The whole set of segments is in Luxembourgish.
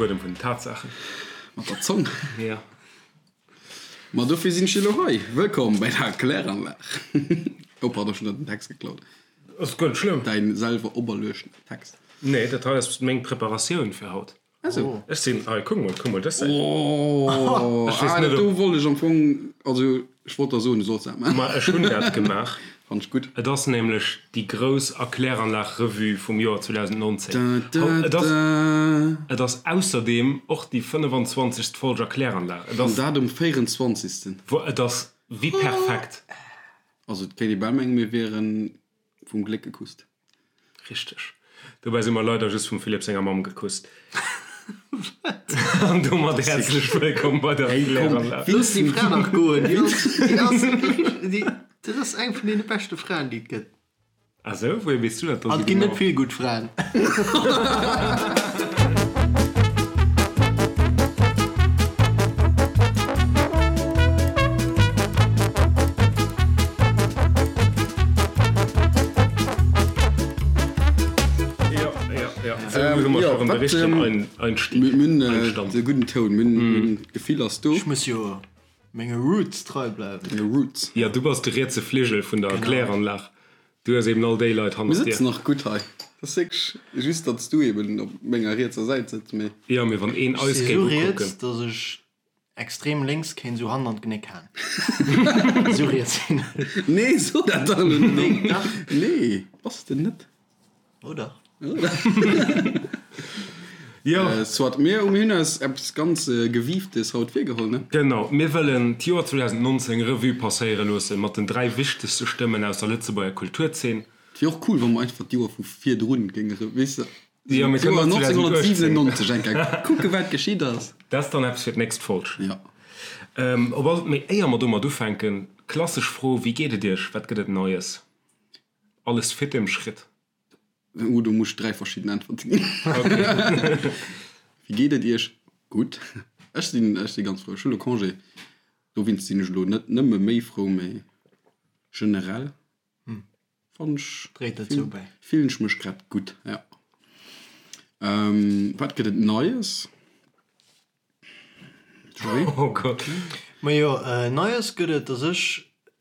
Buedem vun den Tatsaachen. Mat der Zong. Ja. Ma dofir sinn ech elo hei. Wëllkomm bei der Kläranlag. Oh pardon, ech hunn der den Text geklaut. Ass guer net schlëmm. Däin selwer operluechten Text. Nee, dat hei ass meng Preparatioun fir haut. Ah sou. Ech sinn, hei, kuck mol, kuck mol dës Säit. Oh, Ech weess ah, net, do ob. wollt ech am Fong, also ech wollt der soen, du solls dat maachen. Ma ech hunn dat gemaach. Fannt ech gutt. Et ass nämlech déi grouss Erkläranlag-Revue vum Joer 2019. Da, da, Et ass, da. et ass ausserdeem och déi 25. Folg Erkläranlag. Et An ass, dat um 24. et ass wéi perfekt. Also et kéint ee bal mengen, mir wieren vum Gléck gekusst. Richteg. Dobäi si mer leider just vum Philippe senger Mamm gekusst. An domat häerzlech wëllkomm bei der Kläranlag. Looss déi Fra dach goen, déi ass, déi ass, déi, dat ass eng vun deene beschte Fraen, déi et gëtt. Ah sou, wouhier weess du dat dann An et ginn net vill gutt Fraen. De gudden Toun, minn d'Gefill ass do. Ech muss jo menge Roots trei bleiwen. Denge Roots. Jo, du bass de rietse Fligel vun der Kläranlag. Du hues eben all déi Leit Mir hannert dir. sëtzen nach gutt hei. Et ass wierklech just, datt s du eben op menger rietser Säit sëtz, mee. Jo, mee wann een Ech eis si géif sou ukucken. riets, datt ech Extrem lénks kéint sou Hand an d'Genéck haen. Sou riets sinn ech. Nee, so dat dach elo net. Nee, dach. Nee, bass de net. Oh dach. Jo. Soit, mir hunn eis eppes ganz Gewieftes haut virgeholl, ne? Genau, mir wëllen d'Joer 2019 Revue passéiere loosse mat den 3 wichtegste Stëmmen aus der Lëtzebuerger Kulturzeen. Et wier och cool, wa mer einfach d'Joer vu virdrun géinge, weess de, Jo, mir kënnen och 2018. 1997 eng Kéier kucke wat geschitt ass. Dat ass dann eppes fir d'nächst Folg. Jo. Op all, mee éier mer domat ufänken, klassesch Fro, Wéi geet et Iech? Wat gëtt et Neies? Alles fit im Schritt? Oh, do muss ech 3 verschidden Äntwerte ginn. Wéi geet et Iech? Gutt. Ech sinn, ech si ganz frou. Ech hu lo Congé, dowéinst sinn ech elo net nëmme méi frou, mee generell. Fannen ech, Dréit dozou bäi. fillen ech mech grad gutt, ja. Wat gëtt et Neies? Joé? Oh Gott. Majo, Neies gëtt et, dass ech,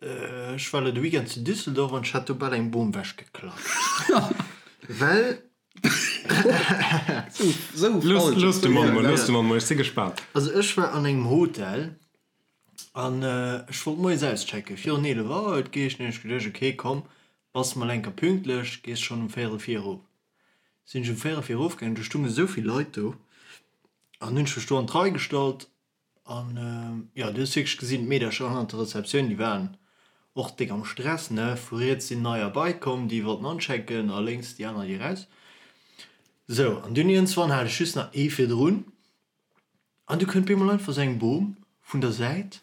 ech war elo de Weekend zu Düsseldorf an ech hat do bal eng Bom wechgeklatscht, well. Sou Looss, falsch. looss de Mann mol, looss de Mann mol, ech si gespaant. Also ech war an engem Hotel An ech wollt moies auschecken, virun 11 Auer huet geheescht. Hunn ech geduecht, ok komm, bass mol eng Kéier pünktlech, gees schonn um véierel vir erof. Sinn ech um véierel vir erof gaangen, do stounge sou vill Leit do an hunn ech mech do an d'Rei gestallt an jo, du hues wierklech gesinn, d'Meedercher hannert der Rezeptioun, déi waren och déck am Stress, ne. Vu riets sinn neier bei komm, déi wollten anchecken a lénks déi aner, déi eraus. Sou, an dunn iergendswann hat ech just nach ee virdrun. An du kënnt bemol einfach sou eng Bom vun der Säit,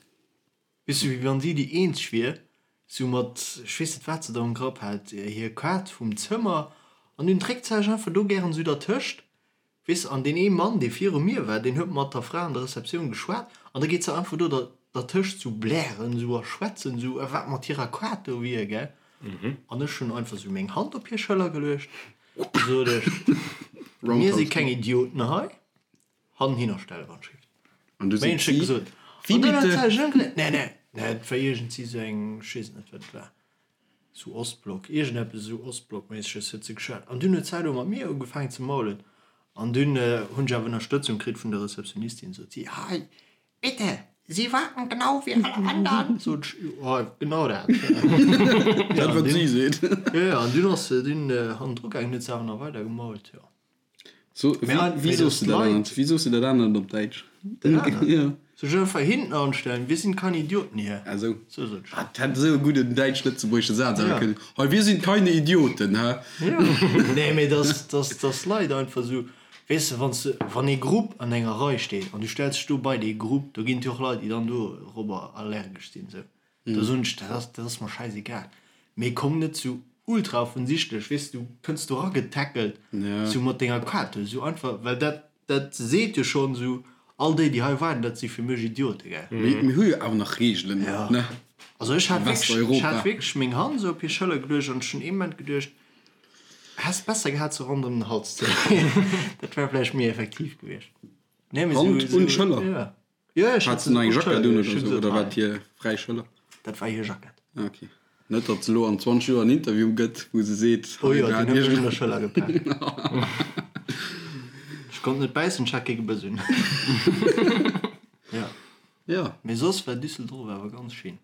weess du, wéi wann si déi eenzeg wier, sou mat, ech weess net wat se do am Grapp hat, hir Kaart vum Zëmmer, an dunn dréckt se sech einfach do gären sou dertëscht, weess de, an deen ee Mann, dee viru mir war, deen huet mat der Fra an der Receptioun geschwat, an da geet se einfach do dertëscht sou blären sou a schwätzen sou, a wat mat hirer Kaart do wier, gell. An ech hunn einfach sou meng Hand op hir Schëller geluecht, sot ech, mir si keng Idioten hei. Hannen hinner stelle wann schrift. An du seet si, gesot, Wie bitte? Nee, nee, nee, et war iergendsi sou eng, ech weess net wat et war, sou Ostblock, iergendeppes esou Ostblockméisseges huet se geschwat. An dunn huet se elo mat mir ugefaangen ze maulen. An dunn hunn ech awer Ënnerstëtzung kritt vun der Receptionistin, sot si, Hei, bitte, Sie warten genau wie alle anderen. Sot ech, Jo, genau dat. Dat wat si seet. Jo, jo, an dunn ass se dunn hannendru gaangen, huet se awer nach weider gemault, jo. So, wéi, wéi soos de dat anert? Wéi soos de dat anert op Däitsch? Dat anert? Ja. Soll ech einfach hinten anstellen? Wir sind keine Idioten hier. Ah, sou. Sou sot ech. Ah, dat hätt esou e gudden däitsch-lëtzebuergesche Saz awer Ja. kënnen. Hei, wir sind keine Idioten, hä? Ja. Nee, mee dass, dass, dass Leit einfach sou, weess de, wann s de, wann ee Grupp an enger Rei steet an du stells dech do bei dee Grupp, do ginn et jo och Leit, déi dann dorobber allergesch sinn, sou. Da soen ech, dat ass, dat ass mer schäisegal. Mee komm net sou ultra offensichtlech, weess du, kënns do eragetackelt, sou mat denger Kaart, sou einfach, well dat, dat seet jo schonn sou, all déi, déi hei waarden, dat si fir mech Idiote, gell. Mee mir hu jo awer nach Reegelen, ne? Also ech hat wierklech, ech Westeuropa. hat wierklech meng Hand sou op hir Schëller geluecht an ech hunn ee Moment geduecht, häss besser gehat se ronderëm den Hals ze leeën, dat wär vläicht méi effektiv gewiescht. Nee, mee Hand sou, un sou, d'Schëller? ja. Jo, ech Hat hat se nach eng op Jackett d'Schëller, un ech oder hunn sou, se oder war hei. et hir fräi Schëller? Dat war hir Jackett. Ah, okay. Net, datt se elo an 20 Joer en Interview gëtt, wou se seet, Oh hei jo, war deen huet mech un iergend. der Schëller gepaakt. Ech konnt net bäissen, ech hat kee Gebëss un. Ja. Ja. Mee soss war Düsseldorf awer ganz schéin.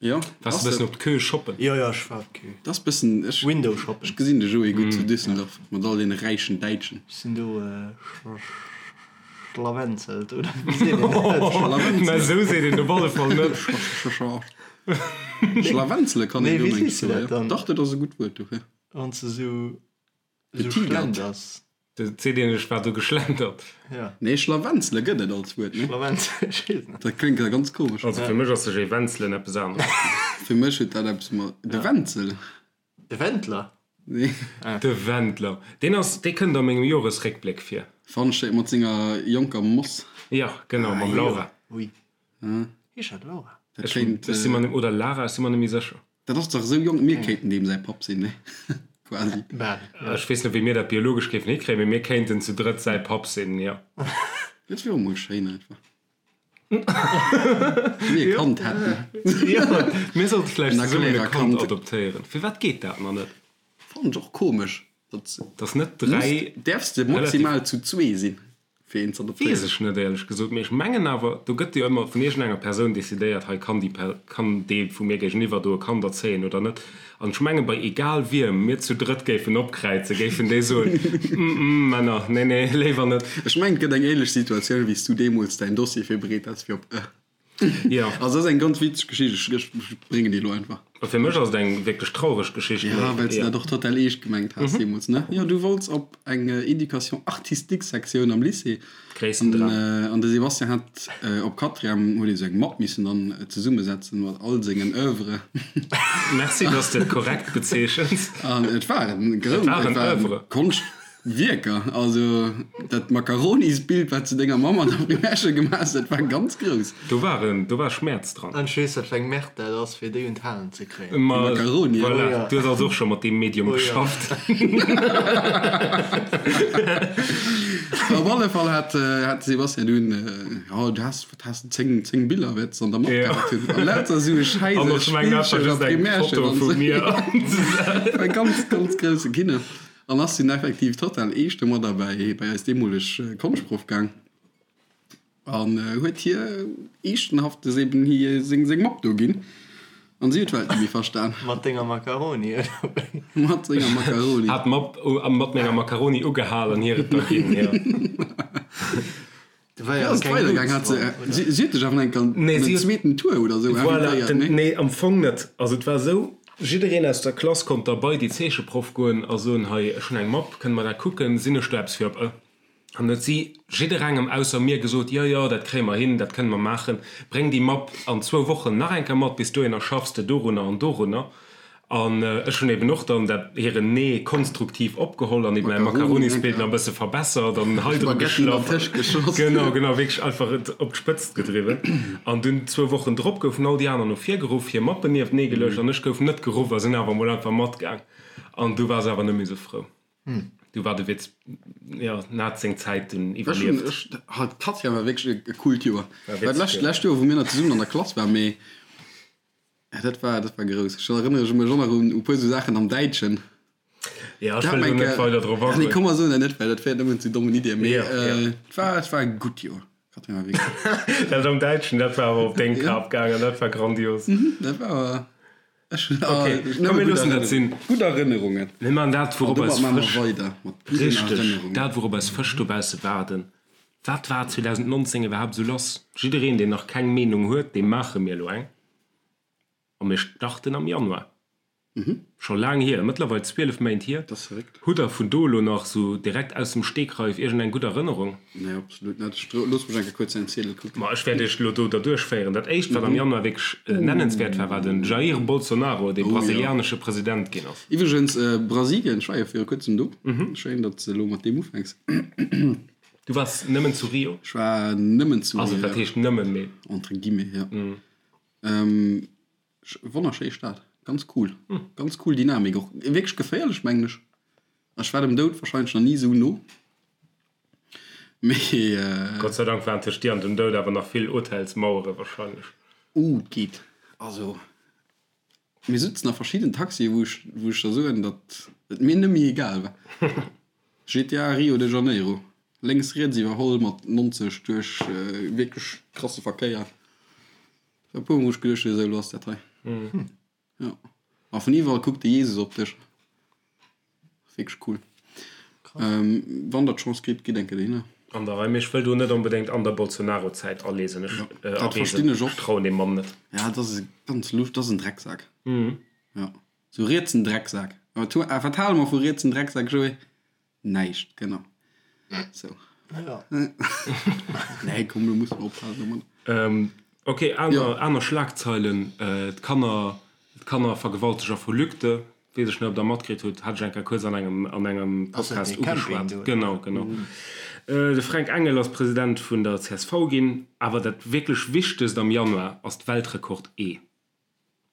Jo, Waars de ass bëssen et. op d'Queue shoppen? Jo, jo, ech war op d'Queue. Dat ass bëssen, ech, Window shoppen. ech gesinn de Joé gutt zu Düsseldorf mat all deene räichen Däitschen. Ech sinn do schlawenzelt, oder wéi seet een dat? Schlawenzele. Mä esou seet een op alle Fall net. Schlawenzele kann een Nee, do wéi meng ech sees du soen, dat jo. dann? Dach, dat ass e gutt Wuert dofir. Wann s de sou, sou Getigert. schlenders. Dat seet een, ech war do geschlendert. Ja. Nee, Schlawenzele gëtt et als Wuert, ne? Schlawenzele, ech weess net. Dat kléngt ja ganz komesch. Also fir mech ass sech ee wenzelen eppes aneres. Fir mech huet dat eppes mat. De Wenzel? De Wendler? Nee. De Wendler. Deen ass, dee kënnt a mengem Joresréckbléck vir. Fannen ech mat senger jonker Moss. Ja, genau, mam Laura. Ui. Heescht dat Laura? Dat Ech, kéint. ech si mer net, oder Lara, ech si mer net méi sécher. Dat ass dach esou jonk, mir kéinten deem säi Papp sinn, ne? Quasi. Bal, jo. Ech weess net, wéi mir dat biologesch géifen hikréien, mee mir kéinten zu drëtt säi Papp sinn, jo. Dat wier och mol schéin einfach. Mir e Kand hätten. Jo, mir sollte vläicht En zesummen e Aguilera Kand Kand. adoptéieren. Firwat geet dat nach net? Fannen ech och komesch, datt. Dass net 3. Däerfs de maximal zu zwee sinn? fir een ze adoptéieren? Weess ech net éierlech gesot, mee ech mengen awer, do gëtt jo ëmmer vun iergendenger Persoun decidéiert, hei kann déi Per, kann dee vu mir géigeniwwer do e Kand erzéien oder net. An ech menge bei egal wiem mir zu drëtt géifen opkräizen, géifen déi soen, mm mm Männer, nee nee, léiwer net. Ech mengen et gëtt eng ähnlech Situatioun wéi s du deemools däin Dossier virbereet has fir op e. Jo. Also dat ass eng ganz witzeg Geschicht, ech bréngen déi elo einfach. A fir mech ass et eng wierklech traureg Geschicht. Ja, well s de dat och total eescht gemengt has deemools, ne? Jo, du wollts op eng Éducation artistique Sektioun am Lycée. Gréissten Dram. An de Sébastien hat op Quatrième huet ee sou eng Mapp missen dann zesummesetzen mat all sengen Oeuvres. Merci, dass de et korrekt bezeechens. An et waren Et waren Oeuvres. Konscht. Wierker, also dat Makaronisbild wat s de denger Mamm an der Primärschoul gemaach hues, dat war ganz grouss. Do war en, do war Schmäerz dran. An ech weess wat fir eng Merde dat ass fir déi un d'Halen ze kréien. Ma Makaroni, voilà, oh ja. du hues also och scho mat deem Medium Oh ja. geschafft. Op alle Fall hat hat de Sebastian dunn, jo du has, wat has de, 10, 10 Biller wäerts de an der Mapp Ja. gehat hunn. An lauter esou Schäiss An aus ech mengen dat war Spillschoul a just eng Primärschoul Foto an vu esou. mir. War ganz, ganz grousse Kino. An ass dunn effektiv total eescht domadder bei bei eis deemoleg Konschtproff gaang an huet hir eeschtenhaftes eben hir seng seng Mapp do ginn. An si huet d'Welt net méi verstan. Mat denger Macaroni, oder wéi? Mat senger Macaroni. Hat d'Mapp mat menger Macaroni ugehal an hir et da ginn, jo. Do war Wéi jo ass et keng weidergaang? Luut Hat se dran, oder? si si huet dech awer enk an Nee, den si huet. zweeten Tour oder sou Voilà, invitéiert, den, nee? nee, am Fong net. Also et war esou, jiddereen aus der Klass konnt da bei déi Zeecheproff goen a soen, hei, ech hunn eng Mapp, kënne mer dat kucken, sinn ech do eppes fir op e? An huet si jidderengem ausser mir gesot, jo, jo, dat kréie mer hin, dat kënne mer maachen, bréng déi Mapp an zwou Wochen nach eng Kéier mat, bis dohinner schaffs de dorunner an dorunner. An ech hunn eben och dann dat hiren Nee konstruktiv opgeholl an eben mäi Makaronisbild nach e bësse verbessert an hei dru geschlaff. Genau, genau, wierklech einfach et op d'Spëtzt gedriwwen. An dunn zwou Wochen drop goufen all déi aner no vir geruff, hir Mappen nieftenee geluecht an ech gouf net geruff a sinn awer emol einfach matgaang. An du war se awer net méi sou frou. Du war de Witz, jo, en hat seng Zäit dunn iwwerlieft. Ech hunn, ech, halt, d'Katja war wierklech e coolt Joer. War d'lescht Joer, wou mir nach zesummen an der Klass waren, mee Ja, dat war, dat war grouss. Ech erënnere mech och nach un e puer sou Saachen am Däitschen. Ja, ech wëll do net weider drop agoen. Nee, agoen. komm mer soen dat net, well dat féiert nëmmen zu dommen Iddien. Mee Ja, ja. et war, et war e gutt Joer. Katrin war wierklech. Dat am Däitschen, dat war awer op deng Kap gaangen, dat war grandios. Dat war awer, ech hunn Okay, nëmme komm mir gutt loossen dat Erënnerungen. sinn. Gutt Erënnerungen. Mir maachen dat, An wourop domat eis maache mer Fësch, weider mat gudden richteg, Erënnerungen. dat wourop eis Fësch dobausse waarden. Wat war 2019 iwwerhaapt esou lass? Jiddereen, deen nach keng Meenung huet, deem maache mir elo eng. A mir starten am Januar. Scho laang hier, mëttlerweil 12 Méint hier. Dat ass verréckt. Hutt der vun do elo nach sou direkt aus dem Stegreif iergendeng gutt Erënnerung? Nee, absolut net. Ech looss mech eng Kéier kuerz säin Ziedel kucken. Ma ech wäert iech elo do derduerch féieren. Dat éischt, wat am Januar wierklech nennenswäert war, war den Jair Bolsonaro, dee brasilianesche President ginn ass. Iwwregens, Brasilien, ech war jo viru kuerzem do. Schéin, datt s de elo mat deem ufänks. Du waars nëmmen zu Rio? Ech war nëmmen zu Rio. Also, wat heescht nëmmen, mee. Entre guillemets, ja. Wonnerschéi Stad, ganz cool, ganz cool Dynamik och, wierklech geféierlech mengen ech. Ech war dem Doud wahrscheinlech nach ni esou no. Mee. Gott sei Dank waren tëscht dir an dem Doud awer nach vill Hotelsmauere wahrscheinlech. Oh, et geet. Also, mir sutzen a verschidden Taxien, wou ech, wou ech der soen, datt et mir nëmme egal war. GTA Rio de Janeiro, lénks riets iwwerholl mat 90 duerch wierklech krasse Verkéier. E puer mol hu ech geduecht, esou, elo ass dat hei. Jo. A vun iwwerall kuckt de Jesus op dech. Wierklech cool. Wann der d'Chance kritt, gitt eng Kéier dohinner. An der Rei, mee ech wëll do net onbedéngt an der Bolsonaro-Zäit aleesen. Ech, Dat verstinn ech och. Ech trauen deem Mann net. Ja, dat ass e ganz lusch, dat ass en Drecksak. Jo, sou rietsen Drecksak. A wat hale mer vu rietsen Drecksak, Joé? Näischt, genau. Sou. Ja. Nee, komm, lo musse mer ophalen domadder. Ok, aner, aner Schlagzeilen, D'Kanner, d'Kannervergewalteger vu Lügde, weess ech net, ob Der matkritt hutt, hat ech eng Kéier kuerz an engem, an engem Podcast ugeschwat. Genau, genau. De Fränk Engel ass President vun der csv ginn. Awer dat wierklech Wichtegst am Januar ass d'Weltrekord-Ee.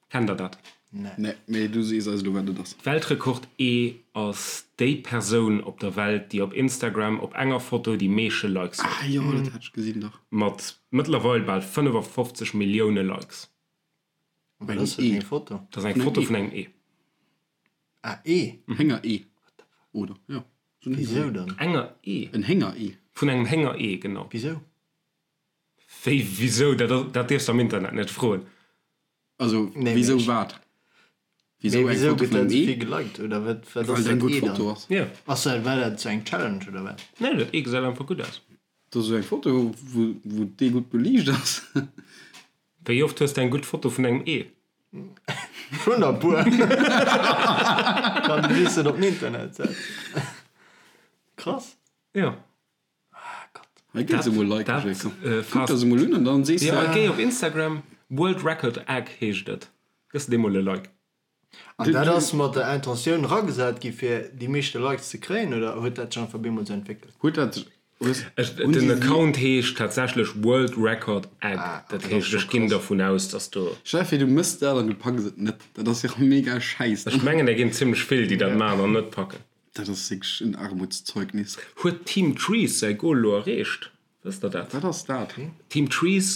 Kennt der dat? Nee, mee du sees eis elo wat et ass. Weltrekord E ass déi Persoun op der Welt déi op Instagram op enger Foto déi meesche Likes huet. Ah jo, dat hat ech gesinn dach. Mat mëttlerweil bal 55 Millioune Likes. Wat ass dat fir eng Foto? Dat ass eng Foto vun engem Ee. Ah Ee? Hénger-Ee, oder? Jo, esou en Wisou dann? Enger Ee? En Hénger-Ee. Vun engem Hénger-Ee, genau. Wisou? Wéi wisou? Dat, dat dierfs de am Internet net froen. Also wisou wat? Wisou eng Foto vun engem Ee? Geliked oder wat? Wat ass dat eng gutt Foto ass? Jo. Ass dat, war dat sou eng Challenge oder wat? Nee, dat Ee gesäit einfach gutt aus. Dat ass esou eng Foto, wou, wou d'Ee gutt beliicht ass. Wéi oft hues de eng gutt Foto vun engem Ee? Schon e puer. Kann de just net op den Internet setzen. Krass. Jo. Hei gëtt se emol Like geschéckt. Kuck der se emol un an dann sees de. Jo, géi op Instagram, World Record Egg heescht et. Gëss de deem mol e Like. An dat ass mat der Intentioun eragesat gi fir déi meeschte Likes ze kréien oder huet dat sech einfach bemol sou entwéckelt? Huet dat Den Account heescht tatsächlech World Record Egg. Dat heescht ech ginn dervun aus, dass do. Stell der vir du mëss dat an du packs et net. Dat ass jo mega schäiss. Ech mengen der ginn zimmlech vill déi dat maachen an net packen. Dat ass wierklech en Armutszeugnis. Huet Team Trees säi Goal elo erreecht? Wësst der dat? Wat ass dat? Team Trees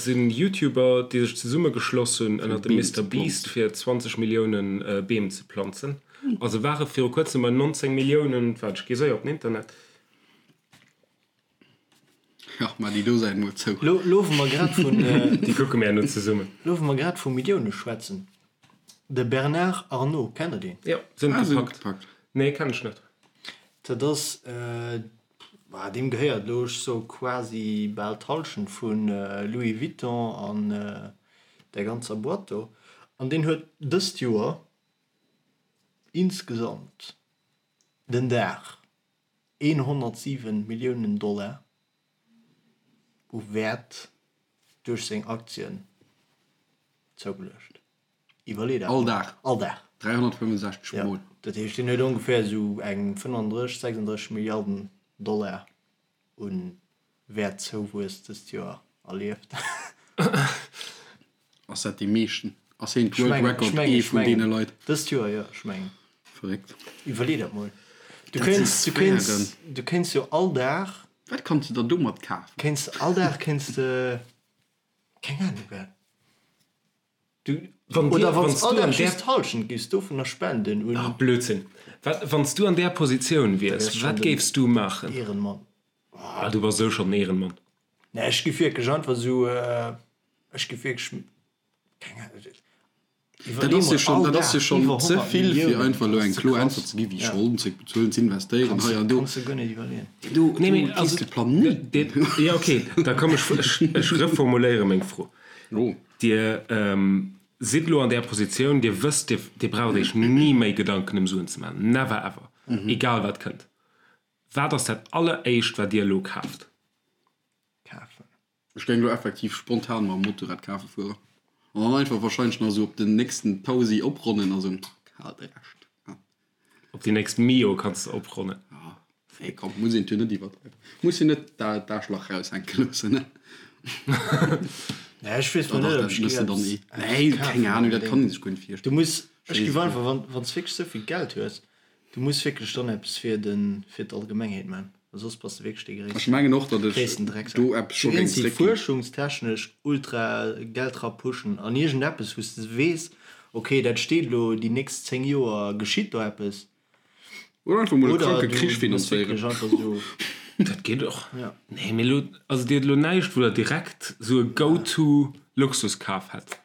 sinn YouTuber, déi sech zesummegeschloss hunn ënnert dem Mister Beast fir 20 Millioune Beem ze planzen. A se ware viru kuerzem bei 19 Milliounen. Waart, ech gi séier op den Internet. Ach, ma déi do Säit mol zou. Lo, lo wou mer grad vun. Déi kucke mir herno zesummen. Lo wou mer grad vu Millioune schwätzen, De Bernard Arnault, kennt der deen? Jo, sinn gepackt. Nee, kenn ech net. Dat ass, deem gehéiert elo, ech soe quasi bal d'Hallschent vu Louis Vuitton an där ganzer Boîte do. An deen huet dëst Joer insgesamt den Dag 107 Milliounen Dollar u Wäert duerch seng Aktien zougeluecht. Iwwerlee dat All mol. Dag? All Dag. 365 Ja. Mol. Dat heescht, deen huet ongeféier esou eng 35, 36 Milliarden Dollar u Wäertzouwuess dëst Joer erlieft. Ass dat dee meeschten? Ass hien d'World Record ee vun deene Leit? Dëst Joer, jo, ech mengen. Verréckt. Iwwerlee dat mol. Du kéints, du kéints, du kéints jo all Dag. Wat kanns de der domat kafen? Kéints, all Dag kéints de, keng Ahnung wat. Du, Wann dir, oder wann wann s s all du Dag an där. just d'Hallschent giffs dovunner spenden un. Ah, Blödsinn. Wat, wann s du an där Positioun Da wiers, wäers schon wat den géifs du maachen? Ehrenmann. Ah, du bass esou schonn den Ehrenmann. Nee, ech giff wierklech einfach esou, ech giff wierklech, keng Ahnung, Dat iwwerlee ass jo mol, schonn, all dat ass jo Dag schonn iwwer ze 100 vill, fir Milliounen, einfach dat elo eng ass ze kloer krass. Äntwert ze ginn, wéi Ja. Scholden zeréckbezuelen, ze investéieren, Kanns hei de, an do. kanns de guer net iwwerleeën. Do, Nee, do mee gees also, de Planéit. de, ja, okay, da komm, ech, ech, ech reformuléiere meng Fro. Oh. Dir sidd elo an där Positioun, Dir wësst, Dir, Dir braucht Iech ni méi Gedanken ëm Suen ze maachen, never ever, egal wat kënnt. Wat ass dat alleréischt, wat Dir elo kaaft? Kafen. Ech géing elo effektiv spontan mam Motorrad kafe fueren an dann einfach wahrscheinlech nach esou op den nächsten Tausi opronnen a sou, kal de Rescht. Op déi nächst Mio kanns de opronnen. Ja, nee komm, muss een jo net iwwerdreiwen. Muss jo net d'Aarschlach raushänke loossen, ne? Nee, ech weess Doch, mol net, dat ob ech muss de dann géif eh. Nee, eppes keng kafen Ahnung, dat kann unbedéngt. ee sech guer net Du virstellen. muss, ech Ech géif weess et einfach, net. wann, wann s wierklech esou vill Geld hues, du muss wierklech dann eppes fir den, fir d'Allgemengheet man. Well soss bass de wierklech dee Ech gréissten, mengen och, datt ech gréissten Drecksak. do eppes Du scho géing géings déi zréckginn. fuerschungstechnesch ultra Geld ra pushen an iergendeppes, wou s de weess, ok, dat steet elo déi nächst 10 Joer geschitt do eppes. Oder einfach mol e Oder kranke du Krich du bass finanzéieren. wierklech einfach esou. Dat geet och. Ja. Nee, mee elo, also dir hutt elo näischt, wou der direkt esou e Go-to-Luxuskaf hätt.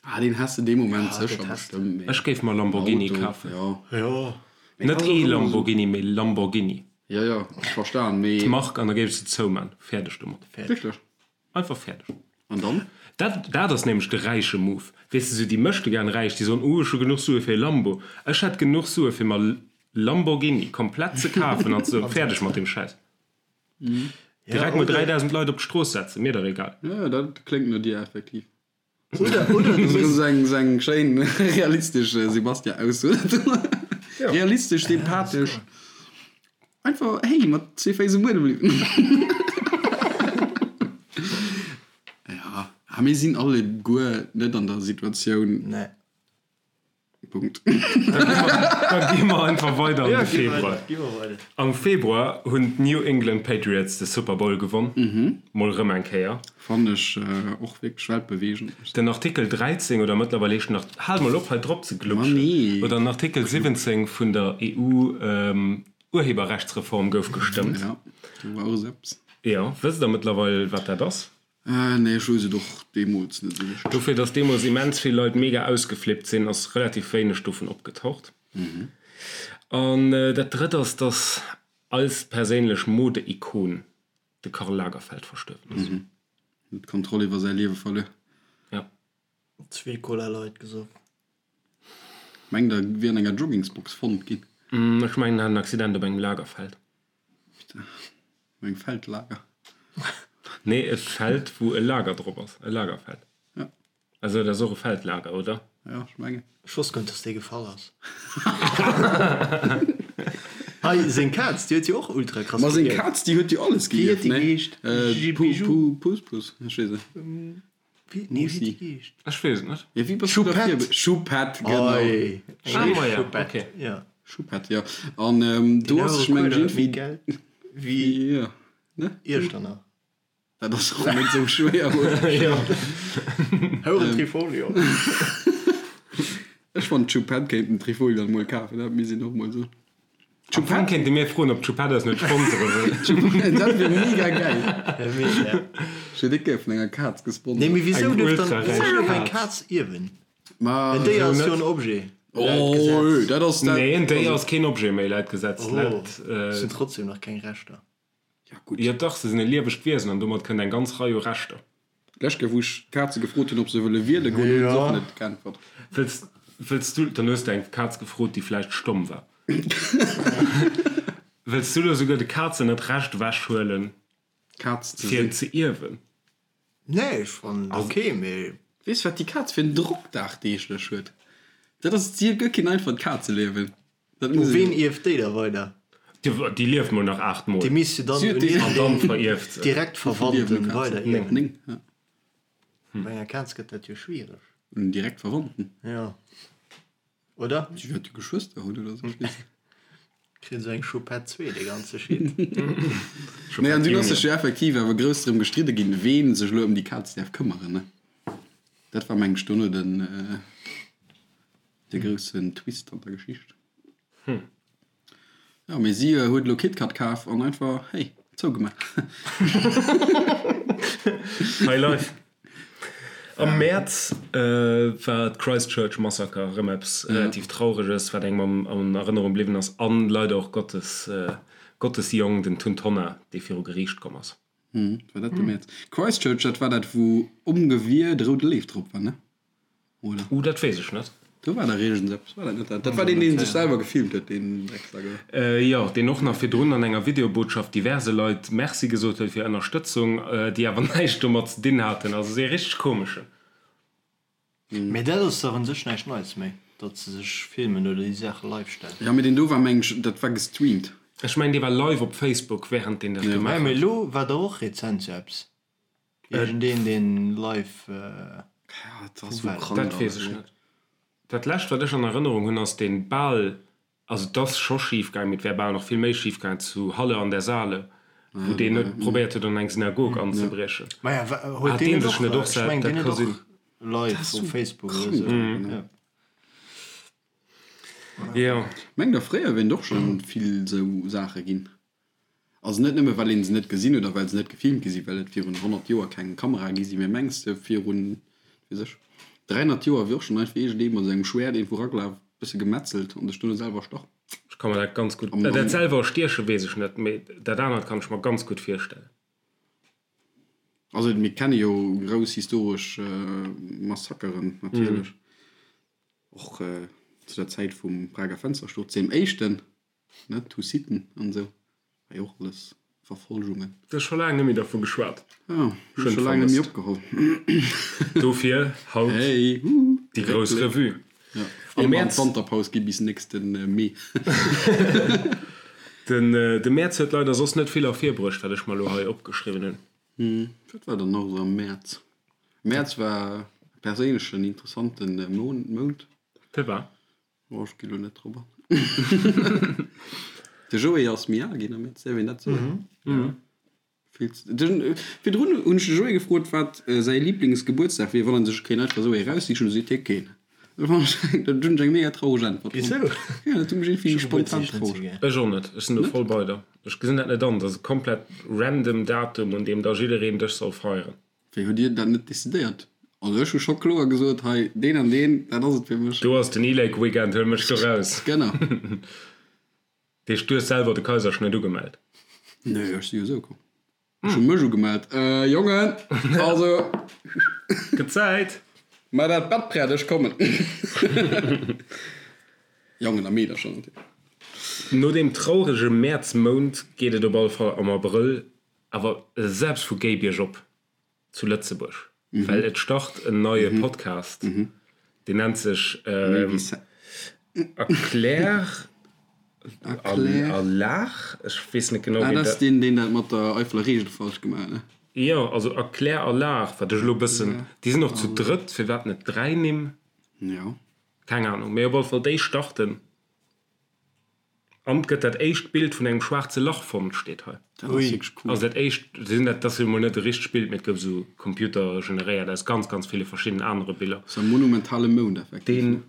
Ah, deen häss de dee Moment Ja, sécher dat häss de. bestëmmt, mee Ech géif mer Lamborghini Auto, kafen. jo. Jo. Mee Net ass och ee ëmmer esou. Lamborghini, mee Lamborghini. Jo, jo, ech verstan, mee. D'Mark, an da géif ech se zouman. Fäerdeg domat. Fäerdeg. Wierklech? Einfach fäerdeg. An dann? Dat, dat ass nämlech de räiche Move. Weess de, sou déi möchtegern Räich, déi soen, oh, ech hu genuch Sue fir e Lambo. Ech hätt genuch Sue fir mer Lamborghini komplett ze kafen an ze soen, fäerdeg mat deem Schäiss. Direkt mol 3.000 Leit op d'Strooss setzen, mir dach egal. Jo, dat kléngt no dir effektiv. Oder, oder du Sou hues. eng, sou eng schéin realistesch Sebastian-Ausso. Realistesch, sympathesch. Einfach, hey, mat zwee Féiss um Buedem bliwen. Ja, ah, mir sinn alleguer net an der Situatioun. Nee. Punkt. Da gi mer einfach weider an Ja, de gi Februar. weider, gi mer weider. Am Februar hunn d'New England Patriots de Super Bowl gewonn. Mol rëm eng Kéier. Fannen ech och wierklech weltbeweegend. Den Artikel 13, oder mëttlerweil heescht en nach, hal mol op hei drop ze Ma glutschen, nee. oder den Artikel 17 vun der EU Urheberrechtsreform gouf gestëmmt. Ja, do war och esou eppes. Jo, wësst der mëttlerweil wat dat ass? Nee, ech weess et och deemools net esou richteg. Dofir, datt deemools immens vill Leit mega ausgeflippt sinn, ass relativ wéineg dovun opgetaucht. An dat drëtt ass, datt als perséinlech Mode-Ikon de Karl Lagerfeld verstuerwen ass. Huet d'Kontroll iwwer säi Liewe verluer. Ja. Zwee Cola Light gesoff. Mengt der wier an enger Joggingsbox fonnt ginn? Ech mengen en hat en Accident op engem Lagerfeld. Op engem Feldlager? Nee, e Feld wou e Lager drop ass, e Lagerfeld. Ja. Also dat ass och e Feldlager, oder? Ja, ech mengen. Ech wosst guer net dass dee gefall ass. Hei seng Kaz déi huet jo och ultra krass Ma seng geierft. Kaz déi huet jo alles Wéi huet geierft, déi ne? geheescht? Bijou? Puss Puss, ech weess net. Wéi, nee, wéi déi geheescht? Ech weess et net. Ja, wéi bass du da Choupette. vir? Choupette, genau. Oi, Ah, ma ja, Choupette, okay. ja. Choupette, ja. An ähm, do Deen ass, ech mengen, Huere méi iergendwéi. Geld wéi Ja, ne? Iechternach. Dat ass och net esou schwéier, oder? Ja. Houren Trifolio. Ech fannen, d'Choupette kéint den Trifolio dann mol kafen, dat misst een och mol soen. Am Fong kéinte mir froen, ob d'Choupette eis net sponsere wëll. Dat wier mega geil. Mega. Ech wier déck gär vun enger Kaz gesponsert. Nee, mee wisou Eng duerf dann ultra-räich wisou duerf eng Kaz. Kaz ierwen? Ma En Déier wéisou ass jo net? en Objet laut Oh, Gesetz. dat ass dat. Nee, en Déier ass keen Objet méi laut Gesetz. Oh, Laut, se hunn trotzdem nach keng Rechter. Ja gutt. Jo dach, se sinn e liewegt Wiesen an domat kënnt eng ganz Rei u Rechter. D'lescht Kéier wou ech d'Kaze gefrot hunn ob se wëlle wiele goen, hunn se och net geäntwert. Wëlls, wëlls du, dann hues de eng Kaz gefrot déi vläicht stomm war. Wëlls du elo souguer de Kazen dat Recht ewech huelen Kaz ze fir sinn. ze ierwen? Nee, ech fannen et ok, mee. Weess wat déi Kaz fir en Drock dagdeeglech huet? Dat ass, si huet guer keen einfacht Kazeliewen. Dat U muss ween een. ierft déi da weider? Déi lieft mol nach 8 mol. Déi misst jo dann Si huet un déi. An dann iergendeen verierft se. direkt Wéi vill liewen Verwandten u Kazen? weider ierwen. 9, ja. Bei enger Kaz gëtt dat jo schwiereg. Un direkt Verwandten? Jo. Oder? Si wäert jo Geschwëster hunn oder sou, ech weess net. Kritt esou eng Choupette 2, dee ganze Shit. Nee, an dunn ass sech jo effektiv awer grouss drëm gestridde ginn, ween sech elo ëm déi Kaz däerf këmmeren, ne? Dat war, meng ech, dono den. De groussen Twist an der Geschicht. Jo, mee si huet elo KitKat kaf an einfach, hey, zougemaach. High life. Am Mäerz war d'Christchurch Massaker erëm eppes relativ Traureges, wat engem an Erënnerung bliwwen ass, an leider och Gottes, Gottes Jong, den Tun Tonner, dee viru Geriicht komm ass. War dat de Mäerz? Christchurch, dat war dat, wou um Gewier de roude Léiw drop war, ne? Oder? Uh, dat weess ech net. Do war dach iergends eppes, war dat net dat? Dat war deen, deen sech selwer gefilmt huet, deen Drecksack, oder? Jo, deen och nach virdrun an enger Videobotschaft diverse Leit Merci gesot huet fir Ënnerstëtzung, déi awer näischt domat ze dinn haten. Also ee richteg komeschen. Mee dat ass dach un sech näischt Neits méi, datt se sech filmen oder déi Saache live stellen. Jo, mee deen do war, meng ech, dat war gestreamt. Ech mengen, dee war live op Facebook, wärend deen dat gemaach Mee huet. elo war dach och rezent sou eppes. Iergendeen deen live Ja, dat ass sou krank Dat weess alles. ech net. Dat lescht wat ech an Erënnerung hunn ass deen bal. Also et ass scho schif gaangen, mee et wär bal nach vill méi schif gaangen zu Halle an der Saale, wou deen net probéiert huet an eng Synagog anzebriechen. Maja, huet Hat deen deen net sech och, net och ech sel, mengen dat deen huet ka och sinn. live Dat ass op sou Facebook oder krank esou. einfach, ne? Ja. Jo. Mengt der fréier wieren et och schonn vill sou Saache ginn? Also net nëmme well een se net gesinn huet a well se net gefilmt gi sinn, well et virun 100 Joer keng Kamerae gi sinn, mee mengs de virun, weess ech, 300 Joer wier och schonn einfach iergendee mat sengem Schwäert iergendwou eragelaf, bësse gemetzelt an sech duerno selwer erstach? Ech ka mer dat ganz gutt, Am, dat am. selwer erstieche weess ech net, mee dat anert kann ech mer ganz gutt virstellen. Also mir kenne jo grouss historesch Massakeren natierlech, och zu der Zäit vum Prager Fenstersturz, deem éischten. Ne, d'Hussiten an esou, war jo och alles Verfolgungen. Du hues scho laang net méi dervu geschwat. Jo, hunn ech scho laang net méi opgeholl. Dofir haut Hey, huhu, déi grouss Réckbléck. Revue. Ja, Am ier mer an Mäerz. d'Wanterpaus gi bis nächste Mee. Den de Mäerz huet leider soss net vill ervirbruecht, wat ech mer elo hei opgeschriwwen hunn. Wat war dann nach esou am Mäerz? Mäerz war perséinlech en interessante Mount. Firwat? Oh, ech gi lo net drop an. De Joé ass méi al ginn am Mäerz, däerf een dat soen? Vill ze, de, virdrun hunn ech de Joé gefrot, wat säi Liblingsgebuertsdag wier, wann en sech kéint einfach esou ee raussichen, du seet hie keen. Dat fand ech, dat hunn ech eng mega traureg Äntwert fonnt. Wisou? Ja, dat huet mech iergendwéi Ech hu spontan Gebuertsdeeg net sou traureg. gär. Ech och net, ech sinn do Net? voll bei der. Ech gesinn dat net an, dat ass e komplett random Datum, un deem da jiddereen dech soll feieren. Wéi hutt Dir dat net decidéiert? Also ech hu scho kloer gesot, hei deen an deen, dat ass et fir mech. Do ass den E-Lake Weekend, huel mech do raus. Genau. Dat heescht, du hues selwer de Kaiserschnëtt ugemellt? Nee, ech si jo esou komm. Ech hu mech ugemellt. Jongen, also. Gëtt Zäit! Mar dat Bett prett, ech kommen. Jongen a Meedercher natierlech. No deem traurege Mäerzmount geet et op alle Fall am Abrëll Awer selbst vu géi biergop zu Lëtzebuerg, well et start en neie Podcast, deen nennt sech Erklär a Laach, ech weess net genau Ah, wéi dat ass dat. deen, deen dat mat der Eifeler Reegel falsch gemaach huet, ne? Jo, also Erklär a Laach, wat ech elo e bëssen, déi sinn och zu drëtt, firwat net 3 Nimm? Jo. Keng Anung, mee op alle Fall déi starten. An et gëtt dat éischt Bild vun engem schwaarze Lach fonnt, steet hei. Dat ass wierklech cool. Also dat éischt, sinn dat, dat ass jo mol net e richtegt Bild, mee et gouf esou computergeneréiert aus ganz, ganz ville verschiddenen anere Biller. Ass e monumentale Mound effektiv, Deen, ne?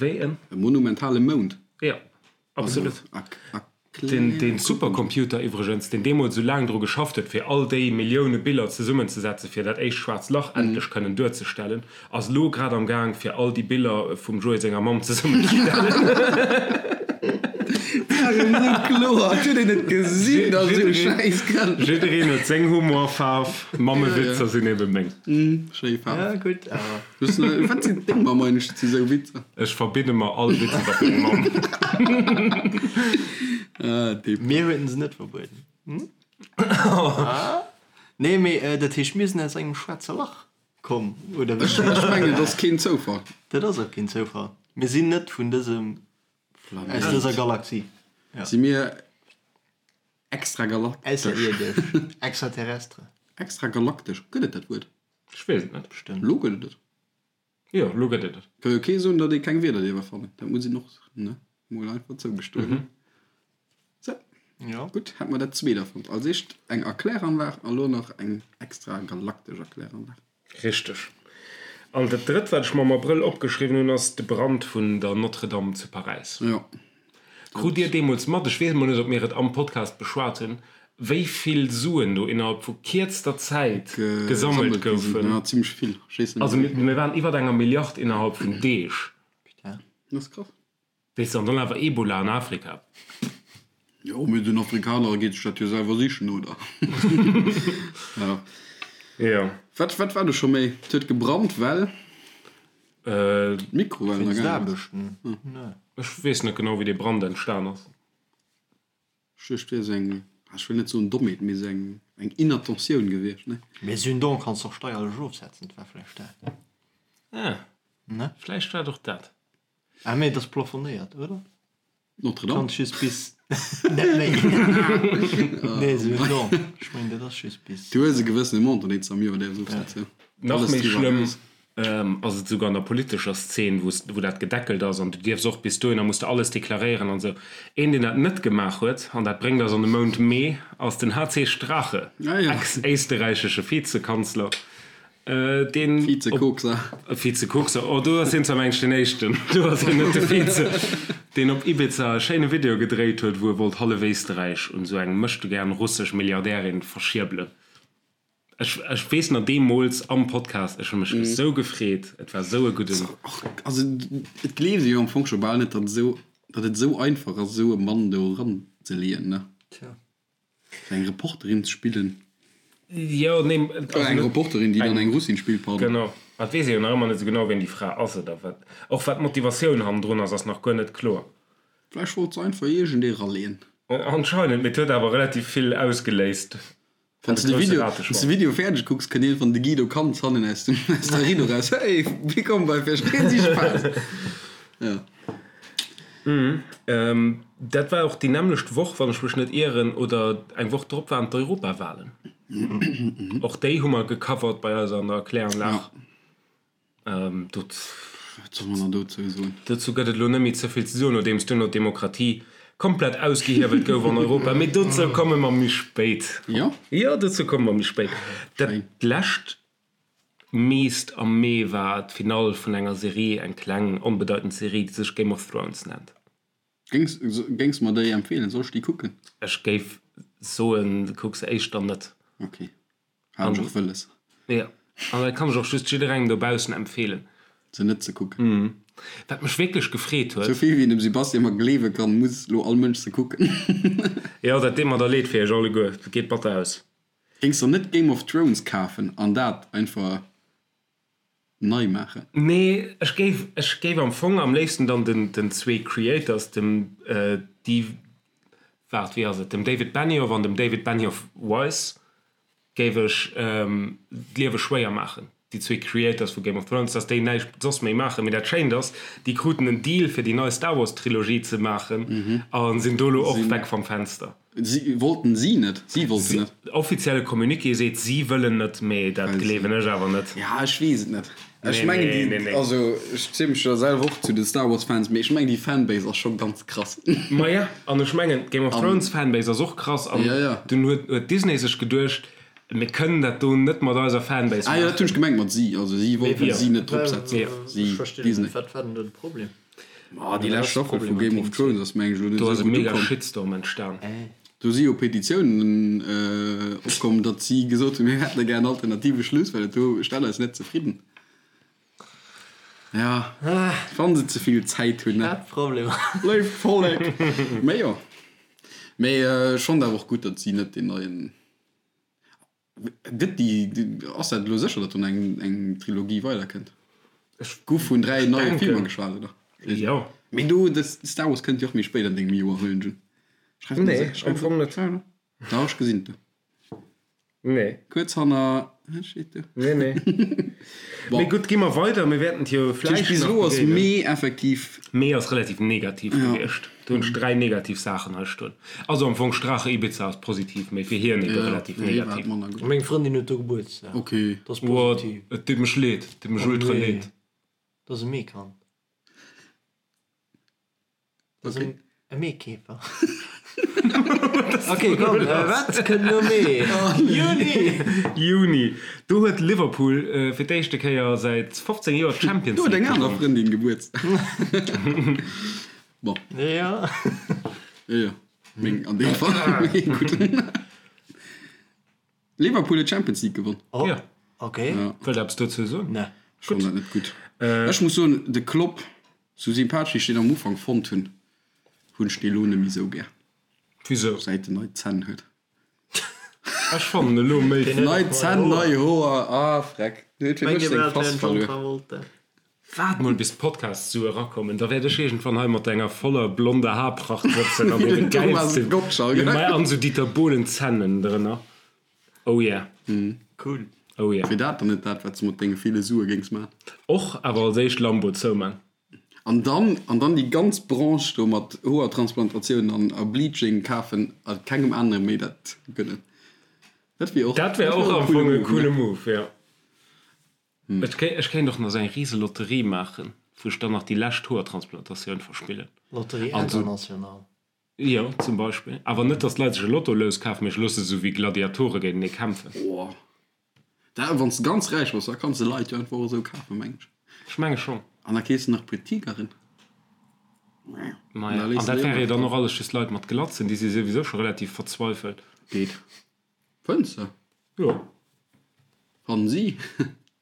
wéi en? E monumentale Mound. Jo, absolut. Also, Den, den Supercomputer iwwregens, deen deemools esou laang dru geschafft huet, fir all déi Millioune Biller zesummenzesetzen, fir dat éischt schwaarzt Lach endlech kënnen duerzestellen, ass elo grad am Gaang, fir all déi Biller vum Joé senger Mamm zesummenzestellen. Jiddereen huet seng Humorfaarf, Mammewitzer sinn ebe meng. Ech verbidde mer all Witz iwwer meng Mamm. Mir hueten se net verbueden. Nee, mee dat heescht, mir sinn aus engem schwaarze Lach komm, oder wéi? Ech mengen, et ass keen Zoufall. Dat ass och keen Zoufall. Mir sinn net vun dësem, aus dëser Galaxie. Si mir extragalaktesch? Ausserierdesch, extraterrestre. Extragalaktesch, gëtt et dat Wuert? Ech weess et net. Bestëmmt. Elo gëtt et et. Jo, elo gëtt et et. Ka jo kee soen, datt ee keng Wierder dierf erfannen. Dat muss een och, ne, mol einfach zougestoen. Sou. Jo. Gutt, hätt mer dat zweet erfonnt. Als éischt eng Erkläranlag a lo nach eng extragalaktesch Erkläranlag. Richteg. An dat drëtt, wat ech mer am Abrëll opgeschriwwen hunn, ass de Brand vun der Notre-Dame zu Paräis. Jo. Krut Dir deemools mat, ech weess emol net, ob mir et am Podcast beschwat hunn, wéi vill Suen do innerhalb vu kierzter Zäit gesammelt goufen? Jo, zimmlech vill. Ech weess net Also méi. mir waren iwwert enger Milliard innerhalb vun Deeg. Putain. Dat ass krass. Weess de, an dann awer Ebola an Afrika. Jo, mee den Afrikaner geet sech dat jo selwer sichen, oder? Jo. Jo. Wat, wat war do scho méi? Et huet gebrannt, well d'Mikrowellen Wéinst agaangen ass. Aarbechten? Nee. Ech weess net genau, wéi dee Brand entstan ass. Ech duecht, et wier esou eng, ech wëll net soen Dommheet, mee esou eng, eng Inattentioun gewiescht, ne? Mee esou en Don kanns de och steierlech ofsetzen, et war vläicht dat. Ah, Ne? vläicht war et och dat. Ah mee et ass plafonéiert, oder? Notre-Dame? Kanns just bis net méi. Nee, esou en Don. Ech mengen dat ass just bis. Du hues e gewëssene Montant, deen s de am Joer däerfs ofsetzen. Nach Alles méi driwwer schlëmm eraus. Ass et esouguer an der politescher Szen, wou wou dat gedeckelt ass an du dierfs och bis dohinner muss de alles deklaréieren an esou. Een, deen dat net gemaach huet, an dat bréngt eis an de Mount Mee, ass den HC Strache, ex-éisterräichesche Vizekanzler, deen. Vizekokser. Vizekokser, oh do ass hien zwar mengen ech deen éischten, do ass hien net de Vize, deen op Ibiza e schéine Video gedréit huet, wou e wollt hallef Éisterräich un esou eng möchtegern russesch Milliardärin verschierbelen. Ech, ech weess nach deemools am Podcast, ech hu mech esou gefreet, et war esou e gudden. Also et gleeft ee jo am Fong scho bal net, datt esou, datt et esou einfach ass, esou e Mann do eranzeleeën, ne? Tja. Fir eng Reporterin ze spillen. Jo, nee, also eng Reporterin, déi dann eng Russin spillt, pardon. Genau. Et weess ee jo nach ëmmer net esou genau, wien déi Fra ass oder wat. Och wat d'Motivatioun hannendrun ass, ass nach guer net kloer. Vläicht wollt se einfach iergendee raleeën. Anscheinend, mee et huet awer relativ vill ausgeléist. Wann s de de Video, wann s de Video fäerdeg kucks, kënnt iergendwann de Guido Cantz hannen aus dem, aus der Rido raus, Hey, willkommen bei Verstehen Sie Spaß! Ja. Dat war och déi nämmlecht Woch, wann ech mech net ieren, oder eng Woch drop waren d'Europawahlen. Och déi hu mer gecovert bei eis an der Kläranlag. Wat soll man dann dozou soen? Dozou gëtt et elo net méi ze vill ze soen, nodeems duerno d'Demokratie komplett ausgehiewelt gouf an Europa. Mee dozou komme mer méi spéit. Jo? Jo, dozou komme mer méi spéit. Dat lescht meest am Mee war d'Finall vun enger Serie, eng kleng, onbedeitend Serie, déi sech Game of Thrones nennt. Géings, géings mer déi empfeelen? Soll ech déi kucken? Ech géif soen, kuck se éischter net. Ok. Hat ech och wëlles. Jo, an dat kann ech och just jidderengem dobaussen empfeelen. Se net ze kucken. Wat mech wierklech gefreet huet. Sou vill wéi een dem Sebastian mer gleewe kann, muss lo all Mënsch se kucken. Jo, dat deet mer da leed fir iech alleguer. Dat geet batter aus. Géings der net Game of Thrones kafen an dat einfach nei maachen? Nee, ech géif, ech géif am Fong am léifsten dann den, den zwee Creators, dem Di, waart, wéi ass et, dem David Benioff an dem David Benioff Weiss géif ech d'Liewe schwéier maachen, déi zwee Creators vu Game of Thrones, dass déi näischt soss méi maachen. Mee dat Schéint ass, déi kruten en Deal fir déi nei Star Wars Trilogie ze maachen a sinn do elo och weg vam Fenster. Si wollten si net? Si wollten net. Offizielle Communiqué seet, si wëllen net, mee dat gleewen ech awer net. Ja, ech weess et net. Ech mengen déi, also ech ziele mech jo selwer och zu de Star Wars Fans, mee ech mengen déi Fanbase ass scho ganz krass. Maja, an ech mengen d'Game of Thrones Fanbase ass och krass an dunn huet Disney sech geduecht, mir kënnen dat do net mat eiser Fanbase maachen. Ah jo, dat hunn ech gemengt mat si, also si wollten si net drop setzen, si, Disney. Wat war denn do de Problem? Ma déi lescht Staffel vu Game of Thrones ass meng ech elo net Do ass esou e gutt mega ukomm. Shitstorm entstan. Do si jo Petitiounen opkomm, datt si gesot hunn, mir hätten gär en alternative Schluss, well dat do stellt eis net zefridden. Ja, wann se ze vill Zäit hunn, ne? Hat Problemer. Léift Vollek! Mee jo. Mee ech fonnt awer och gutt, datt si net deen neien. Gëtt déi, ass dat elo sécher, datt do eng eng Trilogie weiderkënnt? Ech Gouf vun 3 neie Filmer geschwat, oder? Jo. Mee do, de Star Wars kënnt jo och méi spéit an dengem Joer, huelen ech un. Schreif Nee, am Fong net. Dach, ech gesinn et do. Nee. Kuerz hanner, wat steet do? Nee, nee. Bon. Mee gutt, gi mer weider, mir wäerten et jo vläicht nach Bis elo ass begéinen. Mee effektiv. Mee ass relativ negativ Ja. gewiescht. Do hunn ech 3 negativ Saachen hei stoen. Also am Fong Strache Ibiza ass positiv, mee fir hien ebe Ja, relativ fir hie war et negativ. manner gutt. Meng Frëndin huet do Gebuertsdag. Ok. Dat ass Boah, positiv. et deet mech leed, et deet mech Oh ultra nee. leed. Dat ass e Meekand. Dat ass Okay. e Meekäfer. Ok, komm, wat kënnt no Mee? Juni! Juni, do huet Liverpool fir d'éischte Kéier säit 15 Joer d'Champions Do huet League eng aner gewonnen. Frëndin Gebuertsdag. Bon. Ja. Jo, jo. Meng an deem Fall. Mee gutt. Liverpool huet d'Champions League gewonn. Oh, Ja. ok. Ja. Wëllt Der eppes dozou soen? Nee. Ech fannen dat net gutt. Ech muss soen, de Klopp, sou sympathesch ech deen am Ufank fonnt hunn, hunn ech dee lo net méi sou gär, Wisou? säit en nei Zänn huet. Ech fannen elo méi. Deen huet Nei och nei Zänn, Hoer. nei Hoer, ah freck, deen huet fir Mengt mech Dir seng bal, et wär Fass en John verluer. Travolta? Waart mol bis d'Podcast-Sue erakommen, da wäert ech iergendwann hei mat enger voller blonder Haarpracht sëtzen an deene Thomas gäilsten, Gottschalk. jo, mä an sou Dieter Bohlen Zännen drënner. Oh yeah. Cool. Oh yeah. Wier dat dann net dat, wat s de mat denge ville Sue géings man? Och, awer als éischt Lambo zouman. An dann, an dann déi ganz Branche do mat Hoertransplantatiounen an a Bleaching kafen a kengem anere méi dat gönnen. Dat wier och, Dat wär och am Fong e coole Move, jo. Ech kéint och nach esou eng rise Lotterie maachen, wou ech dann nach déi lescht Hoertransplantatioun verspillen. Lotterie internationale. Jo, zum Beispill. Awer net, datt d'Leit sech e Lotto-Lous kafen, mee ech loosse se esou wéi Gladiatore géintenee kämpfen. Oh, dat, wann s de ganz räich bass, da kanns de Leit jo einfach och esou kafen, meng ech. Ech menge schonn. An da keefs de nach e puer Tigeren. Maja, an dat wäre jo dann och alles just Leit mat Glatzen, déi si souwisou scho relativ verzweifelt. Geet. Fënns de? Jo. Fannen si?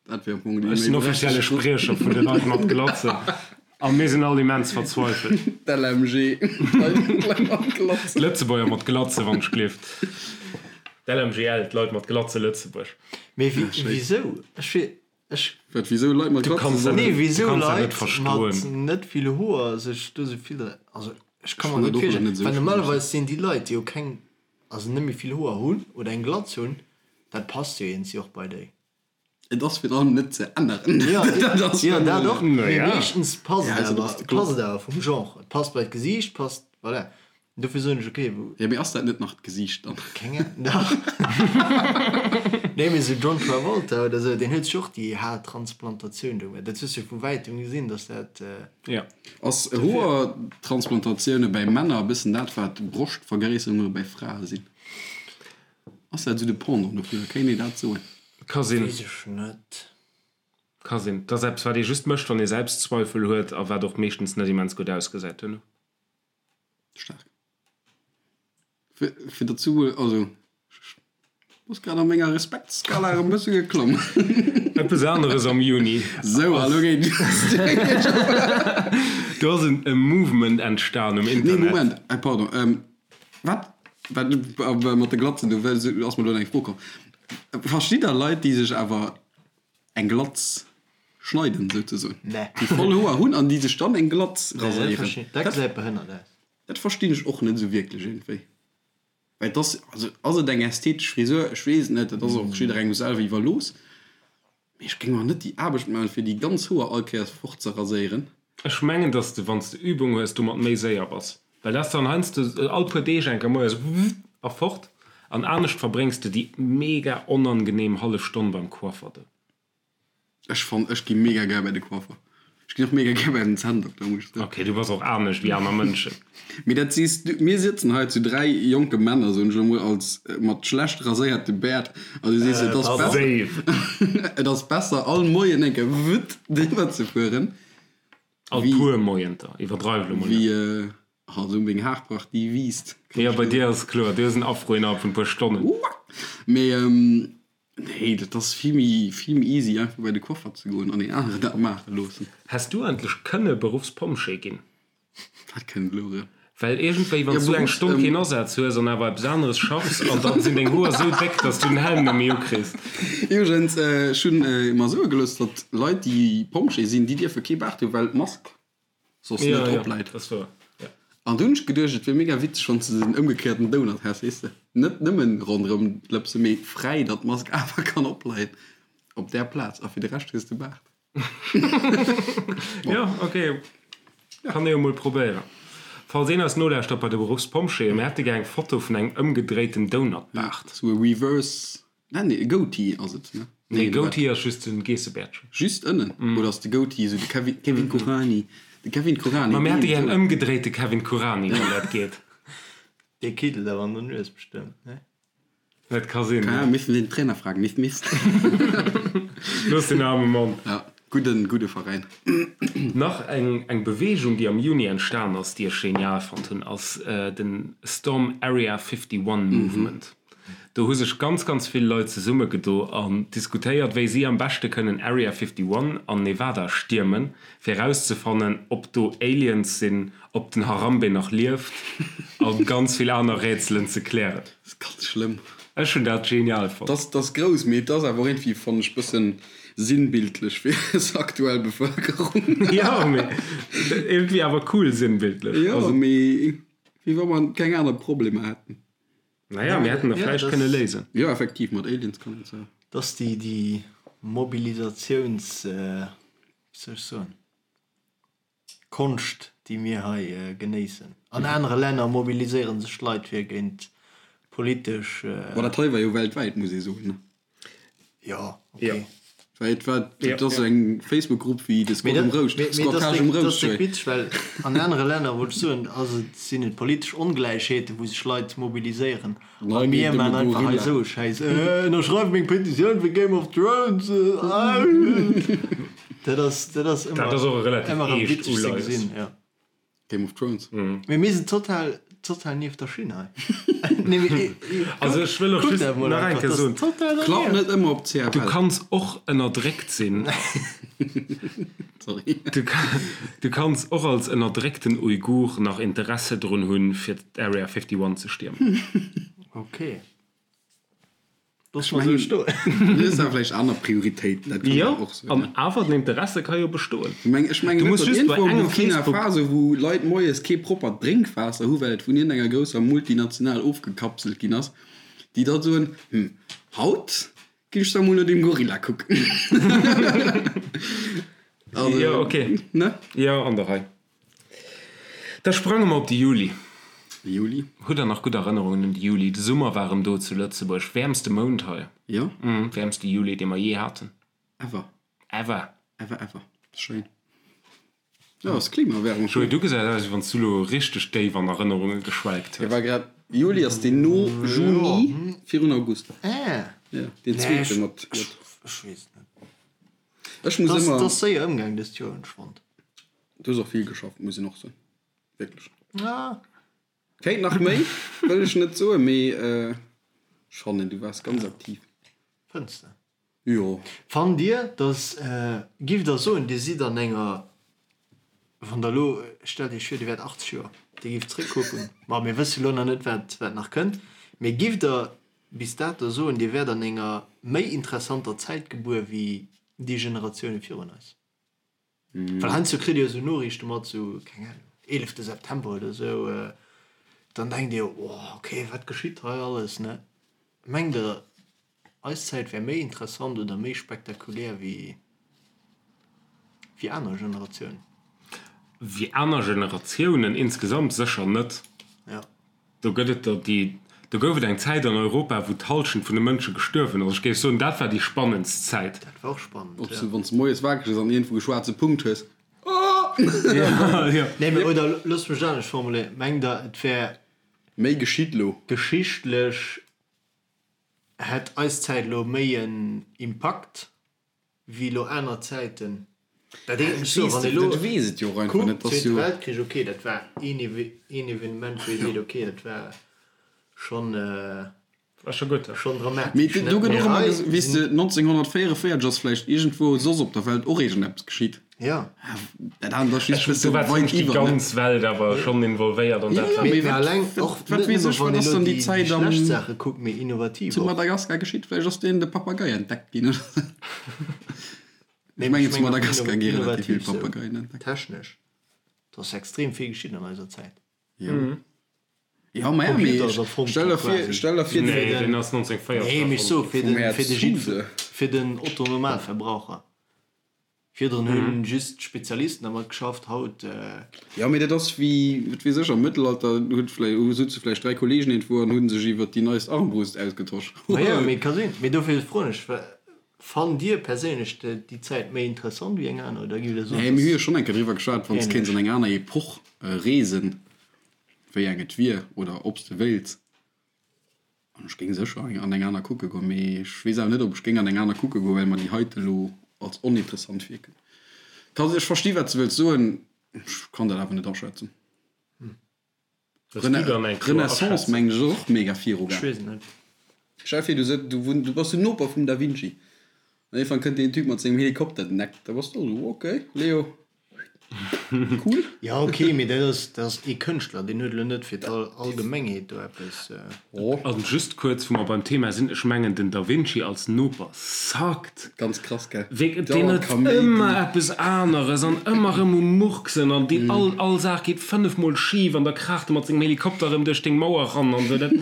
Dat wier am Fong déi Ech sinn offizielle Spriecher vun de Leit mat Glatzen a mir sinn all immens verzweifelt. D'LMG, d'Leit mat Glatzen. D'Lëtzebuerger mat Glatze, wann ech gleeft. D'LMGL, d'Leit mat Glatze Lëtzebuerg. Mee wisou? Ech wier, ech. Wat, wisou Leit mat Du Glatzen kanns dat sollen? Nee, net, du wisou kanns dat net Leit mat verstoen. net vill Hoer sech do sou vill, also ech Ech ka mer fannen net dat och virstellen, net esou well schlëmm. normalerweis sinn déi Leit, déi jo keng, also net méi vill Hoer hunn oder eng Glatz hunn, dat passt jo iergendwéi och bei déi. Et ass virun allem net ze änneren. Jo, Dat ass jo, dat och, mee Naja. meeschtens passt Ja, et also awer, dass de Glatz. passt et awer vum Genre. Et passt bei d'Gesiicht, passt, voilà. Dofir soen ech, okay, wou. Jo, mee ass dat net nach d'Gesiicht dann? Keng Ahnung, dach. Nee, mee esou John Travolta oder esou, deen huet sech och déi Haartransplantatioun do gemaach. Dat hues du jo vu wäitem gesinn, dass dat. Jo. Ass Hoertransplantatioune bäi Männer e bëssen dat, wat Broschtvergréisserunge bäi Frae sinn? Ass dat esou de Pendant dofir? Kéint ee dat soen? Ka sinn. Weess ech net. Ka sinn. Et ass eppes, wat ee just mécht, wann ee Selbstzweifel huet a wat och meeschtens net immens gutt ausgesäit duerno. Staark. Fir, fir derzou, also ech bass grad a menger Respektsskala erëm e bësse geklomm. Eppes aneres am Juni. Sou, a lo geet Do ass en e Movement entstan um Nee, Internet. Moment, äh, pardon. Ähm, wat, wat äh, mat de Glatzen, do ass mer elo eng Fro komm. Verstitt der Leit, déi sech awer eng Glatz schneiden, souzesoen? Nee. Déi voll Hoer hunn an déi sech dann eng Glatz Nee, dat raséieren? verstinn, dat gesäit behënnert aus. Dat verstinn ech och net esou wierklech iergendwéi. Well et ass, also ass et eng ästhetesch Frisur? Ech weess et net, dat ass och jidderengem selwer iwwerlooss. Mee ech géing mer net déi Aarbecht maachen, fir déi ganz Hoer all Kéiers fort ze raséieren. Ech mengen, dass de, wann s de Übung hues, domat méi séier bass. Well dat ass dann heiansdo all puer Deeg eng Kéier moies www a fort. An anescht verbréngs de déi mega onangenehm hallef Stonn beim Coiffer do. Ech fann, ech gi mega gär bei de Coiffer. Ech ginn och mega gär bei den Zänndokter, muss ech soen. Ok, du bass och anescht wéi aner Mënschen. Mee dat sees du. Mir sëtzen hei zu 3 jonke Männer, soen ech elo mol, als mat schlecht raséierte Bäert, an du sees, et ass besser, Safe. et ass besser all Moien eng Kéier wutt driwwer ze fueren, All wéi, puer Moienter, iwwerdreiw elo mol net. wéi, ah, esou meng Haarpracht, déi wiisst. Jo, bei dir ass et kloer, du hues en Afro innerhalb vun e puer Stonnen. Mee Nee, dat ass vill méi, vill méi easy einfach bei de Coiffer ze goen an een aneren dat maache loossen. Häss du endlech kënne Beruffspompjee ginn? Wat kënnt elo erëm? Well iergendwéi, wann s du eng Stonn keen Asaz hues an awer eppes aneres schaffs an dann sinn deng Hoer esou déck, dass du den Helm net méi ukriss. Iwwregens, ech hunn mer soe gelooss, datt Leit déi Pompjee sinn, déi dierfe kee Baart hunn, well d'Mask soss Ja, net ja, drop läit. dat ass wouer, ja. An du hunn ech geduecht, et wier mega witzeg, wann s de den ëmgekéierten Donut häss, weess de, net nëmmen ronderëm d'Lëpse, mee fräi, datt d'Mask awer kann opleien op där Plaz a fir de Rescht hues de Baart. Ja, ok, kann ee jo mol probéieren. Falls een eis nolauschtert bei de Beruffspompjeeën, mir hätte gär eng Foto vun engem ëmgedréiten Donut-Baart. Sou e Reverse Nee, nee, e Goatee ass et, ne? Nee, Goatee ass just den Geessebäertchen. Just ënnen? Oder ass de Goatee esou de Kevin, Kevin Kurani? De Kevin Kurani. Ma mir hätte gär en ëmgedréite Kevin Kurani, wann dat geet. Dee kiddelt awer an der Nues bestëmmt, ne? Dat ka sinn, ja. Mir missten den Trainer fragen, Mist, Mist. Looss den aarme Mann. Ja, gudden, gudde Veräin. Nach eng, eng Beweegung, déi am Juni entstan ass, déi ech genial fonnt hunn, ass den Storm Area 51 Movement. Do hu sech ganz, ganz vill Leit zesummegedo an diskutéiert, wéi si am beschte kënnen Area 51 an Nevada stiermen, fir erauszefannen, ob do Aliens sinn, ob den Harambe nach lieft a ganz vill aner Rätselen ze klären. Dat ass ganz schlëmm. Ech hunn dat genial fonnt. Dat ass grouss, mee et ass awer och iergendwéi, fannen ech, bëssen sinnbildlech fir eis aktuell Bevëlkerung. Jo, mee iergendwéi awer cool sinnbildlech. Jo, mee wéi wa mer keng aner Problemer hätten. Naja, mir hätten der vläicht kënne léisen. Jo, effektiv, mat Aliens kann een se. Et ass déi, déi Mobilisatiouns, wéi soll ech soen, Konscht, déi mir hei genéissen. An anere Länner mobiliséiere sech d'Leit fir géint politesch. Bon, dat hei war jo weltwäit, muss ee soen, ne? Jo, ok. Well et war, et ass eng Facebook-Grupp wéi de Squad um Rouscht, Squattage um Rouscht. Dat ass déck witzeg, well an anere Länner, wollt ech soen, ass et, sinn et politesch Ongläichheeten, wou sech Leit mobiliséieren. A mir maachen einfach hei esou e Schäiss, Ënnerschreift meng Petitioun fir Game of Thrones! Dat ass, dat ass ëmmer, ëmmer erëm witzeg ze gesinn, jo. Game of Thrones. Mee mir sinn total, total nieft der Schinn hei. Nee, mee, Also ech wëll och kuck just dat mol nach eng einfach, Kéier dat ass soen, total Klappt dernieft. net ëmmer op du CFL. kanns och ënnerdréckt sinn. Sorry. Du, du kanns och als ënnerdréckten Uigur nach Interesse drun hunn, fir d'Area 51 ze stiermen. Okay. Looss mer esou stoen. Du hues awer vläicht aner Prioritéiten, dat kann Jo, och sinn. an awer den Interesse ka jo bestoen. Ech mengen, ech mengen Du net, muss datt just bei iergendwou am engem Burkina Facebook. Faso, wou Leit moies kee proppert Drénkwaasser hu well et vun iergendenger grousser Multinational ofgekapselt ginn ass, déi da soen, Hm, haut ginn ech da mol no deem Gorilla kucken. Also, Jo, okay. ne? Jo, an der Rei. Da sprange mer op de Juli. Juli. Hutt der nach gutt Erënnerungen un de Juli? De Summer war erëm do zu Lëtzebuerg. Wäermste Mount hei. Jo. Wäermste Juli, dee mer jee haten. Ever. Ever. Ever, ever. Schéin. Jo, ass Klimaerwärmung. Joé, du gesäis aus, wéi wann s du elo richteg déif an Erënnerunge geschwelgt Hie hues. war grad, Juli ass deen no Juni, virun August. Ah. Jo, deen zweete mat J. Ech weess et net. Ech muss Et ëmmer. ass séier ëmgaang dëst Joer, hunn ech fonnt. Du hues och vill geschafft, muss een och soen. Wierklech. Ja. Kéint nach méi, wëll ech net soen, mee ech fannen, du waars ganz aktiv. Fënns de? Jo. Fannt Dir, dass, giff Der soen, Dir sidd an enger, wann Der elo, stellt Iech vir, Dir wäert 80 Joer, Dir gifft zréckkucken, ma mir wësse lo nach net, wat, wat nach kënnt, mee gifft Der bis dato soen, Dir wäert an enger méi interessanter Zäit gebuer wéi déi Generatioune virun eis? Well heiansdo kritt Dir esou Noriichte mat, sou, keng Ahnung, eelefte September oder esou, dann denkt Dir, oh, okay, wat geschitt hei alles, ne? Mengt Der, eis Zäit wär méi interessant oder méi spektakulär wéi, wéi aner Generatiounen? Wéi aner Generatiounen insgesamt sécher net. Ja. Do gëtt et der déi, do gouf et eng Zäit an Europa, wou d'Hallschent vun de Mënsche gestuerwen ass. Ech géif soen, dat war déi spannendst Zäit. Dat war och spannend, Ob ja. s du, wann s de moies wakereg ass an iergendwou e schwaarze Punkt hues, Oh! Ja. Nee, mee oder loosst mech et anescht formuléieren, Mengt Der, et wär. Méi geschitt lo? Geschichtlech hätt eis Zäit elo méi en Impakt wéi elo aner Zäiten. Dat heescht, ech soen, wann ee elo kuckt, Zweete Weltkrich, ok, dat war een Evenement, wou ee seet, ok, dat war schonn schonn dramatesch. Mee do gëtt och ëmmer gesot, weess de, 1944 ass vläicht iergendwou soss op der Welt och iergendeppes geschitt. Jo. Dat anert ass just e bësse Do war weit zimmlech déi iwwer, ne? ganz Welt awer schonn involvéiert an Jo, dat jo, war. mee Mee wat, alleng och wat net weess nëmme ech, wann wat ee ass elo dann déi déi Zäit am, schlecht Saache kuckt, mee innovativ zu och. Madagaskar geschitt? Vläicht ass deen de Papagei entdeckt ginn oder sou. Nee, Ech mee mengen, ech zu mengen och Madagaskar gi relativ vill innovativ sou Papageien entdeckt. technesch. Et ass extrem vill geschitt an eiser Zäit. Jo. Jo, ma ja, mee Computer ass erfonnt stell gi der vir, quasi. stell der vir, Nee, deen ass 1940 Nee, mee ech erfonnt soe ginn. fir vum den, Här fir de Jidd, Zuse. fir den Otto-Normalverbraucher. Virdrun hunn just d'Spezialisten dermat geschafft, haut. Jo, mee dat ass wéi, wat weess ech, am Mëttelalter huet vläi, souze vläicht 3 Kollegen iergendwou an hu sech iwwert déi neist Armbrust ausgetosch. Majo, mee ka sinn. Mee dofir froen ech, Fannt Dir perséinlech déi Zäit méi interessant wéi eng aner oder giff Der soen, Nee, mir hu jo dass schonn eng Kéier driwwer geschwat, wann s ähnlech? kéints an eng aner Epoch reesen, wéi eng et wier oder ob s de wéilts. An ech géing sécher an eng aner kucke goen, mee ech weess awer net, ob ech géing an eng aner kucke goen, well mer déi heite elo als oninteressant virkënnt. Kann, ech versti wat s de wëlls soen, ech kann dat awer net aschätzen. Wëlls du dann eng kloer Renaissance Aschätzung? mengen ech ass och mega viru Ech gaang. weess et net. Stell dir vir, du sëtz, du wunn, du bass den Noper vum Da Vinci an iergendwann kënnt deen Typ mat sengem Helikopter den Eck, da bass du och esou, ok Leo, cool. Jo ok, mee dat ass, dat ass ee Kënschtler, deen huet elo net fir d'Allgemengheet do eppes. Oh. An just kuerz, wou mer beim Thema sinn, ech mengen den Da Vinci als Noper suckt. Ganz krass, gell? Wierk, deen Dauernd huet Kaméidi. ëmmer eppes aneres an ëmmer erëm um Murksen an déi all, all Saach geet fënnefmol schif an da kraacht e mat sengem Helikopter erëm duerch deng Mauer ran an esou. Dat,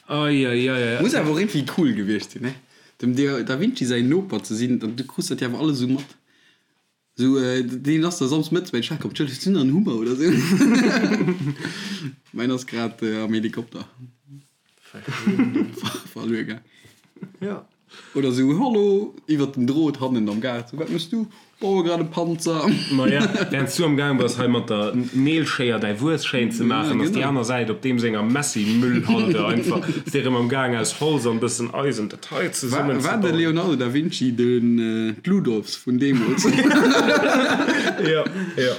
ai, ai, ai, ai. Muss awer och iergendwéi cool gewiescht sinn, ne? Dem Da Vinci säin Noper ze sinn, du krus dat jo awer alles esou mat. Sou, deen ass da samsdes mëttes bei de Chef komm, Tschëll, hues du nach en Hummer oder sou? Mäin ass grad am Helikopter verluer gaang. Jo. Oder sou, Hallo, iwwert den Drot hannen am Gaart, sou, wat mëss du? Baue grad e Panzer. Maja, während s du am Gaang bass hei mat der Neelschéier däi Wues schéin ze maachen, ass déi aner Säit op deem senger Messi-Müllhalde einfach, ass dee rëm am Gaang aus Holz an bëssen Eisen dat hei zesummen ze bauen. War de Leonardo da Vinci den d'Ludolfs vun deemools? Jo, jo.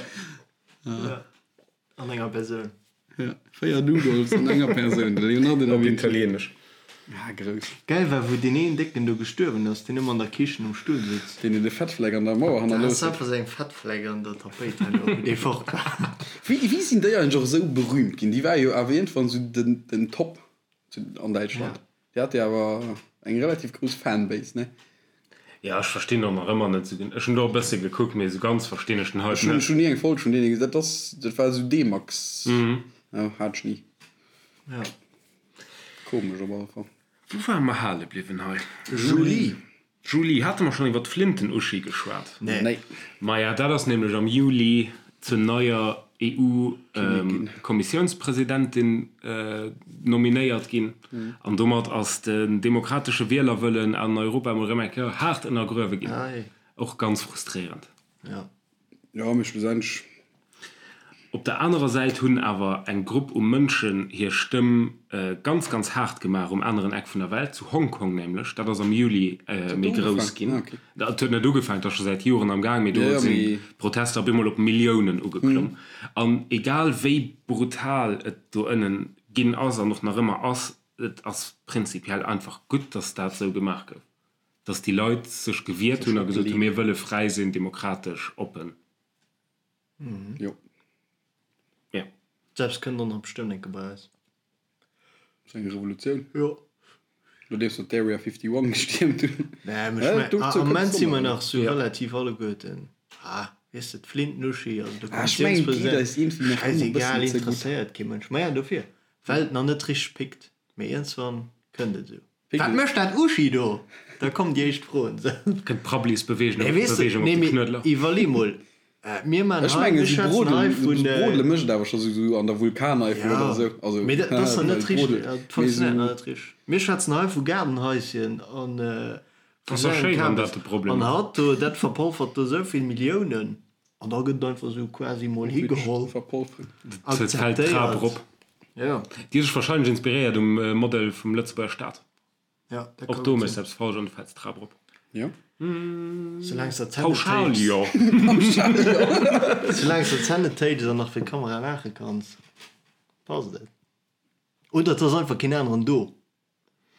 An enger Persoun. Ja, 4 Noodles an enger Persoun, de Leonardo da Op Vinci. Italieenesch. Ah, grouss. Gäil war wou deen een Décken do gestuerwen ass, deen ëmmer an der Kichen um Stull sutz. Deen de Fettfleck an der Mauer Dat hannerlooss ass huet. einfach sou eng Fettfleck an der Tapéit herno, wou dee fort war. Wéi, wéi sinn déi eigentlech och esou berühmt ginn? Déi war jo awer iergendwann esou den, den Top zu, an Däitschland. Déi hat jo awer eng relativ grouss Fanbase, ne? Ja, ech verstinn och nach ëmmer net sou gen. Ech hunn do e bësse gekuckt, mee sou ganz verstinn ech den Hype Ech hunn net. ech hunn ni eng Folg vun deene gesinn. Dat ass, dat war esou D-Max. Jo, hat ech ni. Ja. Komesch op alle Fall. Wou ware mer hale bliwwen hei? Juli. Juli, hate mer schonn iwwer d'Flinten Uschi geschwat? Nee. Nee. Maja, dat ass nämlech am Juli zur neier EU-Kommissiounspresidentin nominéiert ginn. An domat ass den demokratesche Wielerwëllen an Europa emol erëm eng Kéier haart ënnergruewe ginn. Och ganz frustréierend. Jo, mee schlussendlech. Op der anerer Säit hunn awer eng Grupp u Mënschen hir Stëmm ganz, ganz haart gemaach um aneren Eck vun der Welt, zu Hongkong nämlech. Dat ass am Juli méi grouss ginn. Dat huet net ugefaangen, dat ass scho säit Joren am Gaang, mee do sinn d'Protester op eemol op Milliounen ugeklomm. An egal wéi brutal et do ënnen ginn ass an och nach ëmmer ass, et ass prinzipiell einfach gutt, datt dat esou gemaach gouf, datt déi Leit sech gewiert hunn a gesot hunn, mir wëlle fräi sinn, demokratesch, oppen. Jo. Ja. Selbst kënnt och nach bestëmmt eng Kéier bei eis. Sou eng Revolutioun? Jo. Nodeems mer d'Area 51 gestiermt hunn. Nee, mee ech mengen, am Moment si mer nach sou relativ alleguerten, ah, weess de, d'Flintenuschi, also de Ah, ech mengen, et geet eis iergendwéi nach ëmmer e bëssen ze gutt. Schäisegal, interesséiert kee Mënsch. Maja, dofir, well et nach net richteg pickt. Mee iergendswann kënnt et esou. Wat mécht dat Uschi do? Da kommen déi éischt Froen. Kënnt d'Prabblisbeweegung op de Knuedler. Iwwerlee mol, mir man Ech hei, mengen, mir esou schwätzen hei Brodelen, vun. Brodele mécht et awer scho sou an der Vulkaneifel oder esou. Also, Mee dat ass nach net well richteg, Brodel, dat mee funktionéiert esou. nach net richteg. Mir schwätzen hei vu Gaardenhaischen an vu Ass doch sou engem schéi, wann dat Kabes. de Problem An ass. hatt do, dat verpolfert do esou vill Milliounen an da gëtt et einfach esou quasi mol higeholl, Et fält d'Trap akzeptéiert. erop. Jo. Déi huet sech wahrscheinlech inspiréiert um Modell vum Lëtzebuerger Staat. Ja, dat Och ka do gutt méchs sinn. eppes falsch an du fäls d'Trap erop. Jo. Soulaang s der d'Zänn net Pauschal téits. jo. Soulaang s der d'Zänn net téits an nach fir d'Kamera laache kanns, passt et. Oder et ass einfach keen aneren do.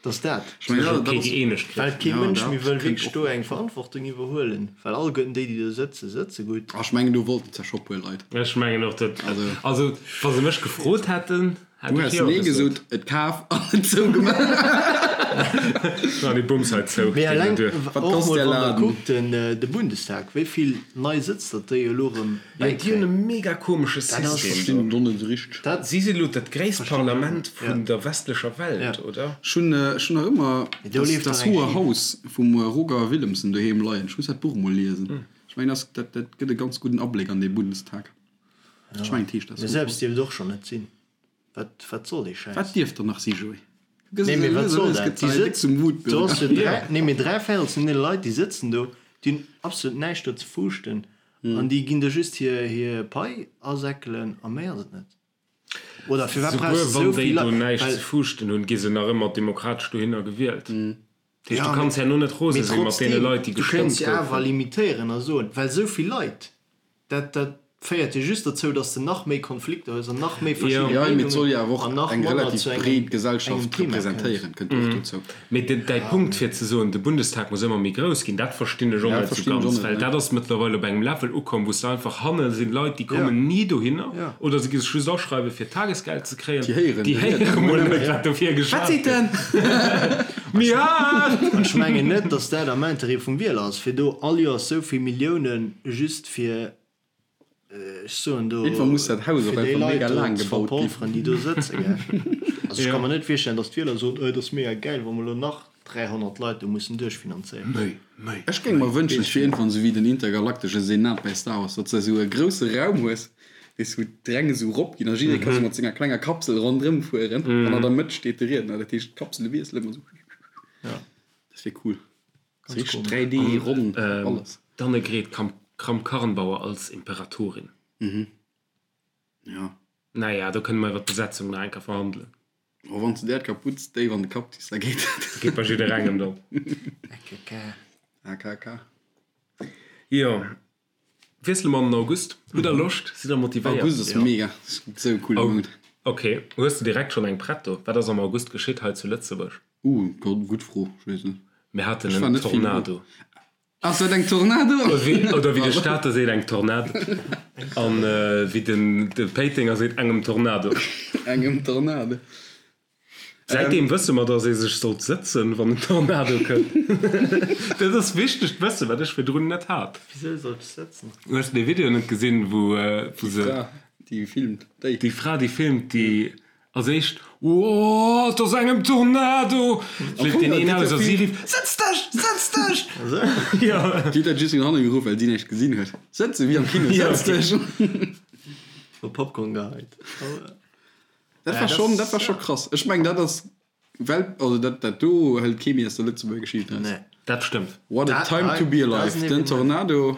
Dass dat. Ech mengen, Sech dat ok ass. gëeenegt kritt. Well kee Ja, Mënsch dat méi wëll kënnt wierklech och do nach eng dozou. Verantwortung iwwerhuelen, well alleguerten déi, déi do sëtzen, sëtze gutt. Ech mengen, do wollten se scho puer Leit. Ech mengen och, dat. Also. Also, wa se mech gefrot hätten, hätt Du ech häss jo nee gesot. gesot, et kaf an et zougemaach. An dee Bums hei zou, Mee geet eleng net duer. Wat och kosst mol, där wann der Laden? kuckt, den, de Bundestag, wéi vill nei Sëtz datt déi elo erëm Jo, déi hunn e bäikréien. mega komesche Dat ass. System do. Verstinn et och net esou richteg. Dat. Si sinn elo dat gréisst Verstinn ech och Parlament net. vun Ja. der westlecher Welt, Ja. oder? Ech hunn, ech hunn nach ëmmer Mee do das, leeft das dach eng Hohe Schief. Haus vum Roger Willemsen doheem leien. Ech muss dat Buch mol liesen. Ech mengen, dat, dat, dat gëtt e ganz gudden Abléck an dee Bundestag. Ech mengen, et heescht Das Mir Hohe selbst Haus. dierft et och schonn net sinn. Wat, wat soll dee Schäiss? Wat dierft der nach si, Joé? Du gëss Nee, es mee wat lues a soll lues dat? gëtt Déi se hei déck sëtzen, zum do Wutbürger. ass jo dräi, nee, mee dräi Véirels vun deene Leit, déi sëtzen do, déi hunn absolut näischt do ze fuuschten an déi ginn der just hir, hir Pai asäckelen a méi ass et net. Oder firwat brauchs Souguer de wann esou déi vill do Leit? näischt Well ze fuuschten hunn, gi se nach ëmmer demokratesch dohinner gewielt. Dat heescht, Ja, du kanns herno net rose mee sinn mat deene trotzdem, Leit, déi du kéints gestëmmt jo awer goufen. limitéieren a soen, well esou vill Leit, dat, dat féiert jo just dozou, dass de nach méi Konflikter hues an nach méi verschidde Ja, mee et soll Meenungen jo awer och an nach eng manner relativ zu engem, breet engem Gesellschaft Thema kënns. representéieren, kënnt och dozou. Mee den, däi Punkt fir ze soen, de Bundestag muss ëmmer méi grouss ginn, dat verstinn ech och Ja, net sou verstinn ech och ganz, net, well ne. dat ass mëttlerweil op engem Level ukomm, wou s de einfach hanne sinn Leit, déi kommen ni dohinner Ja. oder se gi sech just aschreiwe fir Tagesgeld ze kréien, Déi héieren déi de Riedner héiere mol net. net, wat dofir Wat geschwat seet gëtt. en? Méi haart! An ech mengen net, dass dat am Interêt vum Wieler ass, fir do all Joers sou vill Milliounen just fir, ech soen do, Irgendwann muss dat Haus och fir déi einfach Leit mega do laang ze gebaut ginn. verpolferen, déi do sëtzen, gell. Also ech ka Ja. mer net virstellen, dass d'Wieler soen, oh, et ass mega gäil, wa mer elo nach 300 Leit do mussen duerchfinanzéieren. Méi, méi, Ech géing méi. mer wënschen, et wier iergendwann esou wéi den intergalaktesche Senat bei Star Wars, datt s de esou e grousse Raum hues, weess, wou d'Räng esou erop ginn a jidderee ka sou mat senger klenger Kapsel ronderëm fueren an an der Mëtt steet de Riedner. Dat heescht, d'Kapsele wiesselen ëmmer esou. Ja. Dat wier cool. Ganz Richtig 3D, ronn, alles. D'Annegret Kramp-Karrenbauer als Imperatorin. Mhm. Ja. Naja, do kënne mer iwwer d'Besetzung nach eng Kéier verhandelen. Oh, wann s de där d'Kaputz déif an de Kapp zis, da geet dat. Geet bei jidderengem dann. AKK. AKK. Jo. Wiessele mer an den August. Hutt der Loscht? Sidd der motivéiert? August ass mega. Sou e coole Mount. Ok. Hues de direkt schonn eng prett do? Wat ass am August geschitt hei zu Lëtzebuerg? Uh, gutt Fro. Ech weess net. Mir haten en Tornado. Ass dat eng Tornado? Oder wéi de Stater seet, eng Tornade. An wéi den de Péitenger seet, engem Tornado. Engem Tornado. Säitdeem wësse mer, datt ee sech sollt sëtzen, wann en Tornado kënnt. Dat ass wichtegt Wëssen, wat ech virdrun net hat. Wisou sollt ech sëtzen? Hues de dee Video net gesinn, wou se. Déi Fra, déi filmt, déi. Déi Fra, déi filmt, déi Als éischt, Ooh, et ass engem Tornado! Flitt deen een aus a si rifft, Sëtz dech! Sëtz dech! Jo. Déi huet dat just no hanne geruff, well si näischt gesinn huet. Sëtze wéi am Kino, Sëtz dech! Hu Popcorn geheit. Dat war schonn, dat war scho krass. Ech mengen, dat ass Well, also dat, dat do hëlt kee méi aus der Lëtzebuerger Geschicht eraus. Nee. Dat stëmmt. What a time to be alive. Den Tornado.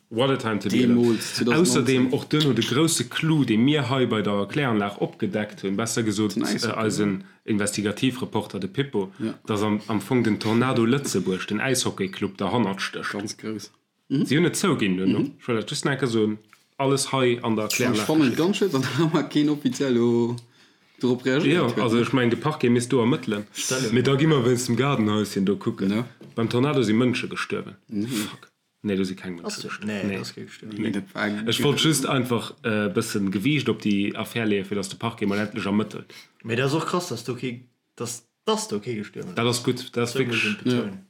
What a time to be alive. Deemools, 2019. Ausserdeem och duerno de grousse Clou, dee mir hei bei der Kläranlag opgedeckt hunn, besser gesot eisen Investigativreporter, de Pippo, dass am Fong den Tornado Lëtzebuerg, den Äishockeyclub, derhannert stécht. Ganz grouss. Si hunn et zouginn duerno. Ech wëll dat just nach eng Kéier soen, alles hei an der Kläranlag. Ech fannen et ganz schued, datt nach ëmmer keen offiziell do dorop reagéiert huet. Jo, also ech mengen, de Parquet misst do ermëttelen. Mee da gi mer wéinst dem Gaardenhäuschen do kucken. Beim Tornado si Mënsche gestuerwen. Fuck. Nee, do si keng Mënsche gestuerwen. Nee, do ass kee gestuerwen. Nee. Ech wollt just einfach e bëssen Gewiicht op déi Affär leeën, fir datt de Parquet mol endlech ermëttelt. Mee dat ass och krass, datt do kee, datt Dass do kee gestuerwen ass. Dat ass gutt, dat ass wierklech,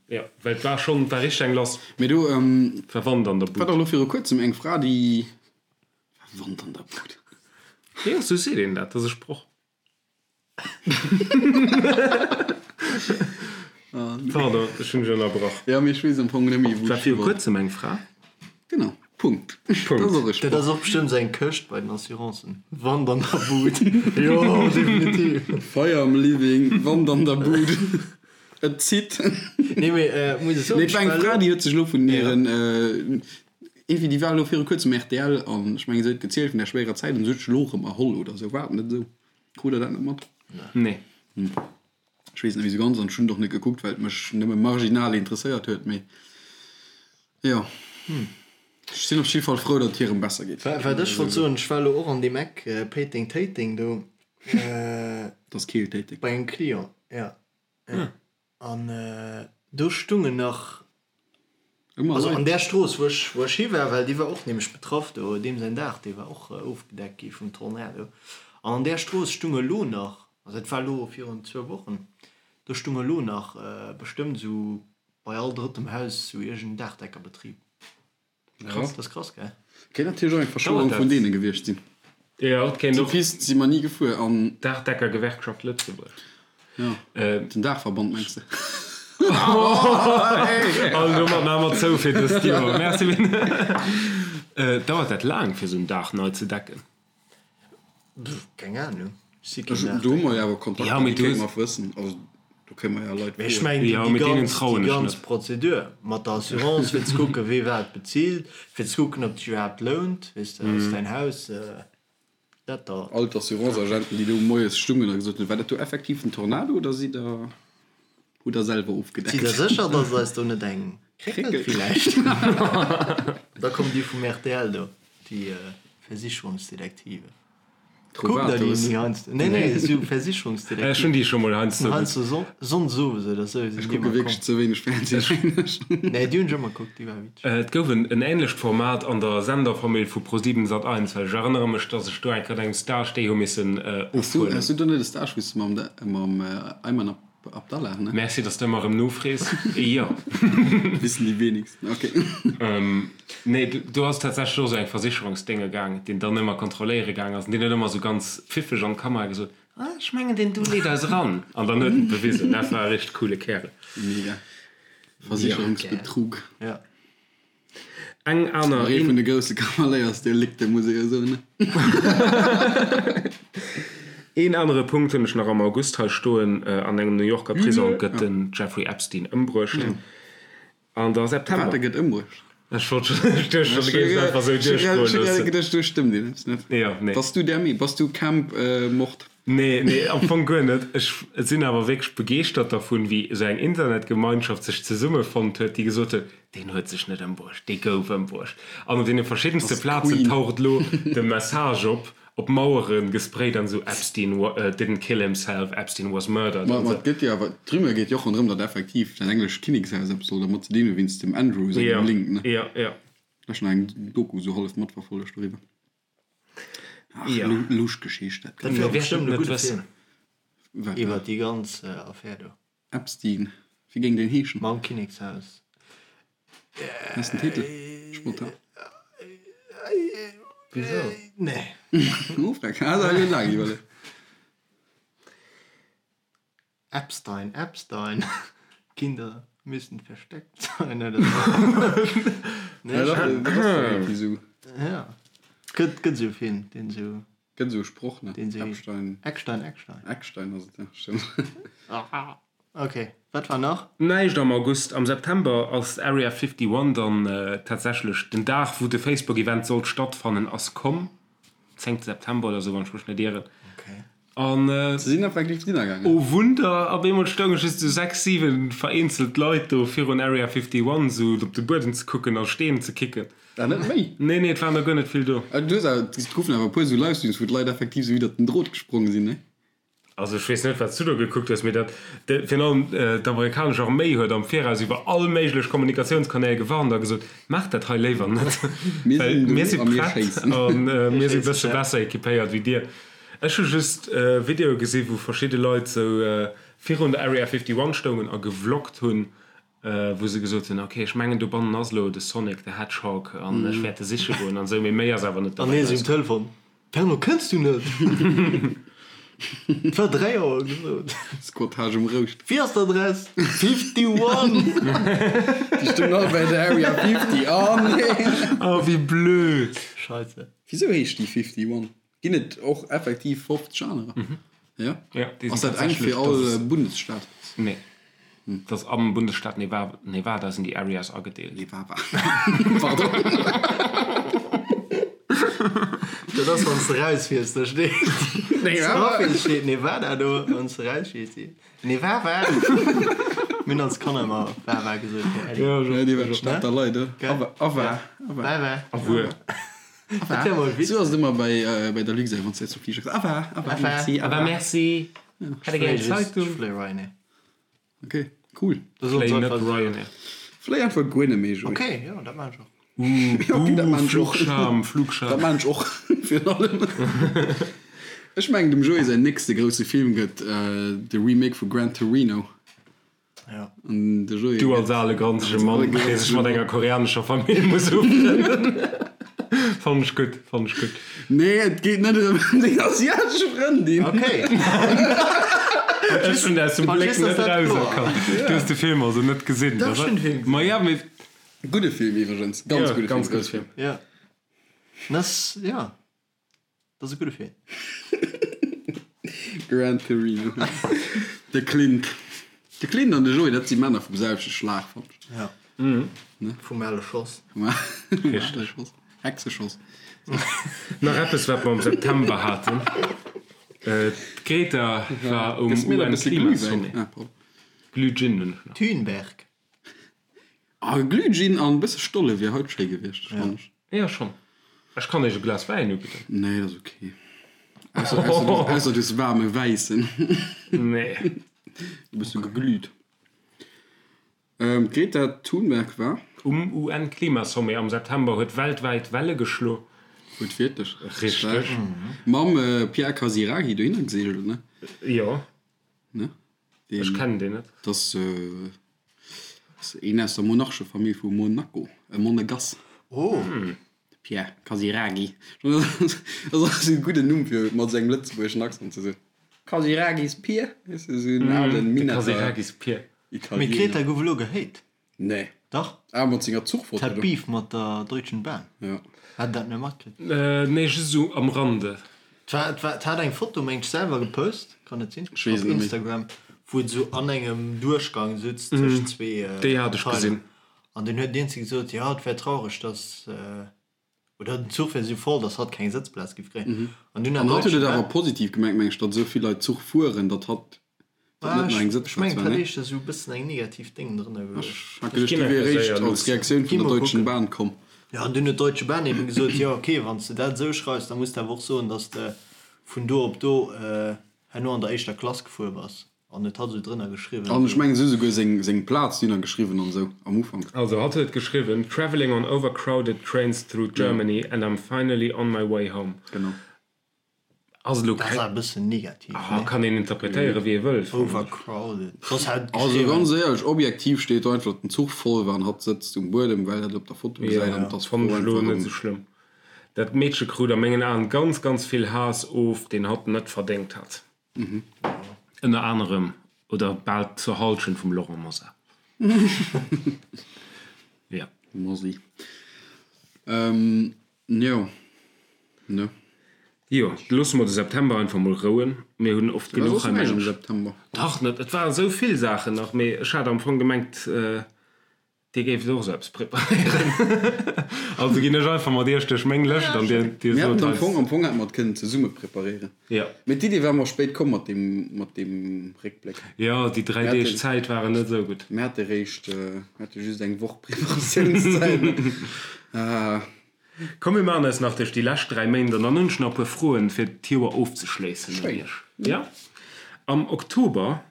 jo, well et war schonn, et war richteg eng lass. Mee do war Wand an der Bud. War dach elo viru kuerzem eng Fra, déi, war Wand an der Bud? Jo, sou seet een dat, dat ass e Sproch. Pardon, ech hunn dech ënnerbrach. Jo, mee ech weess am Fong net méi, wou ech hi wollt. War viru kuerzem eng Fra. Genau. Punkt. Punkt. Dat ass och e Dat ass och bestëmmt sou eng Këscht bei den Assurancen. Wand an der Bud. Jo, definitiv. Feier am Living, Wand an der Bud. Et zitt. Nee, mee muss ech soen, Nee, et war eng Fra, déi huet sech elo vun hiren, iergendwéi, déi war elo viru kuerzem rtl an ech mengen, se huet gezielt vun där schwéierer Zäit an se huet sech elo erëm erholl oder sou. War et net esou? Krut der dat net mat? Nee. Ech weess et net méi sou ganz an ech hunn et och net gekuckt, well et mech nëmme marginal interesséiert huet, mee jo. Ech sinn op jidde Fall frou, datt et hirem besser geet. Wat ech wollt soen, ech war elo och an deem Eck Péiteng-Téiteng do. Dat ass Keel-Téiteng. Bei engem Client, jo. An do stungen nach, also an där Strooss, wou ech, wou ech hi war, well déi war och nämlech betraff do, deem säin Daach, dee war och ofgedeckt gi vum Tornado. An an där Strooss stung elo nach, also dat war elo virun zwou Wochen, do stung elo nach bestëmmt esou bei all drëttem Haus esou iergend en Daachdeckerbetrib. Krass. Dat ass krass, gell? Kéint natierlech och eng Verschwörung vun deene gewiescht sinn. Jo, et kéint och. Déi Pist si mer ni gefuer an. Daachdeckergewerkschaft Lëtzebuerg. Jo, den Daachverband mengs de? An domat maache mer zou fir dëst Joer. Merci. Dauert dat laang, fir esou en Daach nei ze decken? Keng Ahnung. Do hu mer jo awer Kontakter, déi kéinte mer wëssen. Also do kéinte mer jo Leit froen. Ech mengen déi ganz Prozedur mat der Assurance, fir ze kucken, wee wat bezilt, fir ze kucken, ob et sech iwwerhaapt lount, weess de, ass däin Haus dat da. All d'Assurance-Agenten, déi do moies stungen a gesot hunn, War dat do effektiv en Tornado oder sidd Der, hutt Der selwer ofgedeckt? Sidd Der sécher, datt et eis do net eng kréckelt villäicht? Da kommen déi vum rtl do, déi Versicherungsdetektiven. Kuckt der déi ni heiansdo? Nee, nee, esou Versicherungsdetektiv. Ech hunn déi scho mol heiansdo. Heiansdo sonndes owes oder sou. Ech kucke wierklech ze wéineg Fernsehen. Nee, déi hunn ech ëmmer kuckt, déi war witzeg. Et gouf en änlecht Format an der Senderfamill vu ProSieben Sat1, well ech erënnere mech, dass ech do eng Kéier an engem Stage déi hu missen ofhuelen. Has du do net e Stage wou s de mam Ayman Abdallah, ne? Merci, dass de ëmmer erëm nofrees. Jo. Wissen déi wenigsten, ok. Nee, do ass tatsächlech och esou eng Versicherungsdénge gaang, deen dann ëmmer kontrolléiere gaang ass an deen huet ëmmer esou ganz pfiffeg an d'Kamera gesot, Ah, ech mengen, deen do leet eis eran. An dann huet en et bewisen. Dat war e richteg coole Kärel. Mega. Versicherungsbetrug. Ja. Eng aner. Nach ee vun de grousse Kavaléiersdelikte, muss ee jo soen, ne? Een anere Punkt hunn ech nach am August hei stoen, An engem New Yorker Prisong gëtt den Jeffrey Epstein ëmbruecht. An da September. Wat, e gëtt ëmbruecht? Ech wollt schon, ech duecht schon, du géifs einfach esou duerchgoe loossen. Ech hu geduecht, do stëmmt eppes net. Jo, nee. Bass du där Mee-, bass du Camp Mord? Nee, nee, am Fong guer net. Ech sinn awer wierklech begeeschtert dervun, wéi esou eng Internetgemeinschaft sech zesummefonnt huet, déi gesot huet, Deen huet sech net ëmbruecht, dee gouf ëmbruecht. An op deene verschiddenste Plazen taucht elo de Message op, op Mauere gesprayt an esou, Epstein didn't kill himself, Epstein was murdered. Ma et gëtt jo awer, d'Rumeur geet jo och ronderëm, datt effektiv dat englescht Kinnekshaus eppes soll dermat ze dinn hu wéinst dem Andrew sengem Link, ne? Jo, jo. Ech hunn eng Doku esou hallef matverfollegt doriwwer. Ach, lusch Geschicht dat. Dat wier bestëmmt e gudde Film Wat? Iwwer déi ganz Affär do. Epstein, wéi géing deen heeschen? Mam Kinnekshaus. Wat ass den Titel? Spontan. Wisou? Nee. Oh, freck. Ah, da huet laang iwwerleet. Epstein, Epstein, Kinder müssen versteckt sein oder sou. Nee, Ja, dat dat ass doch irgendwie sou. Ja. Gëtt, gëtt sou e Film, deen sou. Gëtt esou e Sproch, ne? Deen sou. Epstein. Eckstein, Eckstein. Eckstein ass et, ja, stëmmt. Ok, wat war nach? Näischt am August. Am September ass Area 51 dann tatsächlech, den Dag wou de Facebook-Event sollt stattfannen ass komm, 10 September oder sou, wann ech mech net ieren. An Se sinn effektiv drinner gaangen. oh Wunder, op eemol stounge just sou 6, 7 vereenzelt Leit do virun Area 51 sou op de Buedem ze kucken a Steen ze kicken. Ah, net méi? Nee, nee, et waren der guer net vill do. Du hues awer, et goufen awer e puer sou Livestreams, wou d'Leit effektiv sou iwwert den Drot gesprong sinn, ne? Also ech weess net wat s du do gekuckt hues, mee dat, virun allem d'amerikanesch Arméi huet am Viraus iwwer all méiglech Kommunikatiounskanäl gewarnt a gesot, maacht dat hei léiwer net, well mir si prett a mir si bësse besser equipéiert wéi dir. Ech hu just Videoe gesi wou verschidde Leit sou virun der Area 51 stoungen a gevloggt hunn, wou se gesot hunn, ok, ech mengen dobannen ass elo de Sonic the Hedgehog an ech wäert e siche goen an esou, mee méi ass awer net An dobäi hie sou um erauskomm. Telefon, Fernand, kënns du net? Et war 3 Auer gesot. Squattage um Rouscht. Wéi ass d'Adress? 51! Déi stoungen all bei der Area 50, oh nee! Oh, wéi blöd! Scheisse. Wisou heescht déi 51? Ginn et och effektiv 50 anerer? Jo? Ja, déi Ass sinn dat eng tatsächlech, fir all das ist, Bundesstaat? nee, das ass am Bundesstaat Neva, Nevada sinn déi Areas agedeelt. Nevada. Pardon. Dat ass, wann s de rausfiers, da steet Nevada. Wann steet Nevada do, wann s de rausfiers, steet Nevada. Mir hunn als Kanner ëmmer Wawa gesot, fir Äddi. Ja, Ja, déi war d'Stad der Leit, Gell? Awa, Awa, Awa. Wawa. Awuer. Dat wär mol Sou ass et ëmmer bei, bei der Luxair, wann s de zum Fliger kënns. Awa, awa, merci, Awa, merci. Hätt e gär eng Zeitung? Ech fléie Ryanair. Ok, cool. Fléi net Ryanair. Fléi einfach guer net méi, Joé. Ok, jo, dat maan ech och. Uh, Ok, dat maan ech och. Flugscham, Flugscham. Dat maan ech och, virun allem. Ech mengen, dem Joé säin nächste grousse Film gëtt de Remake vu Gran Torino. Ja. An de Joé Du als ale granzege Mann, dee sech mat enger koreanescher Famill muss ufrënnen. Fannen ech gutt, fannen ech gutt. Nee, et geet net ëm deng asiatesch Frëndin. Okay. Ech hunn aus dem Bléck net erauserkannt. Du hues de Film also net gesinn, Dach, ech hunn de Film gesinn. Ma ja, mee. Gudde Film iwwregens, ganz Ja, gudde ganz Film. gudde Film. Ja. Das, ja. Dat ass e gudde Film. Gran Torino. De Clint. De Clint an de Joé, dat si Männer vum selwechte Schlag, fannen ech. Ja. Vum ale Schoss. Vum ale Schoss. Hexeschoss. Nach eppes, wat mer am September haten. D'Greta war um Gëss mir nach e bësse Glühwäin. UN-Klimasommet. Ah, pardon. Glühgin hunn ech nach. Thunberg. Ah, Glühgin an e bësse Stolle wier haut schéi gewiescht, fannen ech. Jo, schonn. Ech kann iech e Glas Wäin ubidden. Nee, dat ass ok. Ausser, ausser, du, ausser du hues waarme Wäissen. Nee. E bësse geglüht. Ähm, d'Greta Thunberg war. Um UN-Klimasommet am September huet weltwäit Welle geschlo. Huet wierklech. Richteg. Mam Pierre Casiraghi dohinner geseegelt, ne? Jo. Ne? Ech kennen deen net. Dat ass een aus der Monarchefamill vu Monaco, e Monegass. Oh! De Pierre Casiraghi. Dat ass e gudden Numm fir mat esou engem lëtzebuergeschen Accent ze soen. Casiraghis Pier, weess de, esou en alen De Minetter Casiraghis Pier. Mee Italiener. d'Greta gouf elo gehéit. Nee. Dach. Ah, mat senger Zuchfoto Hat do. Beef mat der Deutschen Bahn. Ja. Hat dat net matkritt? Nee, just esou am Rande. Et war, et hat eng Foto, mengt ech, selwer gepost, kann et sinn? Ech weess et net méi. Op Instagram, wou et esou an engem Duerchgang sutz tëscht zwee Déi hat ech gesinn. An dunn huet deen ze gesot, jo, et wär traureg, dass, oder den Zuch wär esou voll, dass hatt keng Sëtzplaz giff kréien. An dunn hat An hatt huet et awer positiv gemengt, meng ech, datt esou vill Leit Zuch fueren, datt hatt datt net nach eng Sëtzplaz war, ne? Ech mengen, et hätt éischter esou e bëssen eng negativ Déng drënner geluecht. Ech hat geduecht, déi wier eréischt als Reaktioun vun der Deutschen Bahn komm. Jo, an dunn huet d'Deutsche Bahn eben gesot, jo ok, wann s de dat esou schreifs, da muss de awer och soen, datt s de vun do op do herno an der éischter Klass gefuer bass. An et hat esou drënner geschriwwen. An ech mengen, se hu souguer seng, seng Plaz dunner geschriwwen an esou am Ufank. Also hatt huet geschriwwen, Travelling on overcrowded trains through Germany and I'm finally on my way home. Genau. Ass elo Dat ass awer e bëssen negativ, nee? Kann een interpretéieren, wéi ee wëll, fannen ech. Overcrowded. Soss hätt et Also geschriwwen. ganz éierlech, objektiv steet do einfach, datt den Zuch voll war an hatt sëtzt um Buedem, well dat op der Foto gesäit an Jo, et ass fannen fro ech elo einfach net ëm. esou schlëmm. Dat Meedche krut a mengen Aen ganz, ganz vill Haass of, deen hatt net verdéngt hat. Ënner anerem, oder bal zur Halschent vum Laurent Mosar. Jo. Mosi. Jo, ne. Jo, loosse mer de September einfach mol rouen. Mir hunn oft War genuch soss hei näischt am mengen ech. September? Dach net, et waren esou vill Saachen nach, mee ech hat am Fong gemengt, Dir géift och esou eppes preparéieren. Also ginn ech einfach mat Iech duerch meng Lëscht an Dir, Dir Mir sot haten am eis. Fong, am Fong hätte mer et kënnen zesumme preparéieren. Jo. Mee d'Idee war mer spéit komm mat deem, mat deem Réckbléck. Jo, déi 3 Mir Deeg haten, Zäit waren net esou gutt. mir hate réischt, mir hate just eng Woch Preparatiounszäit. Ah. Komm mir maachen eis nach duerch déi lescht 3 Méint an dann hunn ech nach e puer Froen fir d'Joer ofzeschléissen un iech. Jo? Am Oktober,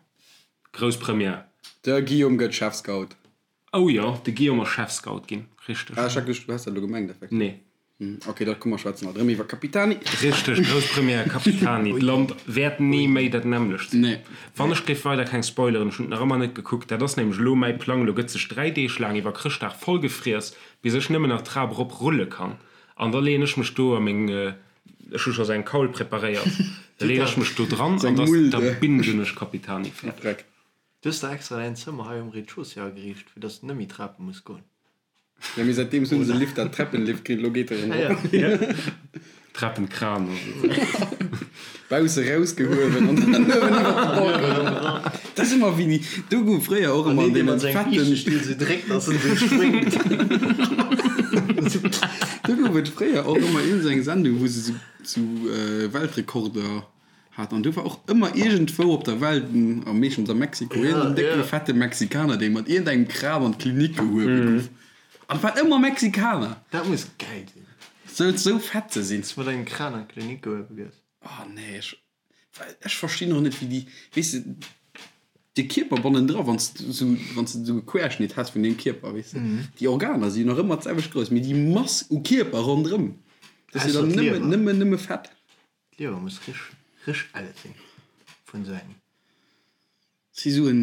grouss Première. De Guillaume gëtt Chefscout. Oh jo, de Guillaume ass Chefscout ginn, richteg. Ah, ech hat geduecht, du häss dat elo gemengt effektiv. Nee. Ok, da komm mer schwätzen alt erëm iwwer Capitani. Richteg, grouss Première, Capitani. D'Land wäert ni méi dat nämmlecht sinn. Nee. Wann ech géif weider keng spoileren, ech hunn et nach ëmmer net gekuckt, dat ass nämlech elo mäi Plang, elo gëtt sech 3 Deeg laang iwwer Chrëschtdag vollgefriess, bis ech nëmmen nach d'Trap erop rulle kann an da leeën ech mech do a meng, ech hu scho sou eng Kaul preparéiert, da leeën ech mech do dran an da da bingen ech Capitani fäerdeg. Du hues der extra däin Zëmmer hei um Rez-de-chaussée ageriicht, fir dass de net méi Trape muss goen. Jo, mee säitdeems hunn se e Lift, dat Treppenlift kritt, elo geet e rëm erop. Treppenkran oder sou. Bausse rausgehuewen an dann uewen iwwer de Balcon erop. Dat ass ëmmer wéi, do gouf fréier och ëmmer an deenen fetten. Still sou dréckt, dass en sou spréngt. Do gouf et fréier och ëmmer iergend sou eng Sendung, wou se sou Weltrekorder Hat an do war och ëmmer iergendwou op der Welt, a meeschtens a Mexiko, iergendeen décke fette Mexikaner, dee mat iergendengem Kran an d'Klinik gehuewe gouf. An et waren ëmmer Mexikaner! Dat muss gäil sinn. Sou, sou fett ze sinn. Dass mat engem Kran an d'Klinik gehuewe gëss. Oh nee, ech, ech verstinn och net, wéi déi, weess de, de Kierper bannendra, wann s de sou, wann s de sou e Querschnitt häss vun deem Kierper, weess de, déi Organer si jo nach ëmmer d'selwecht grouss, mee déi Mass u Kierper ronderëm, dat ass jo dann nëmme, nëmme, nëmme Fett. D'Liewer muss rich, rich elle sinn vun sou engem. Si sou en.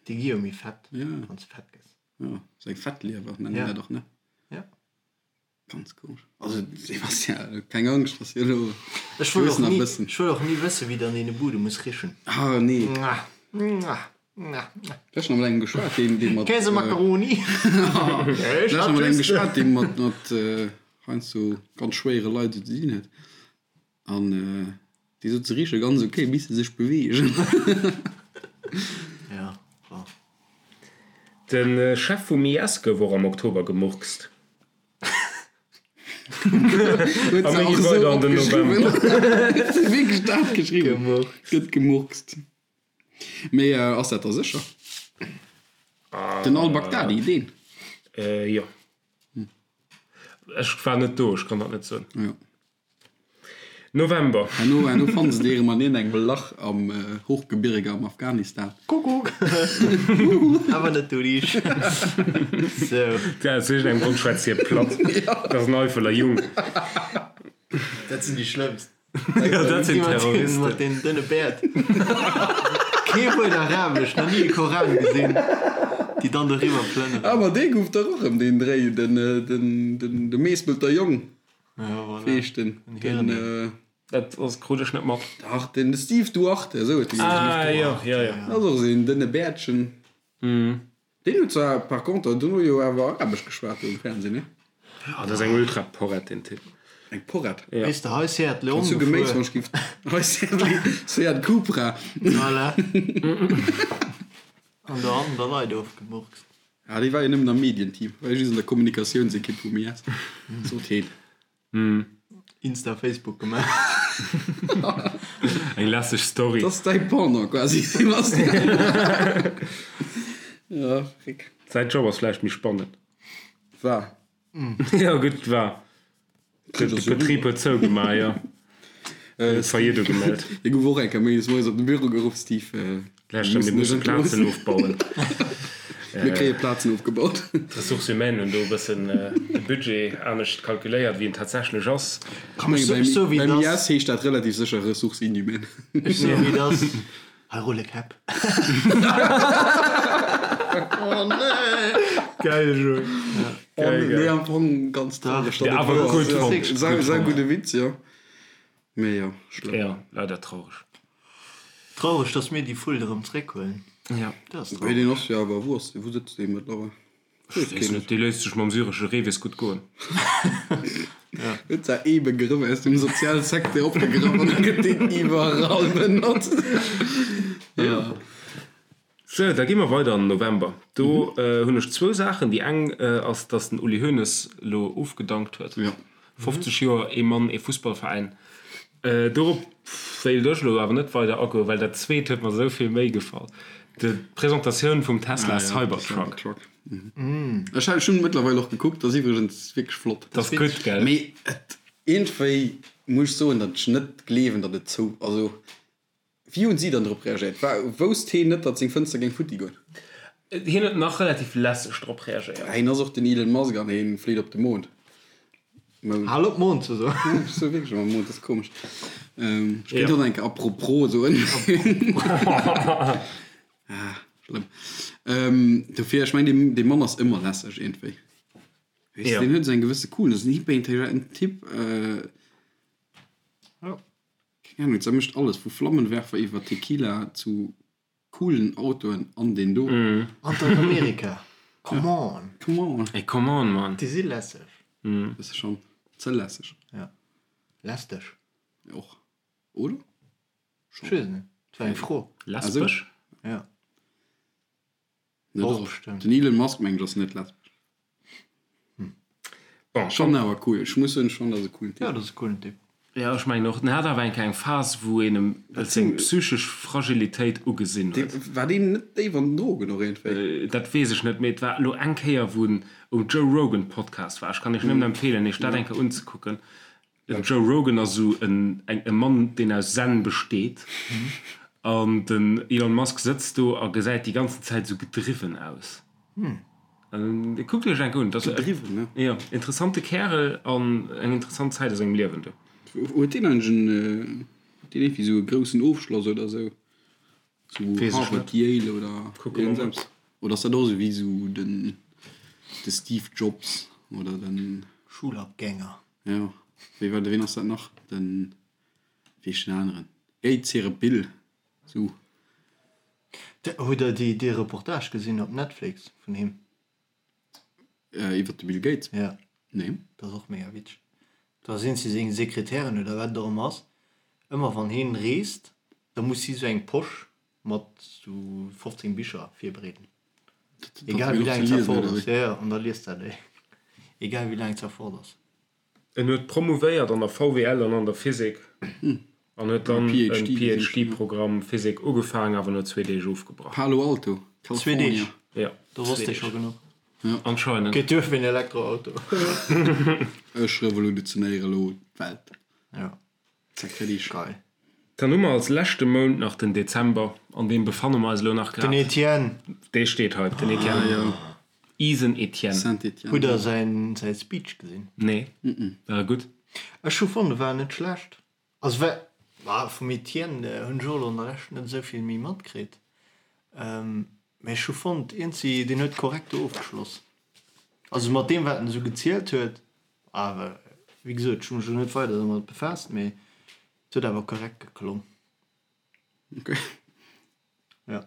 Déi gi jo méi fett, wann s de fett gëss. Jo, sou eng Fettliewer nennen Ja. dat och, ne? Ja. Ganz komesch. Also Sebastian, keng Angscht, ass jo elo. Ech wëll och ni, ech wëll och ni wëssen, wéi dann deene Bude muss richen. Ah nee. Mwah, mwah, mwah, mwah. Ech nach mat engem geschwat, deen, deen mat. Käsemakaroni. Ech nach mat engem geschwat, deen mat, mat heiansdo ganz schwéiere Leit esou ze dinn huet. An déi sot, se riche ganz ok, bis se sech beweegen. Ja, bon. De Chef vum IS gouf och am Oktober gemurkst. Huet A se mir och gi esou weider an den opgeschriwwen. November. Huet se wierklech dat geschriwwen? Gemurkst. Gëtt gemurkst. Mee ass dat da sécher? Den Al-Baghdadi, deen? Jo. Ech war net do, ech kann dat net soen. Jo. November. Herno, herno fanne se déi erëm an iergendengem Lach am Hochgebirge am Afghanistan. Kuckuck! Awer net du dich. Sou. Ja, aus iergendengem Grond schwätzt hie platt. Dat ass en Eifeler Jung. Dat sinn déi schlëmmst. Ja, dat sinn Terroristen. Mat deenen dënne Bäert. Kee Wuert Arabesch, nach ni e Koran gesinn, déi dann doriwwer plënneren. Awer dee gouf dach och erëm deen Dréi, den, den, den, de Meespelter Jong. Ja, voilà. Wéi heescht den? Den Den, Hiren. äh, Dat ass, krut ech net mat. Dach, den Steve Duarte, esou huet dee geheescht. Ah, jo, jo, jo. Dat ass och esou een dënne Bäertchen. Deen huet zwar par contre dono jo awer Arabesch geschwat do um Fernseh, ne? Ah, dat ass eng Ultra-Porrett, deen Typ. Eng Porrett? Ja. Weess de, hei Seat Leon Zu Geméis, gefuer. wann ech giff. Hei Seat, Seat Cupra. Voilà. An do hannen der Leit ofgemurkst. Ah, dee war jo nëmmen am Medienteam, war jo just an der Kommunikatiounsekipp vum IS. Sot heen. Insta, Facebook gemaach. Eng lässeg Story. Dat ass däi Pendant quasi, Sebastian. Ja, Frick. Säin Job ass vläicht méi spannend. War. Jo, gutt, war. De Betrib huet zougemaach, jo. Huet Faillite ugemellt. Hie gouf och eng Kéier méindes moies op de Büro geruff, Steve, Lauschter, mir musse Plazen ofbauen. Mir kréie Plazen ofgebaut. D'Ressources humaines hunn do e bëssen de Budget anescht kalkuléiert, wéi en tatsächlech ass. Ech menge beim IS heescht dat relativ sécher Ressources inhumaines. Ech soe wéi et ass, hei rulle Käpp. Oh nee! Geil, Joé. Geil, geil. Nee, am Fong ganz traureg. Ja, awer gutt fonnt. Sau, sau gudde Witz, jo. Mee jo, schlëmm. Ja, leider traureg. Traureg, dass mir déi Fuld erëm zréckhuelen. Ja. Dat ass Wéi traureg. deen ass jo awer, wou ass dee, wou sëtzt dee mëttlerweil? Ech weess net, dee léisst sech mam syresche Reewees gutt goen. Huet se ee Begrëff aus dem Sozialsecteur opgegraff an da gëtt deen iwwerall benotzt. Jo. Sou, da gi mer weider an den November. Do hunn ech zwou Saachen. Déi eng ass, dass den Uli Hoeneß elo ofgedankt huet. 50 Joer, ee Mann, ee Fussballveräin. Dorop wéilt ech elo awer net weider agoen, well dat zweet huet mer esou vill méi gefall, d'Presentatioun vum Tesla Cybertruck. Ech hunn mëttlerweil och gekuckt, ass iwwregens wierklech flott. Dat ass gutt, gell? Mee et, iergendwéi muss ech soen, datt ech net gleewen, datt et zou, also Wéi hunn si dann drop reagéiert? War, wousst heen net, datt seng Fënster géing futti goen? Hien huet nach relativ lässeg drop reagéiert. Heen ass och den Elon Musk an heen flitt op de Mond. Mound. Hal op Mond ze soen. Ja, ech soe wierklech ëmmer Mond, dat ass komesch. Ech kéint och nach eng Kéier apropos soen. Ah, schlëmm. Dofir, ech mengen, dee, dee Mann ass ëmmer lässeg iergendwéi. Weess de, deen huet esou eng gewësse Coolness, en hyperintelligenten Typ. Jo. Keng Ahnung, se mécht alles, vu Flammenwerfer iwwer Tequila zu coolen Autoen an deen do. An dat Amerika, come on! Come on! Ey, come on, man! Déi si lässeg. Bësse schonn ze lässeg. Ja, lästeg. Och, oder? Ech weess et net, et war eng Fro. Lesbesch? Ja. Net Och och. bestimmt. Den Elon Musk mengen ech ass net lesbesch. Bon, Schonn awer cool. Ech muss soen, ech fannen dat ass e coolen Typ. Ja, dat ass e coolen Typ. Ja, ech mengen och. En hat awer eng kleng Phas, wou een em seng psychesch Fragilitéit ugesinn huet. Dee, war deen net déif an den Drogen och iergendwéi? Dat weess ech net, mee et war elo eng Kéier, wou en um Joe Rogan Podcast war. Ech kann iech nëmmen empfeelen, iech dat eng Kéier unzekucken. Den Joe Rogan ass esou en e Mann, deen aus Zen besteet. An den Elon Musk sëtzt do a gesäit déi ganzen Zäit esou gedriwwen aus. An kuckt iech enk un. Gedriwwen, ne? Jo, interessante Kärel an eng interessant Zäit a sengem Liewen do. Huet deen eigentlech en, huet deen iergendwéi esou e groussen Ofschloss oder esou? Sou Harvard, Yale oder iergendeppes? Oder ass dat och esou wéi esou den de Steve Jobs oder den. Schulabgänger. Jo, wéi war de, ween ass dat nach? Den, wéi heescht den aneren? Gates hire Bill, sou. Hutt der déi dee Reportage gesinn op Netflix vun him? Iwwert de Bill Gates? Ja. Nee. Dat ass och mega witzeg. Da sinn si seng Sekretärin oder wat et och ëmmer ass, ëmmer wann hien reest, da muss si sou eng Posch mat sou 15 Bicher virbereeden. Egal wéi laang et ass. Ja, ja, an da liest dat déi. Egal wéi laang et fort ass. En huet promouvéiert an der VWL an an der Physik an huet dann e PhD-Programm Physik ugefaangen, awer no zwee Deeg ofgebrach. Palo Alto, Zwee Deeg? California. Ja, Do wosst ee scho genuch. Anscheinend. Geet duer fir en Elektroauto. Ech revolutionéiere elo d'Welt. Ja. Zack, fertig. Geil. Dann hu mer als leschte Mount nach den Dezember, an deem befanne mer eis elo nach grad. Den Etienne. Dee steet hei, den Etienne. Ah, jo. Isen Etienne. Saint-Etienne. Hutt der säin säi Speech gesinn? Nee. War e gutt? Ech hu fonnt, e war net schlecht. Also war, ma vum Etienne hunn ech och elo an der Lescht net esou vill méi matkritt. Mä ech hu fonnt, iergendwéi, deen huet korrekt do ofgeschloss. Also mat deem, wat en esou gezielt huet, awer wéi gesot, ech hu mech elo net weider domat befaasst, mee et huet awer korrekt geklong. Ok. Jo,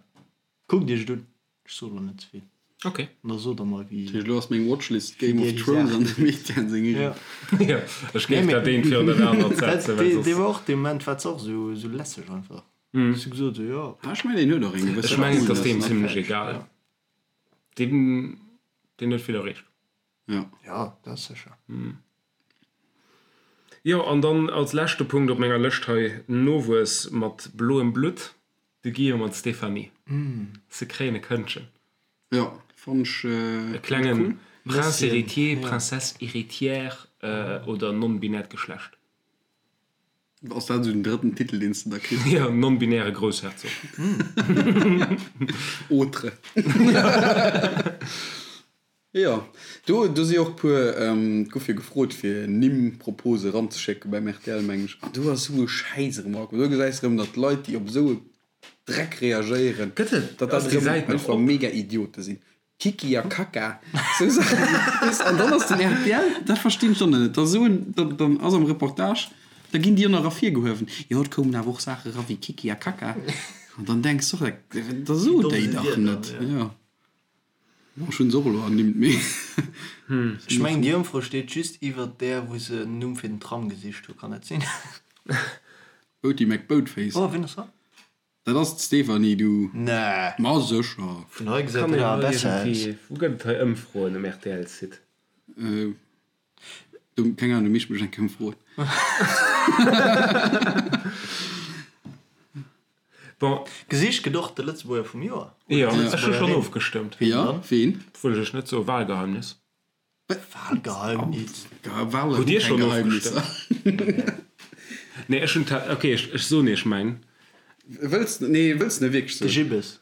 kuckt iech et un, ech soe lo net ze vill. Ok. An da sot der mer wéi. Dat heescht, elo ass meng Watchlist Game of Thrones an dem Etienne seng eegen. Jo, ech géif dat eent virun dat anert setzen, well soss. Dee war och dee Moment war se och esou esou lässeg einfach. Ech hu gesot esou, jo. Ah, ech mengen, deen huet och eng gewësse Ech mengen, et ass deem zimlech egal. Deen, deen huet vill erreecht. Jo. Jo, dat ass sécher. Jo, an dann als leschte Punkt op menger Lëscht hei, Nowuess mat bloem Blutt, de Guillaume an d'Stéphanie. Se kréien e Këndchen. Jo, fann ech cool. E klengen Prince héritier, Princesse héritière oder non-binäert Geschlecht. Ass dat esou den drëtten Titel, deen s de da kriss? Jo, non-binäre Groussherzog. Autre. Jo, do do si och puer, et gouf jo gefrot fir Nimm-Propose eranzeschécke beim rtl meng ech, an do ass esou e Schäiss erëm erakomm. Do gesäis de erëm, datt Leit, déi op esou e Dreck reagéieren, Gëtt et, datt dat ass déi erëm Säit nach einfach op? mega Idiote sinn. Kiki a Kaka, esou Saachen, weess de. An dann ass den rtl, dat verstinn ech dann net, da soen, dann dann ass am Reportage, da ginn déi och nach ervirgehuewen, jo et koumen awer och Saache era wéi Kiki a Kaka. An dann denks de och, da so déi dach net, jo. Bon, ech hunn se och elo ernimmt, mee. Ech mengen déi Ëmfro steet just iwwert där wou se en Numm fir den Tram gesicht hu, kann dat sinn? Boaty McBoatface. Oh, wien ass dat? Dat ass d'Stéphanie, du. Nee. Ma sécher. Vun hei gesäit Kann dat een awer hei besser aus. iergendwéi, wou gëtt et hei Ëmfroen um RTL-Site? Du, keng Ahnung, du misst mech eng Kéier froen. Bon. Gesicht gëtt och de Lëtzebuerger vum Joer. Jo, ech hu schonn ofgestëmmt. Jo, ween? Wëll ech net soen, Wahlgeheimnis. Wahlgeheimnis? Wahlen Hutt Dir hu keng schonn Geheimnisser. ofgestëmmt? Nee, ech hunn, ok, ech soen Iech mäin. Wëlls, nee, wëlls de net wierklech De soen? Gibbes.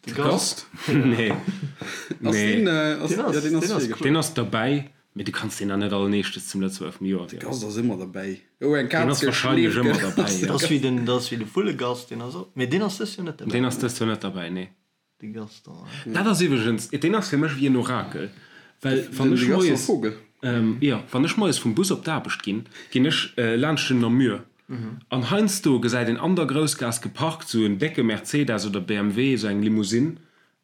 De Gast? Nee. Ass Nee. deen, ass, Deen ass, ja, deen ass deen ass virgeschloen. Deen ass derbäi, mee du kanns deen dann net alleneeschtes zum Lëtzebuerger vum Joer De wielen. Gast ass ëmmer derbäi. Oh, eng Deen Kaz ass wahrscheinlech geschleeft ëmmer gëtt. derbäi, ja. Dat ass wéi den, dat ass wéi de Vullegast, deen ass och, mee deen ass dëst Joer net derbäi. Deen ass dëst Joer net derbäi, nee. De Gaston, ja. Dat ass iwwregens, deen ass fir mech wéi en Orakel, well wann Den ech de Gaston moies, Vogel. jo, wann ech moies vum Bus op d'Aarbecht ginn, ginn ech laanscht den Namur An heiansdo gesäit een an der Groussgaass geparkt sou en décke Mercedes oder BMW, sou eng Limousine,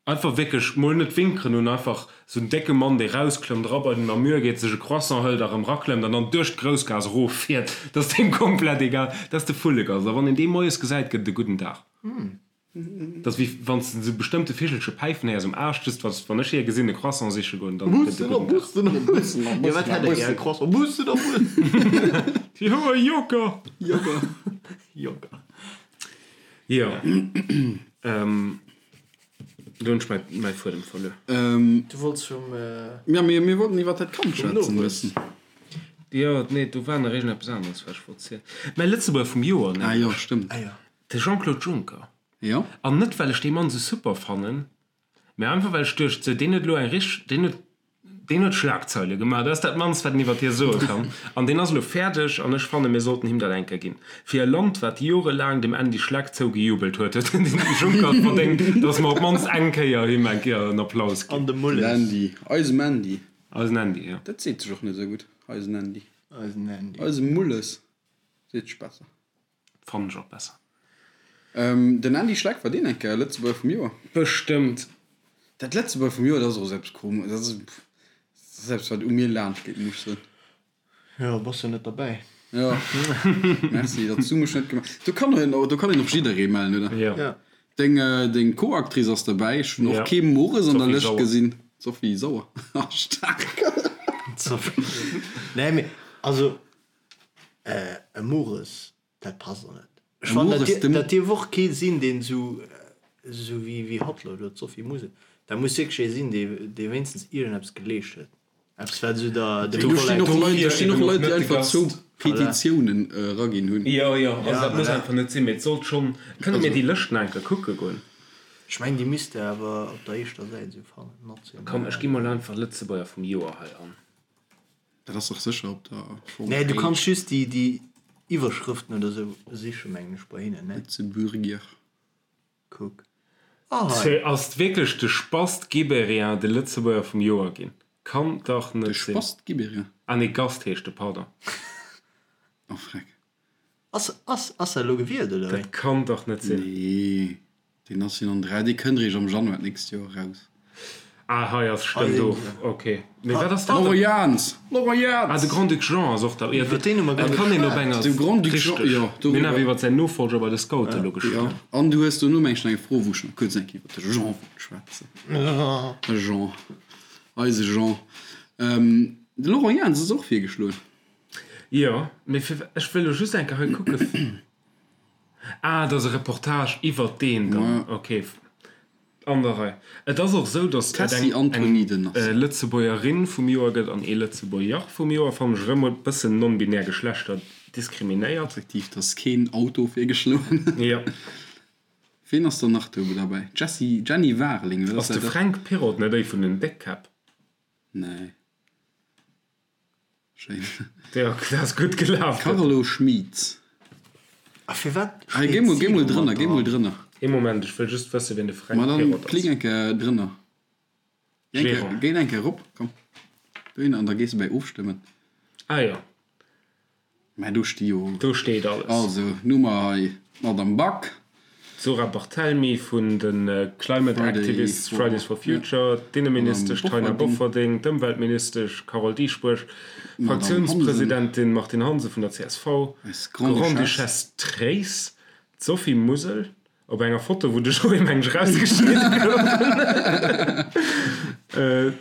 einfach wierklech mol net winkeren un, einfach sou en décke Mann dee rausklëmmt, era bei den Namur geet, sech e Croissant hëlt a rëm raklëmmt an dann duerch d'Groussgaass erof fiert. Dat ass deem komplett egal. Dat ass de Vullegast. A wann een dee moies gesäit, gëtt et e gudden Dag. Dat ass wéi wann s de esou bestëmmte Vichelche päifen héiers um Aascht, just wann wann ech hie gesinn e Croissant siche goen, dann gëtt e gudden Dag. Bussen a Jo, wat Bussen a hätt e gär? Bussen. Croissant? Bussen a Bussen. Jo, e Joker! Joker. Joker. Jo, do hunn ech mäi mäi Fuedem verluer. Du wollts vum. Ja, mir mir wollten iwwer dat Kand Vum schwätzen e Nowuess. bëssen. Jo, nee, do war nach iergendeppes aneres, wat ech wollt zielen. Mäi Lëtzebuerger vum Joer, Ah jo, nämlech. stëmmt. Ah jo. De Jean-Claude Juncker. Jo. An net well ech dee Mann sou super fannen, mä einfach well ech duecht, sou deen huet elo eng richteg, deen huet, deen huet Schlagzeile gemaach, dat ass dat mannst wat een iwwert hie soe kann. An deen ass elo fäerdeg an ech fanne mir sollten him dat eng Kéier ginn. Fir e Land wat jorelaang dem Andy Schleck zougejubelt huet, huet den Juncker et verdéngt, datt mer op d'mannst eng Kéier him eng Kéier en Applaus ginn. An de Mulles. Den Andy, eisem Andy. Eisen Andy, jo. Dat seet sech och net esou gutt, eisen Andy. Eisen Andy. Eisem Mulles seet sech besser. Fannen ech och besser. Den Andy Schleck, war deen eng Kéier Lëtzebuerger vum Joer? Bestëmmt. Dat Lëtzebuerger vum Joer, dat ass och esou eppes komesch, dat ass eppes wat u mir laanscht geet, muss ech soen. Jo, bass jo net derbäi. Jo, merci, datt s du mech net gemaach. Do kann een, do kann een och jidderee mellen, oder? Jo. Jo. Deng, deng Co-Actrice ass derbäi. Ech hunn och kee Mores an der Sophie Lëscht Sauer. gesinn. Sophie Sauer, staark. Sophie. Nee, mee also. E Mores, dat passt och net. Ech fannen, dat, dir, dat dierf och kee sinn, deen esou, esou wéi, wéi hatt elo, elo d'Sophie Musel. Dat muss wierklech ee sinn, dee, dee wéinstens iergendeppes geleescht huet. Eppes, wat esou der, dem Do stinn och Kollektiv. Leit, do stinn och Leit, déi einfach zwou Voilà. Petitiounen eraginn hunn. Jo, jo, also Ja, dat muss voilà. einfach net sinn, mee et sollt schonn. Kënne mir déi Lëscht nach eng Kéier kucke goen? Ech mengen, déi misst de awer op der éischter Säit esou fannen, Komm, ech national. gi mol einfach Lëtzebuerger vum Joer hei an. Dat ass dach sécher op der Nee, du Homepage. kanns just déi, déi Iwwerschrëften oder sou sichen, mengen ech, bei hinnen, ne? Lëtzebuerger. Kuck. Ah, hei. Ass wierklech de Spast Gibéryen de Lëtzebuerger vum Joer ginn? Kann dach De net sinn. Spast Gibéryen? Ah nee, Gast heescht de, pardon. Oh freck. Ass, ass, ass dat elo gewielt, oder wéi? Dat kann dach net sinn. Nee. Deen ass jo an 3, dee kënnt eréischt am Januar d'nächst Joer eraus. Ah, hei ass stëmmt do, ok. Mee wat ass dat dann? Laurent Jans! Laurent Jans! Ah, de Grand-Duc Jean ass och da. Iwwer deen hu mer guer net geschwat. Kann een op enger. De Grand-Duc Jean, jo. Mir hunn awer iwwer säin Nofolger bei de Scoute elo geschwat. Jo, an du hues dono meng ech nach eng Fro, wou ech nach kuerz eng Kéier iwwer de Jean wollt schwätzen. De Jean, eise Jean. De Laurent Jans ass och virgeschloen. Jo, mee fir, ech wëll elo just eng Kéier hei kucken. Ah, et ass e Reportage iwwert deen dann. Ok, an der Rei. Et ass och esou, datt et eng eng Lëtzebuergerin vum Joer gëtt an ee Lëtzebuerger vum Joer. Fannen ech erëm e bëssen non-binär Geschlechter diskriminéiert. Effektiv, et ass keen Auto virgeschloen. Jo. Ween ass dann nach do derbäi? Jessy, Jenny Warling, wat ass Ass de dat? Fränk Pirrott net ee vun den Déckkäpp? Nee. Schéin. Jo, dat ass gutt gelaf. Carlo Schmieds. A firwat Hei, géi mol, géi mol drënner, géi mol drënner. Ee Moment, ech wëll just wëssen, wien de Fränk Ma dann Pirrott ass. klick eng Kéier drënner. Géi eng Kéier, Gérant. géi eng Kéier erop, komm. Dohinner, an da gees de bäi Ofstëmmen. Ah jo. Mä do sti jo. Do steet alles. Also, nu mer hei d'Madame Back. D'Zora Barthelmy vun de Climate Activists Fridays for Future, d'Inneministesch Taina Bofferding, d'Ëmweltministesch Carole Dieschbourg, d'Fraktiounspresidentin Martine Hansen vun der csv, d'Grande-Duchesse Tréis, d'Sophie Musel, op enger Foto wou de Joé meng ech erausgeschnidde gouf,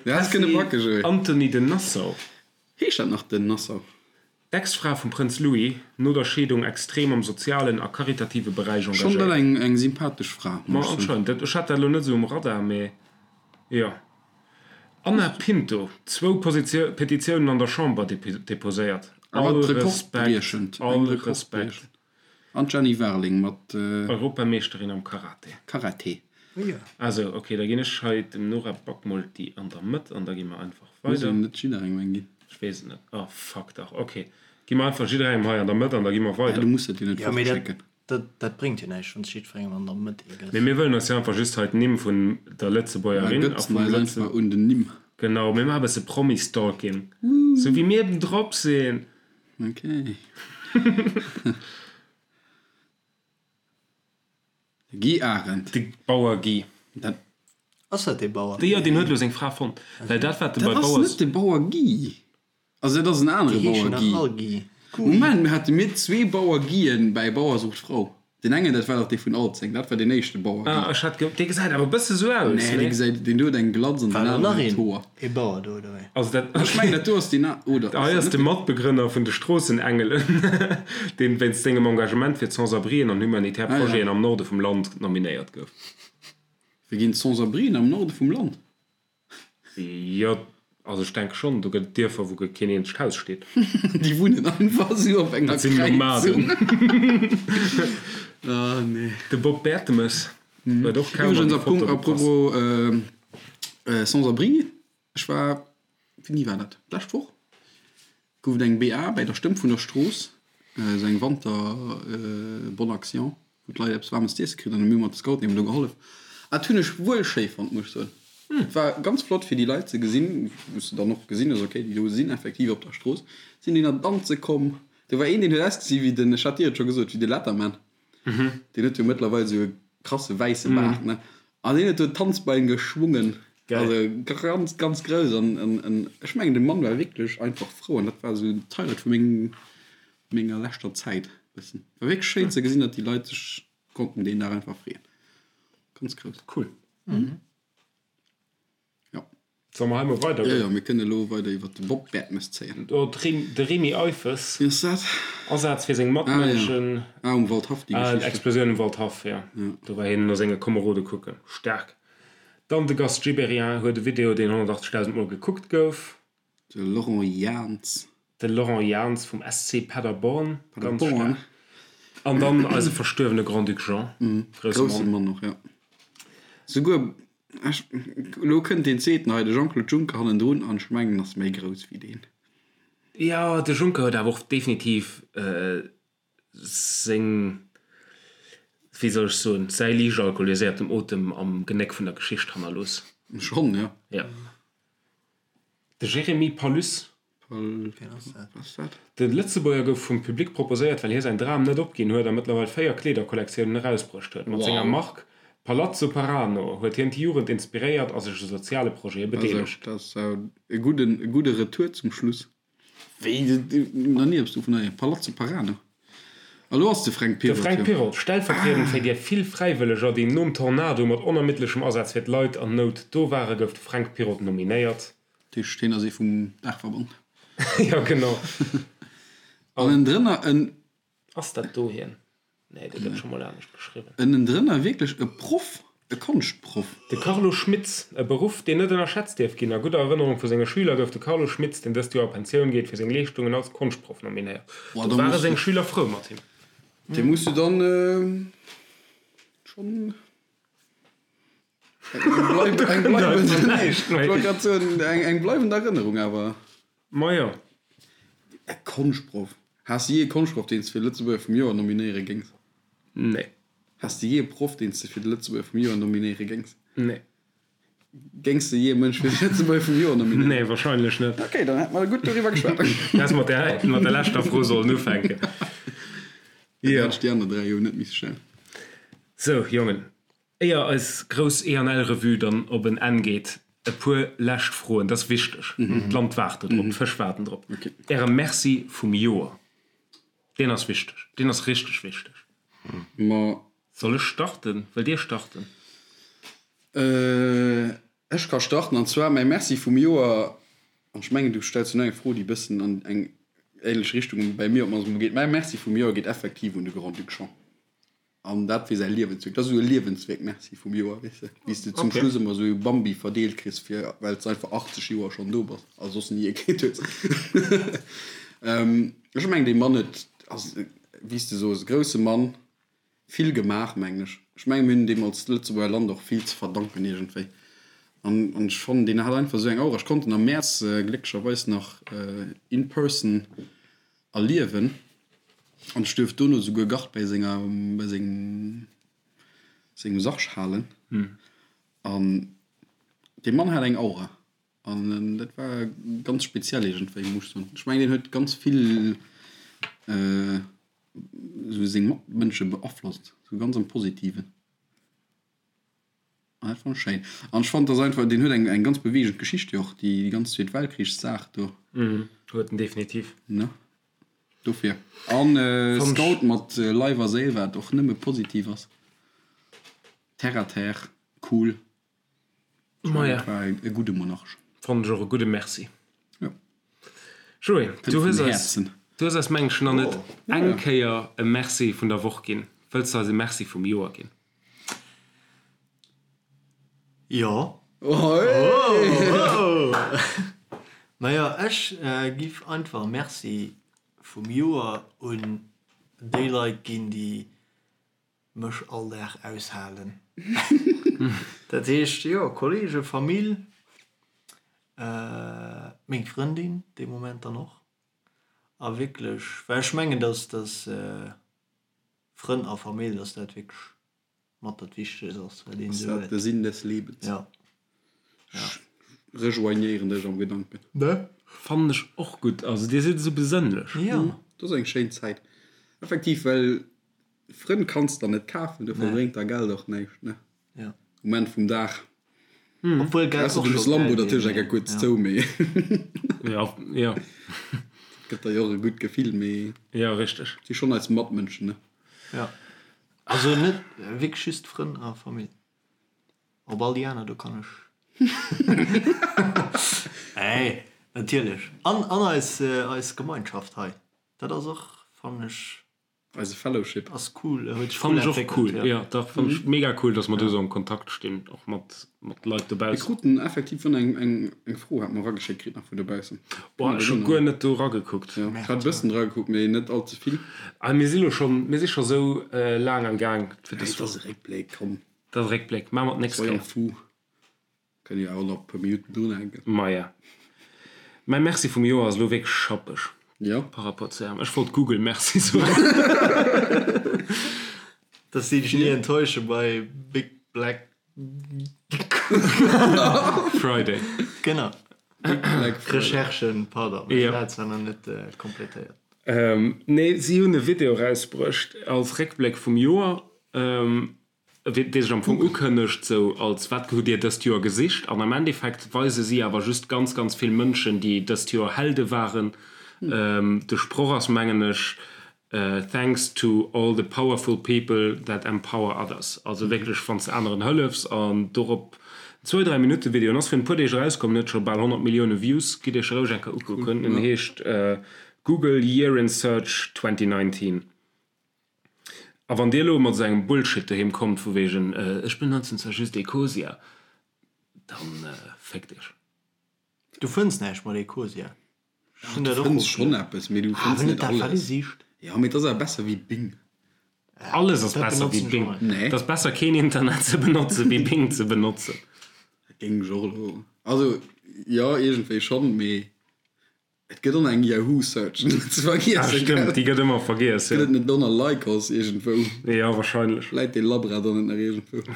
d'Tessy Antony de Nassau. Heescht dat nach den Nassau? D'Ex-Fra vum Prënz Louis, no der Scheedung extrem am sozialen a karitative Beräich Schonn dat engagéiert. eng eng sympathesch Fra, Ma muss ech soen. anscheinend, dat, ech hat dat elo net esou um Radar, mee jo. Anna Pinto, zwou Positio Petitiounen an der Chamber deposéiert. Awer All Respekt, rekordbriechend, all eng Respekt. rekordbriechend. An d'Jenny Warling mat. Europameeschterin am Karate. Karate. Ah sou, ok, da ginn ech hei dem Nora Back mol déi an der Mëtt an da gi mer einfach Muss weider. een net jidderengem eng ginn? Ech weess et net. Oh fuck dach, ok, gi mer einfach jidderengem hei an der Mëtt an da gi mer Ja, weider. du muss dat jo net Jo, mee dat, fortschécken. dat, dat bréngt jo näischt, wann s jiddwerengem an der Mëtt ee gëss. Mee mir wëllen eis jo einfach just hei d'Nimm vun der Mer Lëtzebuergerin a gëtzen vum eis Lëtze. einfach un den Nimm. Genau, mir maache bësse Promi-Stalking, sou wéi mir eben drop sinn. Ok. De Guy Arendt. De Bauer Guy. Dat. Ass dat dee Bauer? Jo, deen huet elo seng Fra fonnt. Well dat wat de bei Dat ass Bauers. net de Bauer Guy. Also dat ass en anere Déi heeschen Bauer nach Guy. all Guy. Moment, mir hate mir zwee Bauer Guyen bäi Bauer sucht Frau. Deen engen, dat war dach dee vun Alzeng, dat war deen éischte Bauer Guy. Ah, ech hat ge, dee gesäit awer e bësse sou aus, Nee, dee nee? gesäit, deen do huet eng Glatz an War deen do nach aneren huet een, Hoer. ee Bauer do, oder wéi? Also dat, Ech mengen, dat do ass deen a, oder hei ass ass dat de net deen? Matbegrënner vun de Stroossenengelen, deen wéinst sengem Engagement fir d'Sans-abrien an humanitär Ah ja. Projeten am Norde vum Land nominéiert gouf. Wéi ginn d'Sans-abrien am Norde vum Land? Jo, also ech denke schonn, do gëtt et Dierfer, wou keen eenzegt Haus steet. Déi wunnen einfach esou op enger Dat sinn Kräizung. Nomaden. Ah nee. De Bob Bertemes huet och kaum an Iwwregens déi Foto à gepasst. propos Sans-abri, ech war, wéini war dat, d'lescht Woch? Gouf et eng BA bäi der Stëmm vun der Strooss, esou eng Wanter Bonne Action, wou d'Leit eppes waarmes z'iesse kritt an hu mir mat de Scouten eben do gehollef. Dat hunn ech wuel schéi fonnt, muss ech soen. Et war ganz flott fir déi Leit ze gesinn, wou s de dann och gesinn hues, okay, déi do sinn effektiv op der Strooss, sinn déi nach danze komm. Do war een, deen huet ausgesi wéi den, ech hat dir et scho gesot, wéi de Letterman. Deen huet jo mëttlerweil esou e krasse wäisse Baart, ne? An deen huet do d'Tanzbein geschwungen. Geil. Also ganz, ganz grouss. An, an, an ech mengen, de Mann war wierklech einfach frou. An dat war esou d'Highlight vu mengem, menger leschter Zäit bëssen. War wierklech schéin ze gesinn, datt déi Leit sech konnten deen Dag einfach freeën. Ganz grouss. Cool. Jo. Solle mer hei mol weider Jo, goen? jo, mir kënne elo weider iwwer de Bob Bertemes zéien. Oh, de Remy Eiffes. Wien ass dat? Asaz fir seng Matmënschen. Ah, ja. Ah, um Waldhaff, déi Ah, Geschicht. Explosioun um Waldhaff, jo. Do war hien no senge Komerode kucken. Staark. Dann de Gast Gibéryen huet e Video, deen 180.000 Mol gekuckt gouf. De Laurent Jans. De Laurent Jans vum SC Paderborn. Ganz Paderborn. staark. An dann eise verstuerwene Grand-Duc Jean. Grousse Grousse Mann. Mann och, jo. Souguer Ech, elo kënnt deen zweeten hei, de Jean-Claude Juncker hannendrun, an ech mengen, ass méi grouss wéi deen. Jo, de Juncker huet awer och definitiv seng, wéi soll ech soen, säi liicht alkoholiséierten Otem am Genéck vun der Geschicht hannerlooss. Schonn, jo. Jo. De Jérémy Palus. Pal, wat ass dat? De Lëtzebuerger gouf vum Public proposéiert, well hie säin Dram net opginn huet a mëttlerweil 4 Kleederkollektiounen erausbruecht huet. Mat senger Mark. Palazzo Parano huet hien d'Jugend inspiréiert a sech u soziale Projete bedeelegt. Dat ass e gudde Retour zum Schluss. Wéi, nach ni eppes dovun héieren. Palazzo Parano. A lo ass de Fränk Pirrott. De Fränk Pirrott, stellvertriedend fir déi vill Fräiwëlleger, déi nom Tornado mat onermiddlechem Asaz fir d'Leit an Nout do waren, gouf de Fränk Pirrott nominéiert. Dat heescht, hien ass ee vum Daachverband. Jo, genau. An ënnendrënner en. Ass dat do hien? Nee, dee gëtt scho mol anescht geschriwwen. Ënnendrënner wierklech e Proff, e Konschtproff. De Carlo Schmitz, e Beruff, deen net ënnerschätzt dierf ginn. A gudder Erënnerung vu senge Schüler gouf de Carlo Schmitz, deen dëst Joer a Pensioun geet, fir seng Leeschtungen als Konschtproff nominéiert. Do ware seng Schüler frou mat him. Dee muss du dann schonn eng bleiwend Erënnerung awer. Majo. E Konschtproff. Has de jee e Konschtproff, deen s de fir de Lëtzebuerger vum Joer nominéiere géings? Nee. Has de jee e Proff, deen s de fir de Lëtzebuerger vum Joer nominéiere géings? Nee. Géings de jee e Mënsch fir de Lëtzebuerger vum Joer nominéieren? Nee, wahrscheinlech net. Ok, dann hätte mer gutt doriwwer geschwat. Häss mat der, mat der leschter Fro sollen ufänken. Dann hätt ech déi aner 3 jo net misse stellen. Sou, Jongen, Éier eis grouss E-an-L-Revue dann op en Enn geet, e puer lescht Froen. Dat ass wichteg. D'Land waart do drop, d'Fësch waarden drop. Äre Merci vum Joer, deen ass wichteg, deen ass richteg wichteg. Soll ech starten? Wëllt Dir starten? Ech ka starten. An zwar mäi Merci vum Joer, an ech mengen, du stells jo nach eng Fro, déi e bëssen an eng ähnlech Richtung bäi mir op d'mannst emol geet. Mäi Merci vum Joer geet effektiv un de Grand-Duc Jean. An dat fir säi Liewenswierk. Dat ass esou e Liewenswierk, Merci vum Joer, weess de, wéi s de zum Schluss ëmmer esou e Bambi verdeelt kriss, fir, well s de einfach 80 Joer schonn do bass a soss ni ee kritt hues. Ech mengen, dee Mann huet, ass, wéi s de soos, e grousse Mann, vill gemaach, mengen ech. Ech mengen, mir hunn deem als Lëtzebuerger Land och vill ze verdanken iergendwéi. An, an ech fannen, deen hat einfach esou eng Aura. Ech konnt en am Mäerz glécklecherweis nach in person erliewen an ech duerft dono souguer Gard bäi senger bäi sengem sengem Sarg halen an dee Mann hat eng Aura an dat war ganz speziell iergendwéi muss ech soen. Ech mengen deen huet ganz vill esou seng Matmënsche beaflosst, esou ganz am Positiven. Ah, dat fannen ech schéin. An ech fannen, dass einfach, deen huet eng, eng ganz beweegend Geschicht jo och, déi ganz Zweet Weltkrichssaach do. Mhm, huet en definitiv. Ne? Dofir. An Scout mat Leif a Séil, wat och nëmme positiv ass. Terre à terre, cool. Maja. Dat war e gudde Monarch. Fannen ech och e gudde Merci. Jo. Joé, du hues eis, du hues eis mengen ech nach net eng Kéier e Merci vun der Woch ginn. Wëlls de eis e Merci vum Joer ginn? Jo. Majo, ech giff einfach Merci vum Joer un déi Leit ginn, déi mech all Dag aushalen. Dat heescht, jo, Kollegen, Famill, meng Frëndin dee Moment dann och. A wierklech, well ech mengen, dass dass Frënn a Famill, dass dat wierklech mat dat Wichtegst ass, wat een Ass esou dat huet. de Sinn des Lebens? Ja. Ja. Ech rejoignéieren dech am Gedanken. Ne? Fannen ech och gutt. Also dir sidd esou besënnlech. Jo. Dat ass eng schéin Zäit. Effektiv, well Frënn kanns der net kafen, dofir bréngt der Geld och näischt, ne? Ja. Um Enn vum Dag. Obwuel Geld Ausser och du hues scho Lambo geil natierlech wier, eng mee kuerz ja. zou, mee. Ja, ja. Gëtt der jo och e gutt Gefill, mee. Ja, richteg. Si schonn eis Matmënschen, ne? Ja. Also net wierklech just Frënn a Famill. Op all déi aner, do kann ech. Nee, natierlech. An, an eis, eis Gemeinschaft hei. Dat ass och, fannen ech. Eise Fellowship. Ass cool, huet sech cool Fannen ech och entwéckelt, cool, jo. jo dach, fannen ech mega cool, dass mer do esou am Kontakt stinn, och mat mat Leit Mir dobaussen. kruten effektiv vun eng eng eng Fro hat mer erageschéckt kritt nach vun dobaussen. Boah, ech hu guer net do eragekuckt. Jo, ech hat e bëssen dragekuckt, mee net all ze vill. Ah, mir si lo schonn, mir si scho sou laang am Gaang fir dës. Dat ass e Réckbléck, komm. Dat ass e Réckbléck, maache mer d'nächst Soyons Kéier. fous. Kënne jo awer nach e puer Minutten drunhänken. Maja. Mäi Merci vum Joer ass elo wierklech schappeg Jo. par rapport zu Ärem. Ech wollt Google Merci soen. Dass si dech ni enttäusche bei Big Black Friday. Genau. Big Black Friday. Recherchen, pardon, ech hat zwar nach net completéiert. Nee, si hunn e Video erausbruecht als Réckbléck vum Joer. Dee sech am Fong ukënnegt sou als wat hutt Dir dëst Joer gesicht? An am Endeffekt weise si awer just ganz, ganz vill Mënschen, déi dëst Joer Helde waren. De Sproch ass, mengen ech, Thanks to all the powerful people that empower others. Also wierklech, wann s de aneren hëllefs an dorop zwou, dräi Minutte Video. En ass virun e puer Deeg erauskomm, en huet scho bal 100 Millioune Views. Gitt Iech roueg eng Kéier ukucken. En heescht Google Year in Search 2019. A wann Dir elo mat esou engem Bullshit doheem kommt vu wegen ech benotzen zwar just Ecosia, dann féckt Iech. Du fënns näischt mat Ecosia. Ech hunn dat och. Du fënns schonn eppes, mee du fënns net alles. Jo, mee et ass awer besser wéi Bing. Alles ass besser wéi Bing. Et ass besser keen Internet ze benotzen, wéi Bing ze benotzen. Dat géing ech och elo, also jo, iergendwéi schonn, mee Et gëtt och eng Yahoo Search, net ze vergiessen. Ah stëmmt, déi gëtt ëmmer vergiess, jo. Gëtt et net och nach Lycos iergendwou? Jo, wahrscheinlech. Läit dee Labra dann net nach iergendwou?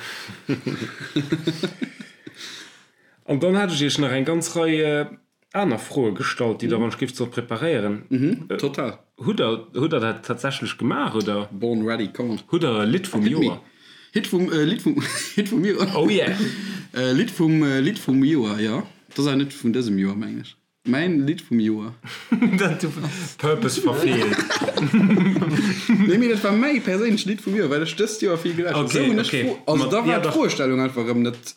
An dann hat ech iech nach eng ganz Rei aner Froe gestallt, déi der wann ech géif sollt preparéieren. Mhm, total. Hutt der, hutt der dat tatsächlech gemaach, oder? Born ready, come on. Hutt der e Lidd vum Joer? Hit vum, Lidd vum, Hit vum Joer? Oh yeah! Lidd vum, Lidd vum Joer, jo. Dat ass awer net vun dësem Joer, mengen ech. Mäin Lidd vum Joer. Dat du Purpose verfeelt. Nee, mee dat war mäi perséinlecht Lidd vum Joer, well ech dëst Joer vill gelauschtert hunn. Sou hunn ech d'Fro, also da war d'Froestellung einfach erëm net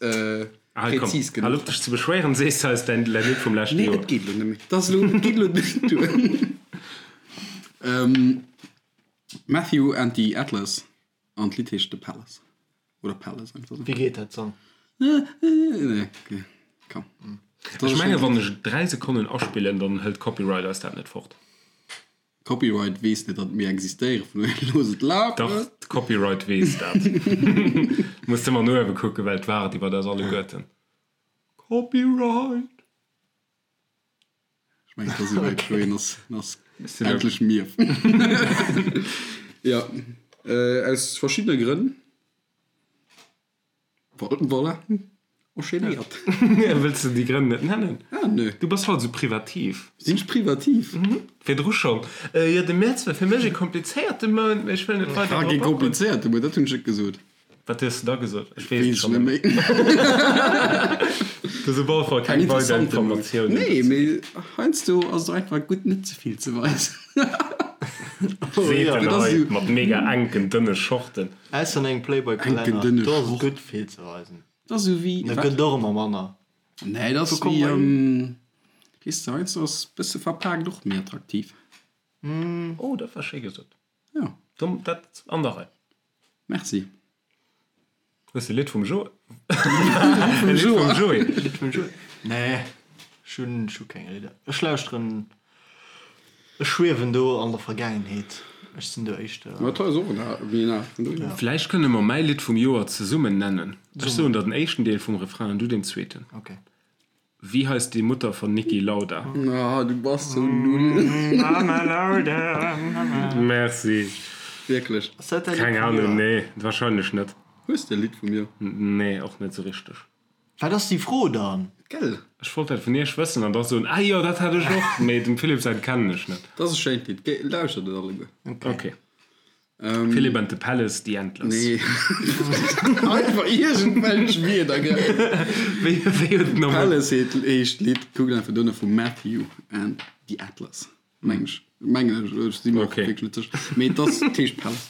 präzis genuch. Hal op dech ze beschwéieren, sees de eis däin Lidd vum leschte Joer. Nee, et geet elo net méi. Dat ass elo, et geet elo net duer. Matthew and the Atlas an d'Lidd heescht The Palace. Oder Palace einfach sou. Wéi geet dat Song? Nee, okay, komm. Ech menge wann ech 3 Sekonnen aspillen, dann hëlt Copyright eis dat net fort. Copyright weess net, datt mir existéieren, vun dohier looss et lafen. Dach, Copyright weess dat. Muss de mol no uewe kucken, well et waart iwwert eis alleguerten. Copyright! Ech mengen, et ass esouwäit, Chloé, ass, ass endlech mief. Ja, aus verschiddene Grënn. Voilà, enchaînéiert. Wëlls de déi Grënn net nennen? Ah, nö. Du bass haut esou privativ. Sinn ech privativ? Virdru schonn. Jo, de Mäerz war fir mech e komplizéierte Mount, mee ech wëll net weider drop agoen. Ah, kee komplizéierte Mount, dat hunn ech net gesot. Wat hues de da gesot? Ech weess et schonn net méi. Du hues op alle Fall keng weider Informatiounen. Nee, mee heiansdo ass et och einfach gutt, net ze vill ze weisen. Seet en hei mat mega enken, dënne Shorten. Ausser an engem Playboy-Kalenner, do ass et gutt, vill ze weisen. Dat ass esou wéi. Da gëtt et och ëmmer manner. Nee, dat ass wéi, weess de, heiansdo ass e bësse verpaakt och méi attraktiv. Oh, dat war schéi gesot. Jo. Dat an der Rei. Merci. Hues de Lidd vum Jo? Vum Joé. Lidd vum Joé? Nee, ech hunn, ech hu keng Lidder. Ech lauschteren, ech schwiewen do an der Vergaangenheet. Ech sinn do éischter. Ma dat ass och en al, méi en al vun dohier. Vläicht kënne mer mäi Lidd vum Joer zesummen nennen. Ech soen der den éischten Deel vum Refrain an du den zweeten. Okay. Wie heißt die Mutter von Niki Lauda? Ah, du bass sou null. Mama Lauda, Mama. Merci. Wierklech? Ass dat däi Lidd Keng vum Ahnung, Joer? nee, wahrscheinlech net. Hues de e Lidd vum Joer? Nee, och net sou richteg. Wat ass déi Fro dann? Gell? Ech wollt dat vun iech wëssen an da soen, ah jo, dat hat ech och, mee dem Philippe säin kennen ech net. Dat ass e schéint Lidd, lauschtert et alleguer. Ok. Philipp and the Palace, The Antlers. Nee. Einfach iergendwelch Wierder, gell? Wéi, wéi huet den nochmol. Palace heet, heescht d'Lidd. Kuckt einfach duerno vu Matthew and the Atlas, meng ech. Mengen ech, ech si mer och Okay. wierklech net sécher. Mee et ass, et heescht Palace.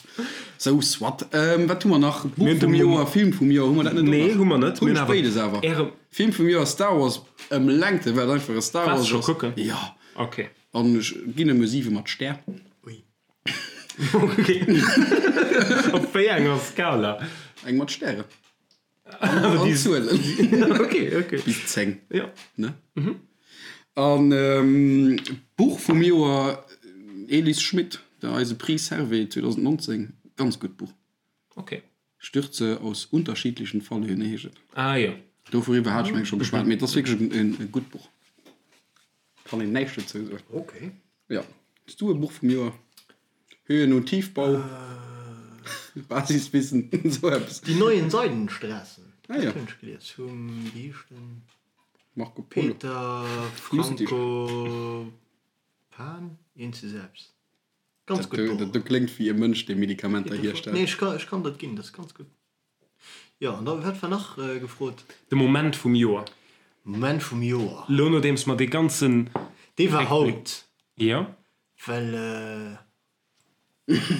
Sou, soit. Wat hu mer nach? Buch Mir hunn de vum Mom. Joer, Film vum Joer, hu mer dat net och Nee, nach? hu mer net. Hunn Mir ech hunn awer béides awer. Äre. Film vum Joer, Star Wars, ëm Längte, well et einfach e Star Waars Wars scho ass. kucken? Jo. Okay. An ech ginn em e 7 mat Stär. Ui. Op wéi enger Skala? Eng mat Stären. An Zuelen. Okay, okay. Bis 10. Ja. Ne? An Buch vum Joer, Elis Schmit, der eise Prix Servais 2019. Ganz gutt Buch. Okay. Stürze aus unterschiedlichen Fallhöhen heescht et. Ah jo. Dovuriwwer hat ech mengen scho geschwat, mee et ass wierklech e gutt Buch. Kann een näischt dozou soen. Okay. Jo. Hues du e Buch vum Joer? Höhen und Tiefbau, Basiswissen, esou eppes. Die neuen Seidenstraßen. Ah jo. Dat hunn ech gelies vum, wéi heescht en? Marco Polo. Peter Franco Pan? Eent zu selbst. Ganz gutt Buch. Dat kléngt wéi e Mënsch, dee Medikamenter hierstellt. Nee, ech kann, ech kann dat ginn, dat ass ganz gutt. Jo, an da wat war nach gefrot? De Moment vum Joer. Moment vum Joer. Lo nodeems mer dee ganzen. Dee war haut. Jo. Well.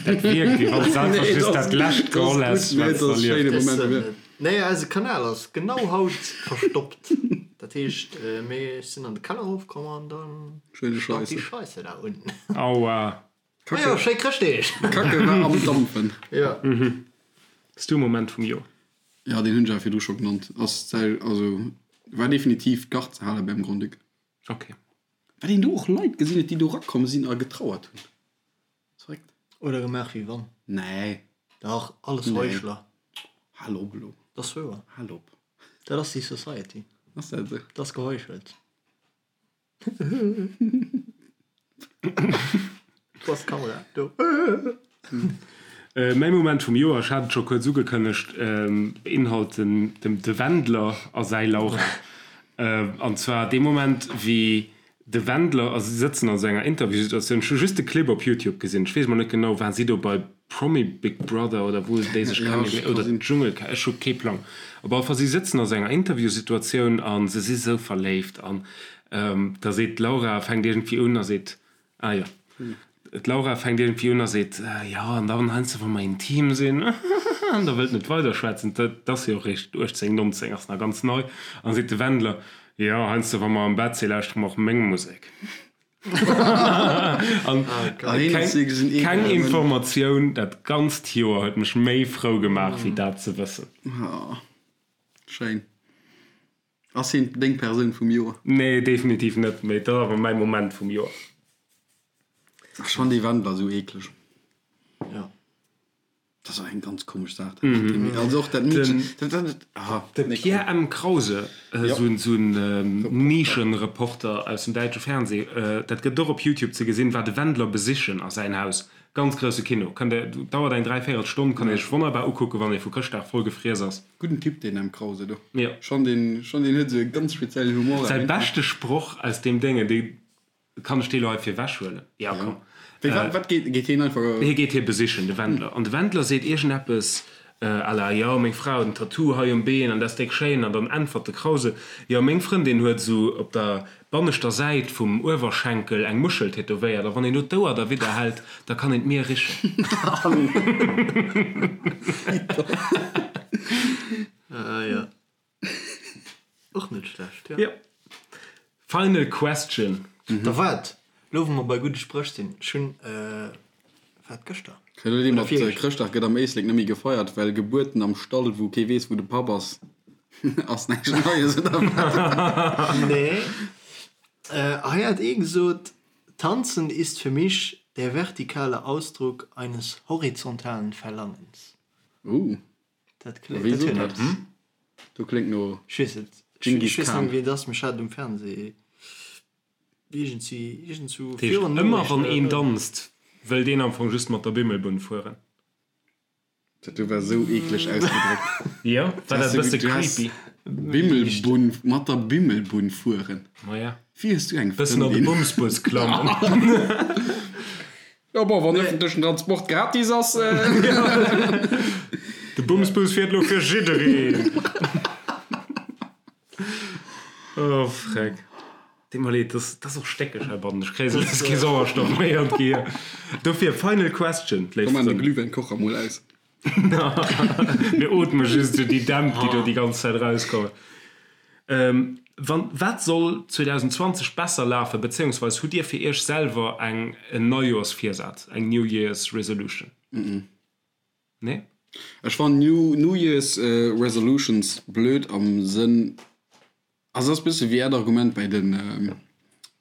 Dat wierkt wéi wann s einfach just dat lescht geholl häss wat s de erlieft hues. Nee, eise Kanal ass genau haut verstoppt. Dat heescht, mir sinn an de Keller erofkomm an dann stank déi Scheisse da unten. Aua. Majo, schéi Chrëschtdeeg! Kacke war am Dampfen. Jo. Hues du e Moment vum Joer? Jo, deen hunn ech awer virdru scho genannt. Ass säi, also war definitiv d'Gard ze hale beim Grand-Duc. Ok. Wat een do och Leit gesinn huet, déi do rakomm sinn a getrauert hunn. Verréckt. Oder gemaach wéi wann. Nee. Dach, alles Heuchler. Hal op elo. Dat ass wouer. Hal op. Dat ass déi Society. Ass dat esou? Dat ass geheuchelt. Do ass d'Kamera, do. Mäi Moment vum Joer, ech hat et scho kuerz ugekënnegt, beinhalt den de Wendler a säi Laura. An zwar dee Moment, wéi de Wendler, a si sëtzen an esou enger Interviewsituatioun, ech hu just de Clip op Youtube gesinn, ech weess mol net genau, waren si do bei Promi Big Brother oder wou déi sech kennen, oder Dschungelcamp, ech hu kee Plang. Op alle Fall, si sëtzen a sou enger Interviewsituatioun a se si sou verléift an da seet d'Laura, fänkt iergendwéi un a seet, Ah jo. D'Laura fänkt iergendwéi un a seet, Jo, an dann heiansdo, wa mer intim sinn, an da wëllt net weiderschwätzen, dat ass jo och eréischt 18, 19, ass nach ganz nei, an da seet de Wendler, Jo, heiansdo, wa mer am Bett sinn, lauschtere mer och meng Musek. An keng Informatioun dat ganzt Joer huet mech méi frou gemaach, wéi dat ze wëssen. Schéin. Ass hien deng Persoun vum Joer? Nee, definitiv net, mee et ass awer mäi Moment vum Joer. Ech fann dee Wendler esou eekleg. Jo. Dat ass och eng ganz komesch Saach, dat mat deem Meedchen. Also och dat Meedchen, dat, dat, dat, ah, De nee, Pierre M. Krause, esou en, esou en Nischenreporter aus dem däitsche Fernseh, dat gëtt och op YouTube ze gesinn, war de Wendler besichen a säin Haus. Ganz grousse Kino. Kënnt der, dauert eng dräivéierel Stonn, kann ee sech wonnerbar ukucken, wann ee vu Chrëschtdag voll gefriess ass. Gudden Typ deen M. Krause do. Jo. Schon deen, schon deen huet esou e ganz speziellen Humor. Säi beschte Sproch aus deem Déngen, dee kann ech dee lo hei virwech huelen? Jo, komm. Wéi, wat, wat geet, geet hien einfach. Hie geet hie besichen, de Wendler. An de Wendler seet iergendeppes à la, Jo, meng Fra huet en Tattoo hei um Been an dat ass déck schéin. An dann äntwert de Krause, Jo, meng Frëndin huet esou op der banneschter Säit vum Uewerschenkel eng Muschel tätowéiert a wann een do d'Ouer derwidder hält, da kann een d'Mier richen. Ah jo. Och net schlecht, jo. Jo. Final question. Da waart, lo wou mer bei gudde Spréch sinn, ech hunn, wat, gëschter? Elo déi mat Chrëschtdag gëtt am Éislek net méi gefeiert, well Gebuerten am Stall, wou kee weess, wou de Papp ass, ass näischt Neies, oder wat? Nee. Hei hat ee gesot, Tanzen ist für mich der vertikale Ausdruck eines horizontalen Verlangens. Uh. Dat kléngt, Wéi dat sot huet dat? eppes. Do kléngt no Ech weess net. Ech Dschingis ech weess net Khan. méi, wien et ass, mee ech hat et um Fernseh iergendwéi, iergendswou Dat heescht, virun ëmmer wann Noriichten een oder. danzt, wëllt een am Fong just mat der Bimmelbunn fueren. Dat do war sou eekleg ausgedréckt. Jo, war dat e bësse Du has creepy? Bimmelbunn, mat der Bimmelbunn fueren. Maja. Wéi hues du eng Bëssen an de Frëndin? Bumsbus klammen. Jo bon, wann ëffentlechen Transport gratis ass. De Bumsbus fiert elo fir jiddereen. Oh freck. Deet mer leed, dat ass och stéckeg heibannen. Ech kréie sou lues kee Sauerstoff méi an d'Gehier. Dofir, final question, léif Komm, maan de Frënn. Glühwäinkocher mol aus. Mir ootme just esou déi Dämp, déi do déi ganz Zäit erauskommen. Wann, wat soll 2020 besser lafen, bezéiungsweis hutt Dir fir Iech selwer eng en Neijoersvirsaz, eng New Year's Resolution? Nee? Ech fannen New New Year's Resolutions blöd am Sënn, also ass bësse wéi äert Argument bäi de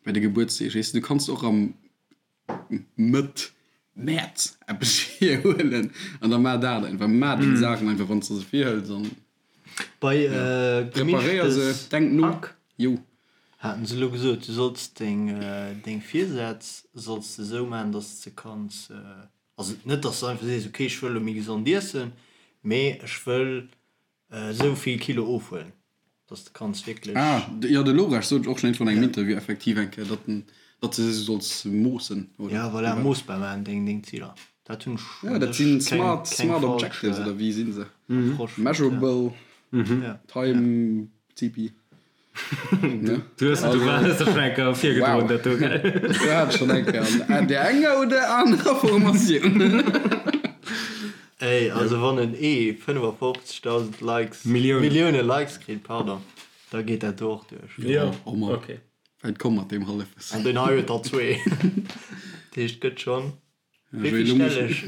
bäi de Gebuertsdeeg, weess de, du kanns och am Mëtt Mäerz eppes virhuelen an da maach dat einfach. Maach déng Saachen einfach, wann s de se virhëls an Bei preparéier se, Gemischtes denk no. Hack Jo. haten se elo gesot, du solls deng deng Virsätz solls de esou maachen, dass de se kanns, also net dass de einfach sees, okay ech wëll elo méi gesond iessen, mee ech wëll esou vill Kilo ofhuelen. Dass de kanns wierklech. Ah, jo, de Lobrecht sot och schonn iergendwann an engem Interview effektiv eng Kéier, datt en, datt de se solls moossen, oder? Ja, voilà, moossbar maachen, deng, deng Ziler. Dat hunn ech. Ja, dat sinn smart, smart objectives oder wéi sinn se? Measurable time CP. Du hues du hues der schon eng Kéier virgedroen dat do, gell? Du hat schon eng Kéier an där enger oder anerer Formatioun. Ey, also wann en ee 55.000 Likes, Milliounen. Millioune Likes kritt, pardon, da geet dat do och duerch. Jo, Oh Mann. okay. Wäit komm mat deem Hallefwëssen. An deen hei huet der zwee. Dat heescht, gëtt schonn. Wéi vill stell ech?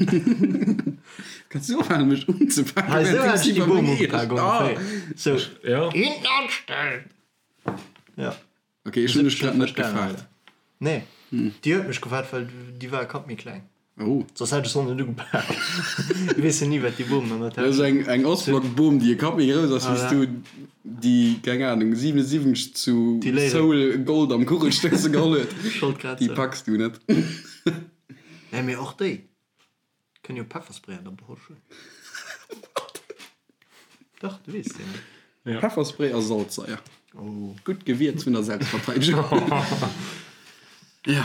Kanns du ophalen mech unzepaken? Hei sou hat ech déi Boom ugepak ongeféier. Sou. Ja. Hinten anstellen! Ja. Ok, ech hunn dech grad net gefaart. Nee, déi huet mech gefaart, well déi war e Kapp méi kleng. Oh. Soss hätt ech se och net ugepak. Du weess jo ni wat déi Boomen an der Dat ass Täsch. eng, eng Ostblock-Boom, déi e Kapp méi grouss ass wéi s du déi, keng Ahnung, 77 zu Seoul Gold am Kugelstousse geholl huet. Ech wollt grad Déi soen. packs du net. Nee, mee och déi kënnen jo Pefferspray an der Posch hunn. What? Dach, du weess jo net. Ja. Pefferspray a Salzsaier. Oh. Gutt Gewierz vun der Selbstverteidegung. Ja.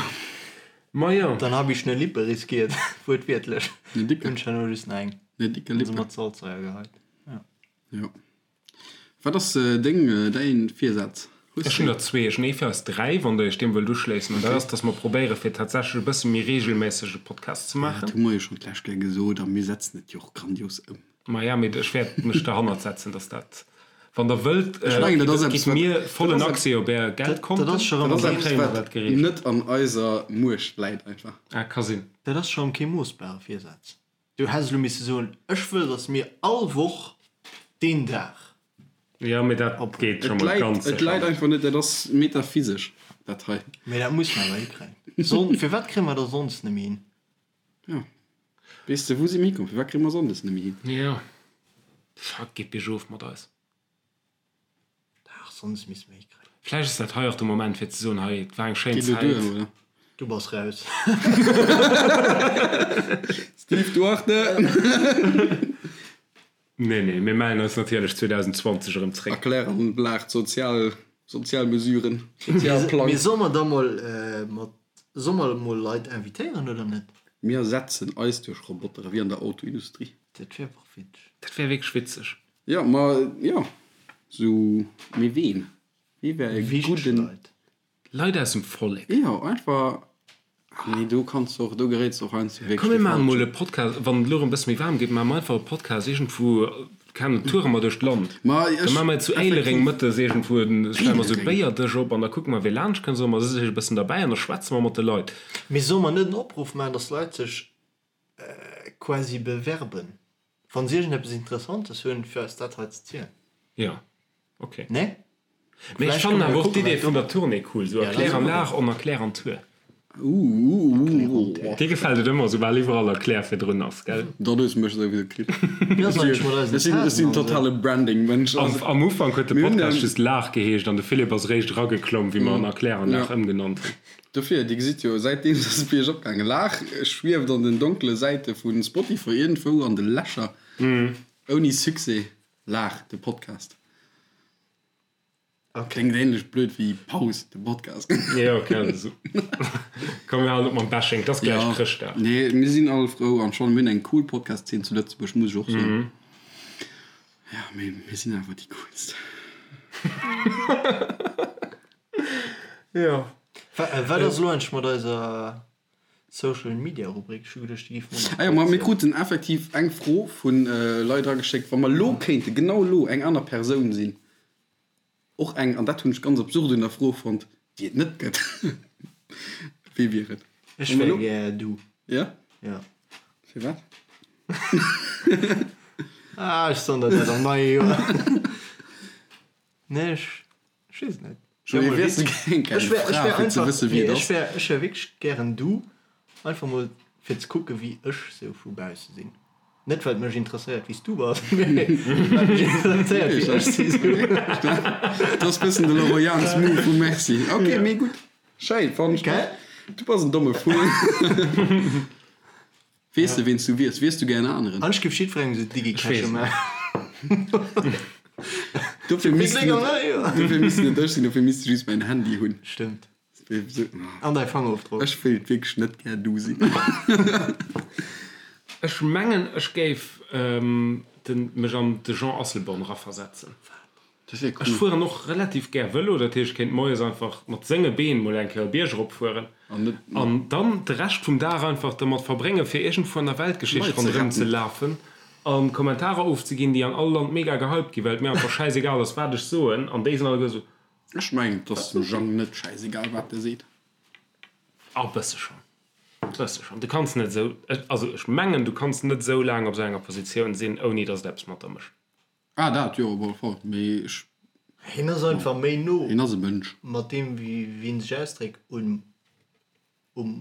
Ma jo. Dann hab ich ne Lippe riskiert, wuertwiertlech. Ne dicke. Hunn ech herno just nach eng. Ne dicke Hunn se Lippe. mat Salzsaier geheit. Ja. Jo. Wat ass deng, däin Virsaz? Hues Ech hunn der zwee. Ech hunn ee fir eis 3, wann der iech deem wëllt uschléissen. An dat ass, dass mer probéiere fir tatsächlech e bësse méi reegelméisseg e Podcast ze Dat maachen. hu mer jo schonn d'lescht Kéier gesot a mir setzen et jo och grandios ëm. Maja, mee ech wäert mech derhannert setzen, dass dat, wann der wëllt, Ech mengen, dat ass gitt eppes, wat, mir dat vollen ass Accès op är Dat Geldkonten, ass scho dat rëm ass dann eppes, kréie mer wat dat gereegelt. net an eiser Muecht läit einfach. Ah, ka sinn. Dat ass scho rëm kee moossbare Virsaz. Du häss elo misse soen, ech wëll, datt mir all Woch deen Dag. Jo, mee dat geet scho Et mol läit, ganz et sécher läit net. einfach net, dat ass metaphysesch, dat hei. Mee dat muss mer awer hikréien. Son, firwat kréie mer da sonndes net méi hin? Jo. Weess de, wou si mir hikomm? Firwat kréie mer sonndes net méi hin? Jo. Fuck, geet biergof mat eis. Dach, sonndes misste mer hikréien. Vläicht ass dat hei och de Moment fir ze soen, hei, et war eng schéin Geet elo duer, Zäit. oder? Du bass raus. Steve Duarte! Nee, nee, mir mellen eis natierlech 2020 erëm zréck. Erklär an Lag d'sozial, sozial Mesuren, Sozialplang. Mee solle mer da mol mat, solle mer mol Leit invitéieren oder net? Mir ersetzen eis duerch Roboter, wéi an der Autoindustrie. Dat wär och witzeg. Dat wär wierklech witzeg. Jo, ma jo, sou, mee ween? Wee wär e Wichteg gudden. Leit. Leit aus dem Vollek. Jo, einfach, ah nee, do kanns de och, do geréits de och heiansdo wierklech Komm mir de maachen mol Falschen. e Podcast, wann et elo erëm e bësse méi waarm gétt, maache mer einfach e Podcast iergendwou, keng Ahnung, toure mer duerch d'Land. Ma Da ech, maache mer zu Éilereng effektiv. mëttes iergendwou, stelle mer esou e Éilereng? Béierdësch op an da kucke mer, wee laanscht kënnt, soe mer, si sech e bëssen derbäi an da schwätze mer mat de Leit. Mee solle mer net en Opruff maachen, dass d'Leit sech quasi bewerben, wann se iergendeppes Interessantes hunn, fir eis dat hei ze zielen. Jo, ok. Nee? Mee ech Vläicht fannen kënne mer awer och kucken, d'Idee wat vun do. der Tournée cool, sou Ja, dat Erklär ass an och Lag on Erklär an Tour. Uuuuuh. Dir gefält et ëmmer, soubal iwwerall Erklär virdrun ass, gell? Dann hues de mech souwisou kritt. Wéi ass eigentlech mat eisen Ech sinn, ech Tasen sinn an esou? totale Branding-Mënsch. Am, Also, am Ufank huet de mir hunn, Podcast just Lag geheescht an de Philippe ass eréischt erageklomm, wéi mer en Erklär an ja. Lag ëmgenannt hunn. Dofir, Dir gesitt jo, säitdeems ass et biergop gaangen. Lag schwieft an den donkele Säite vu Spotify iergendwou an de Lächer. Ouni Succès. Lag, de Podcast. Kléngt ähnlech blöd wéi Paus, de Podcast. Jo, okay, also. Komm, mir halen op mam Bashing, et ass gläich Ja, Chrëschtdag. nee, mir sinn all frou an schonn, mir hunn eng cool Podcast-Zeen zu Lëtzebuerg, muss ech och soen. Ja, mee mir sinn awer déi coolst. Jo. Wat ass elo eigentlech mat eiser Social Media Rubrik? Ech hu geduecht, déi géif mer nach Ah jo, ma mir kuerz. kruten effektiv eng Fro vu Leit erageschéckt, wa mer elo kéinte, genau elo, eng aner Persoun sinn, och eng, an dat hunn ech ganz absurd un der Fro fonnt, déi et net gëtt, wee wier et? Ech wär gär du. Ja? Ja. Firwat? Ah, ech soen der dat am neie Joer. Nee, ech weess et net. Joé, wiers du gär eng Fra, fir ze wësse wéi et ass? Ech wär, ech wär wierklech gären du, einfach mol fir ze kucke wéi ech sou vu bausse sinn. Net well et mech interesséiert wéi s du bass, mee well et mech interesséiert wéi ech si sou. Dat ass bëssen de Laurent Jans Move vu Merci. Ok, mee gutt. Schéin, fannen ech. Gell? Du bass en domme Vull. Weess de ween s du wiers? Wiers du gär en aneren? An ech géif jiddwerengem sou Digi-Cache maachen. Dofir misst net, dofir misst net ech sinn, dofir misst de just mäin Handy hunn. Stëmmt. An däi Fangerofdrock. Ech wéilt wierklech net gär du sinn. Ech mengen ech géif mech an de Jean Asselborn eraversetzen. Ech fueren och relativ gär Vëlo, dat heescht ech kéint moies einfach mat senge Been mol eng Kéier e Bierg erop fueren an dann de Rescht vum Dag einfach dermat verbréngen fir iergendwou an der Weltgeschicht ronderëm ze lafen a Kommentarer ofzeginn déi an all Land mega gehypt ginn, well et mir einfach schäisegal ass wat ech soen an déi sinn alleguer esou. Ech mengen et ass dem Jang net schäisegal wat e seet. A bësse schonn. Bësse schonn. Du kanns net esou, also ech mengen du kanns net esou laang op esou enger Positioun sinn ouni datt et eppes mat der mécht. Ah dat jo op alle Fall, mee ech. Hien ass einfach méi no. Hien ass e Mënsch. Mat deem wéi hien sech ausdréckt um um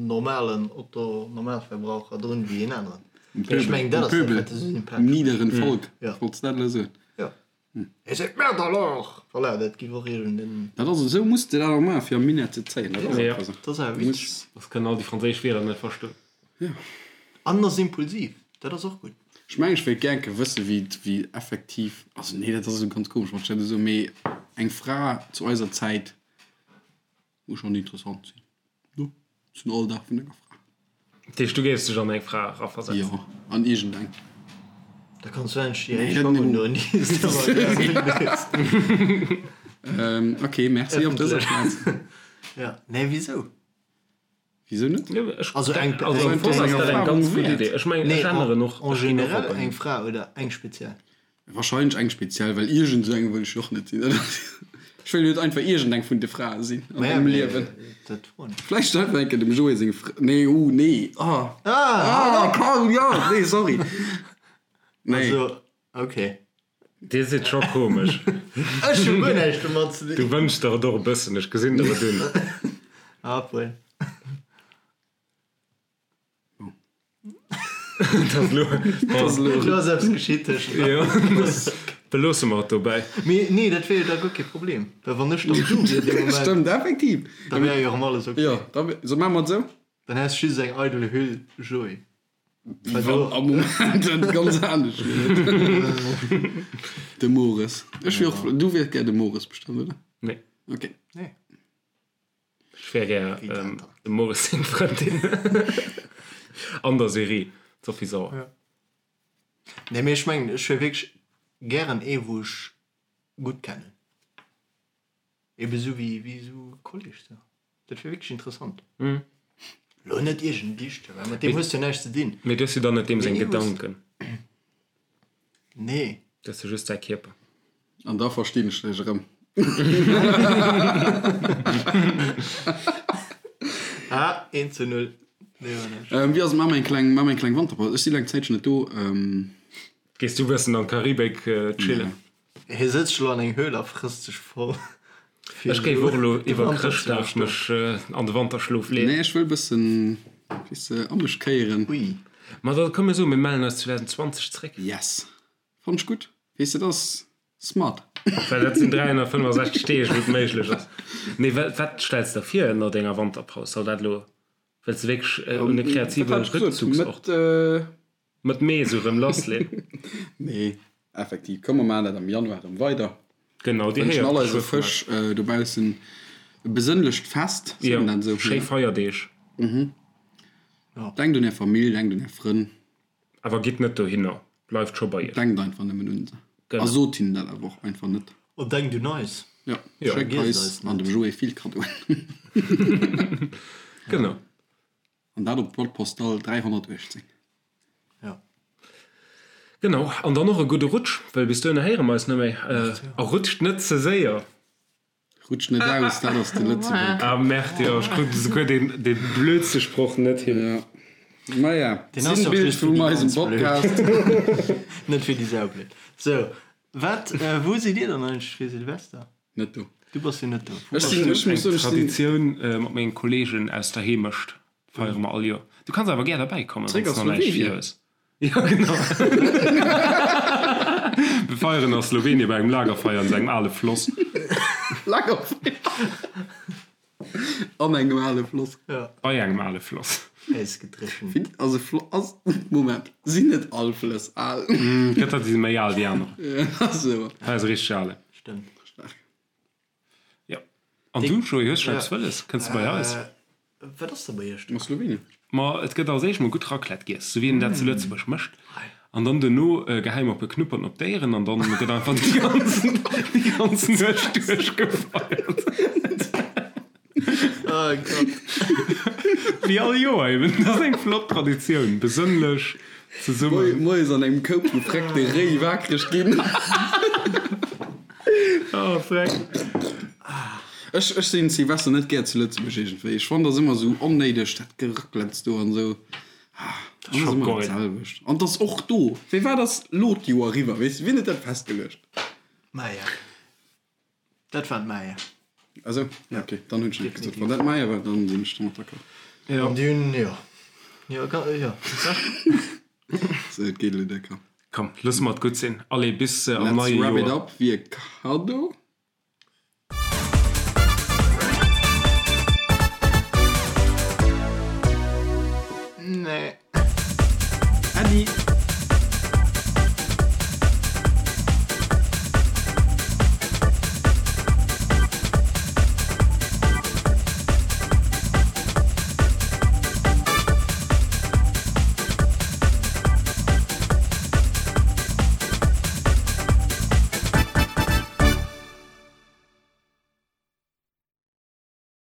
normalen Otto Normalverbraucher drun wéi een aneren. Um Pöbel. Ech mengen dat ass dat wat e sou sympathesch Um niederen Volk. Wollts dat elo soen? Jo. Et seet merde alors! Voilà, dat giff och iergend en. Dat ass esou muss de dat och maachen fir am Minett ze zéien. Dat ass einfach esou. Dat ass awer witzeg. Soss kënnen all déi franséisch Wierder net verstoen. Jo. An ass impulsiv, dat ass och gutt. Ech mengen ech wéilt gär enke wësse wéi wéi effektiv, also nee dat ass esou ganz komesch wann ech dat esou soen, mee eng Fra zu eiser Zäit muss schonn interessant sinn, no zum Alldag vun enger Fra. Dat heescht du géifs dech an eng Fra eraversetzen? Jo, an iergendeng. Da kanns du endlech déi éischt Schong undoen déi s de ëmmer gär unhues. Ok, merci op dëser Plaz. Jo, nee wisou? Wisou net? Also eng Also am Fong ass dat eng ganz gutt Idee. Ech mengen, ech änneren och. En général eng Fra oder eng speziell? Wahrscheinlech eng speziell, well iergend esou eng wëll ech jo och net sinn. Ech wëll jo net einfach iergend eng vun de Frae sinn an mengem Liewen. Vläicht einfach eng Kéier dem Joé seng Fra, nee, uh, nee, ah, ah, Carl, jo, nee, sorry, nee. Also, okay. Dir sidd scho komesch. Ech hu guer näischt domat ze dinn. Du wënschs der et och e bëssen, ech gesinn der et un. Obwuel. Elo ass eppes geschitt tëschent eis. Beloosse mer et dobäi. Mee nee, dat wier jo da guer kee Problem, well wann ech dann du wier dee Moment. Stëmmt, effektiv. Da wär jo erëm alles ok. Jo, da wär, so maache mer et esou. Dann häss just eng eidel Hüll Joé. Am Moment et ganz anescht wier. De Mores. Ech wier och, du wiers gär de Mores bestëmmt, oder? Nee. Ok. Nee. Ech wär gär dem Mores seng Frëndin. An der Serie, d'Sophie Sauer. Ja. Nee, mee ech mengen, ech wier wierklech gären ee wou ech gutt kennen. Ebe sou wéi wéi sou e Kolleg sou. Dat wier wierklech interessant. Lo net iergend Dichter, well mat deem hues du jo näischt ze dinn. Mee du hues jo dann net deem seng Gedanken. Nee. Du hues jo just säi Kierper. An da verstinn ech dech erëm. Ah, 1 zu 0. Nee, war näischt. Wéi ass et? Maache mer eng kleng, maache mer eng kleng Wanterpaus. Ech si laang Zäitchen net do. Gees du e bëssen an d'Karibik chillen? Hie sëtzt elo an eng Höhl a frësst sech voll. Ech géif och elo iwwer Chrëschtdag mech an de Wanterschlof leeën. Nee, ech wëll bëssen, weess de, a mech kéieren. Ui. Ma da komm mir soen, mir mellen eis 2020 zréck. Yes. Fannt ech gutt. Weess de, dat ass smart. Well dat sinn 365 Deeg, wou et méiglech ass. Nee, wat stells de der vir no denger Wanterpaus? Soll dat elo, wëlls de wierklech un e kreative Rückzugsort? Mëtt Mee esou rëm lassleen. Nee, effektiv. Komm, mer maachen dat am Januar erëm weider. Genau, dir Wënschen héiert all eise geschwë vun Fësch eis. dobaussen e besënnlecht Fest, seet Jo, een dat esou? schéi Feierdeeg. Denkt un är Famill, denkt un är Frënn. Awer gitt net dohinner, bleift scho bei iech. Denkt einfach nëmmen un se. A Genau. sot hinnen dat awer och einfach net. An denkt un eis. Jo, Jo. schéckt Vergiesst eis eis an net. dem Joé vill Kaddoen. Genau. An dat op d'Boîte postale 318. Ja. Genau, an dann och e gudde Rutsch, well bis dohinner héiere mer eis net méi. A rutscht net ze séier! Rutscht net aus, dat ass de Lëtzebuerg. Ah merde, jo, ech krut esouguer deen, dee blödste Sproch net hin. Ja. Maja, Deen ass jo Sinnbild just fir vum déi eisem ganz blöd. Podcast. Net fir déi saublöd. Sou, wat, wou sidd dir dann eigentlech fir Silvester? Net do. Du bass jo net do. Wou Ech bass sinn, du? ech muss soen, ech sinn. Traditioun mat mengen Kollegen aus der Heemecht feiere mer all Joer. Du kanns awer gär derbäi kommen, Zréck wann s a de nach näischt Slowenien. vir hues. Jo, genau. Mir feieren a Slowenien bei engem Lagerfeier an esou engem ale Floss. Lagerfeier an engem ale Floss. Ja. Bei engem ale Floss. Ausgedréchent. Finn, also Flo, ass, Moment, sinn net all Flëss al? Gëtt der, déi si méi al wéi aner. Ja, sou. Hei ass e richteg ale. Stëmmt. Staark. Jo. An du, Joé, hues scho eppes wëlles? Kënns de bei eis? Wat ass da bei iech do? A Slowenien. Ma et gëtt als éischt mol gutt Raclette giess, sou wéi een dat zu Lëtzebuerg mécht. An dann duerno gehäi mer e puer Knupperten op d'Éieren an dann gëtt einfach déi ganzen, déi ganz Nuecht duerchgefeiert. Oh Gott. Wéi all Joer eben. Dat ass eng flott Traditioun, besënnlech zesummen. Moies an engem Koup gefreckte Réi waakreg ginn. Oh, freck. Ech, ech sinn Silvester net gär zu Lëtzebuerg iergendwéi. Ech fannen, dat ass ëmmer esou onnéideg, dat Geraclettes do an esou. Ah, dat ass ëmmer dat selwecht. An 't ass och do. Firwat ass lo d'Joer eriwwer, weess de? Wien huet dat festgeluecht? Maya. Dat waren d'Maya. Ah sou, ok, dann hunn ech net gesot. Wann dat d'Maya war, dann sinn ech domat d'accord. Jo. An déi hunn, jo. Jo, jo. Sou, et geet elo décker. Komm, loosse mer et gutt sinn. Allez, bis am Let's neie wrap it Joer. up, wie e Kaddo.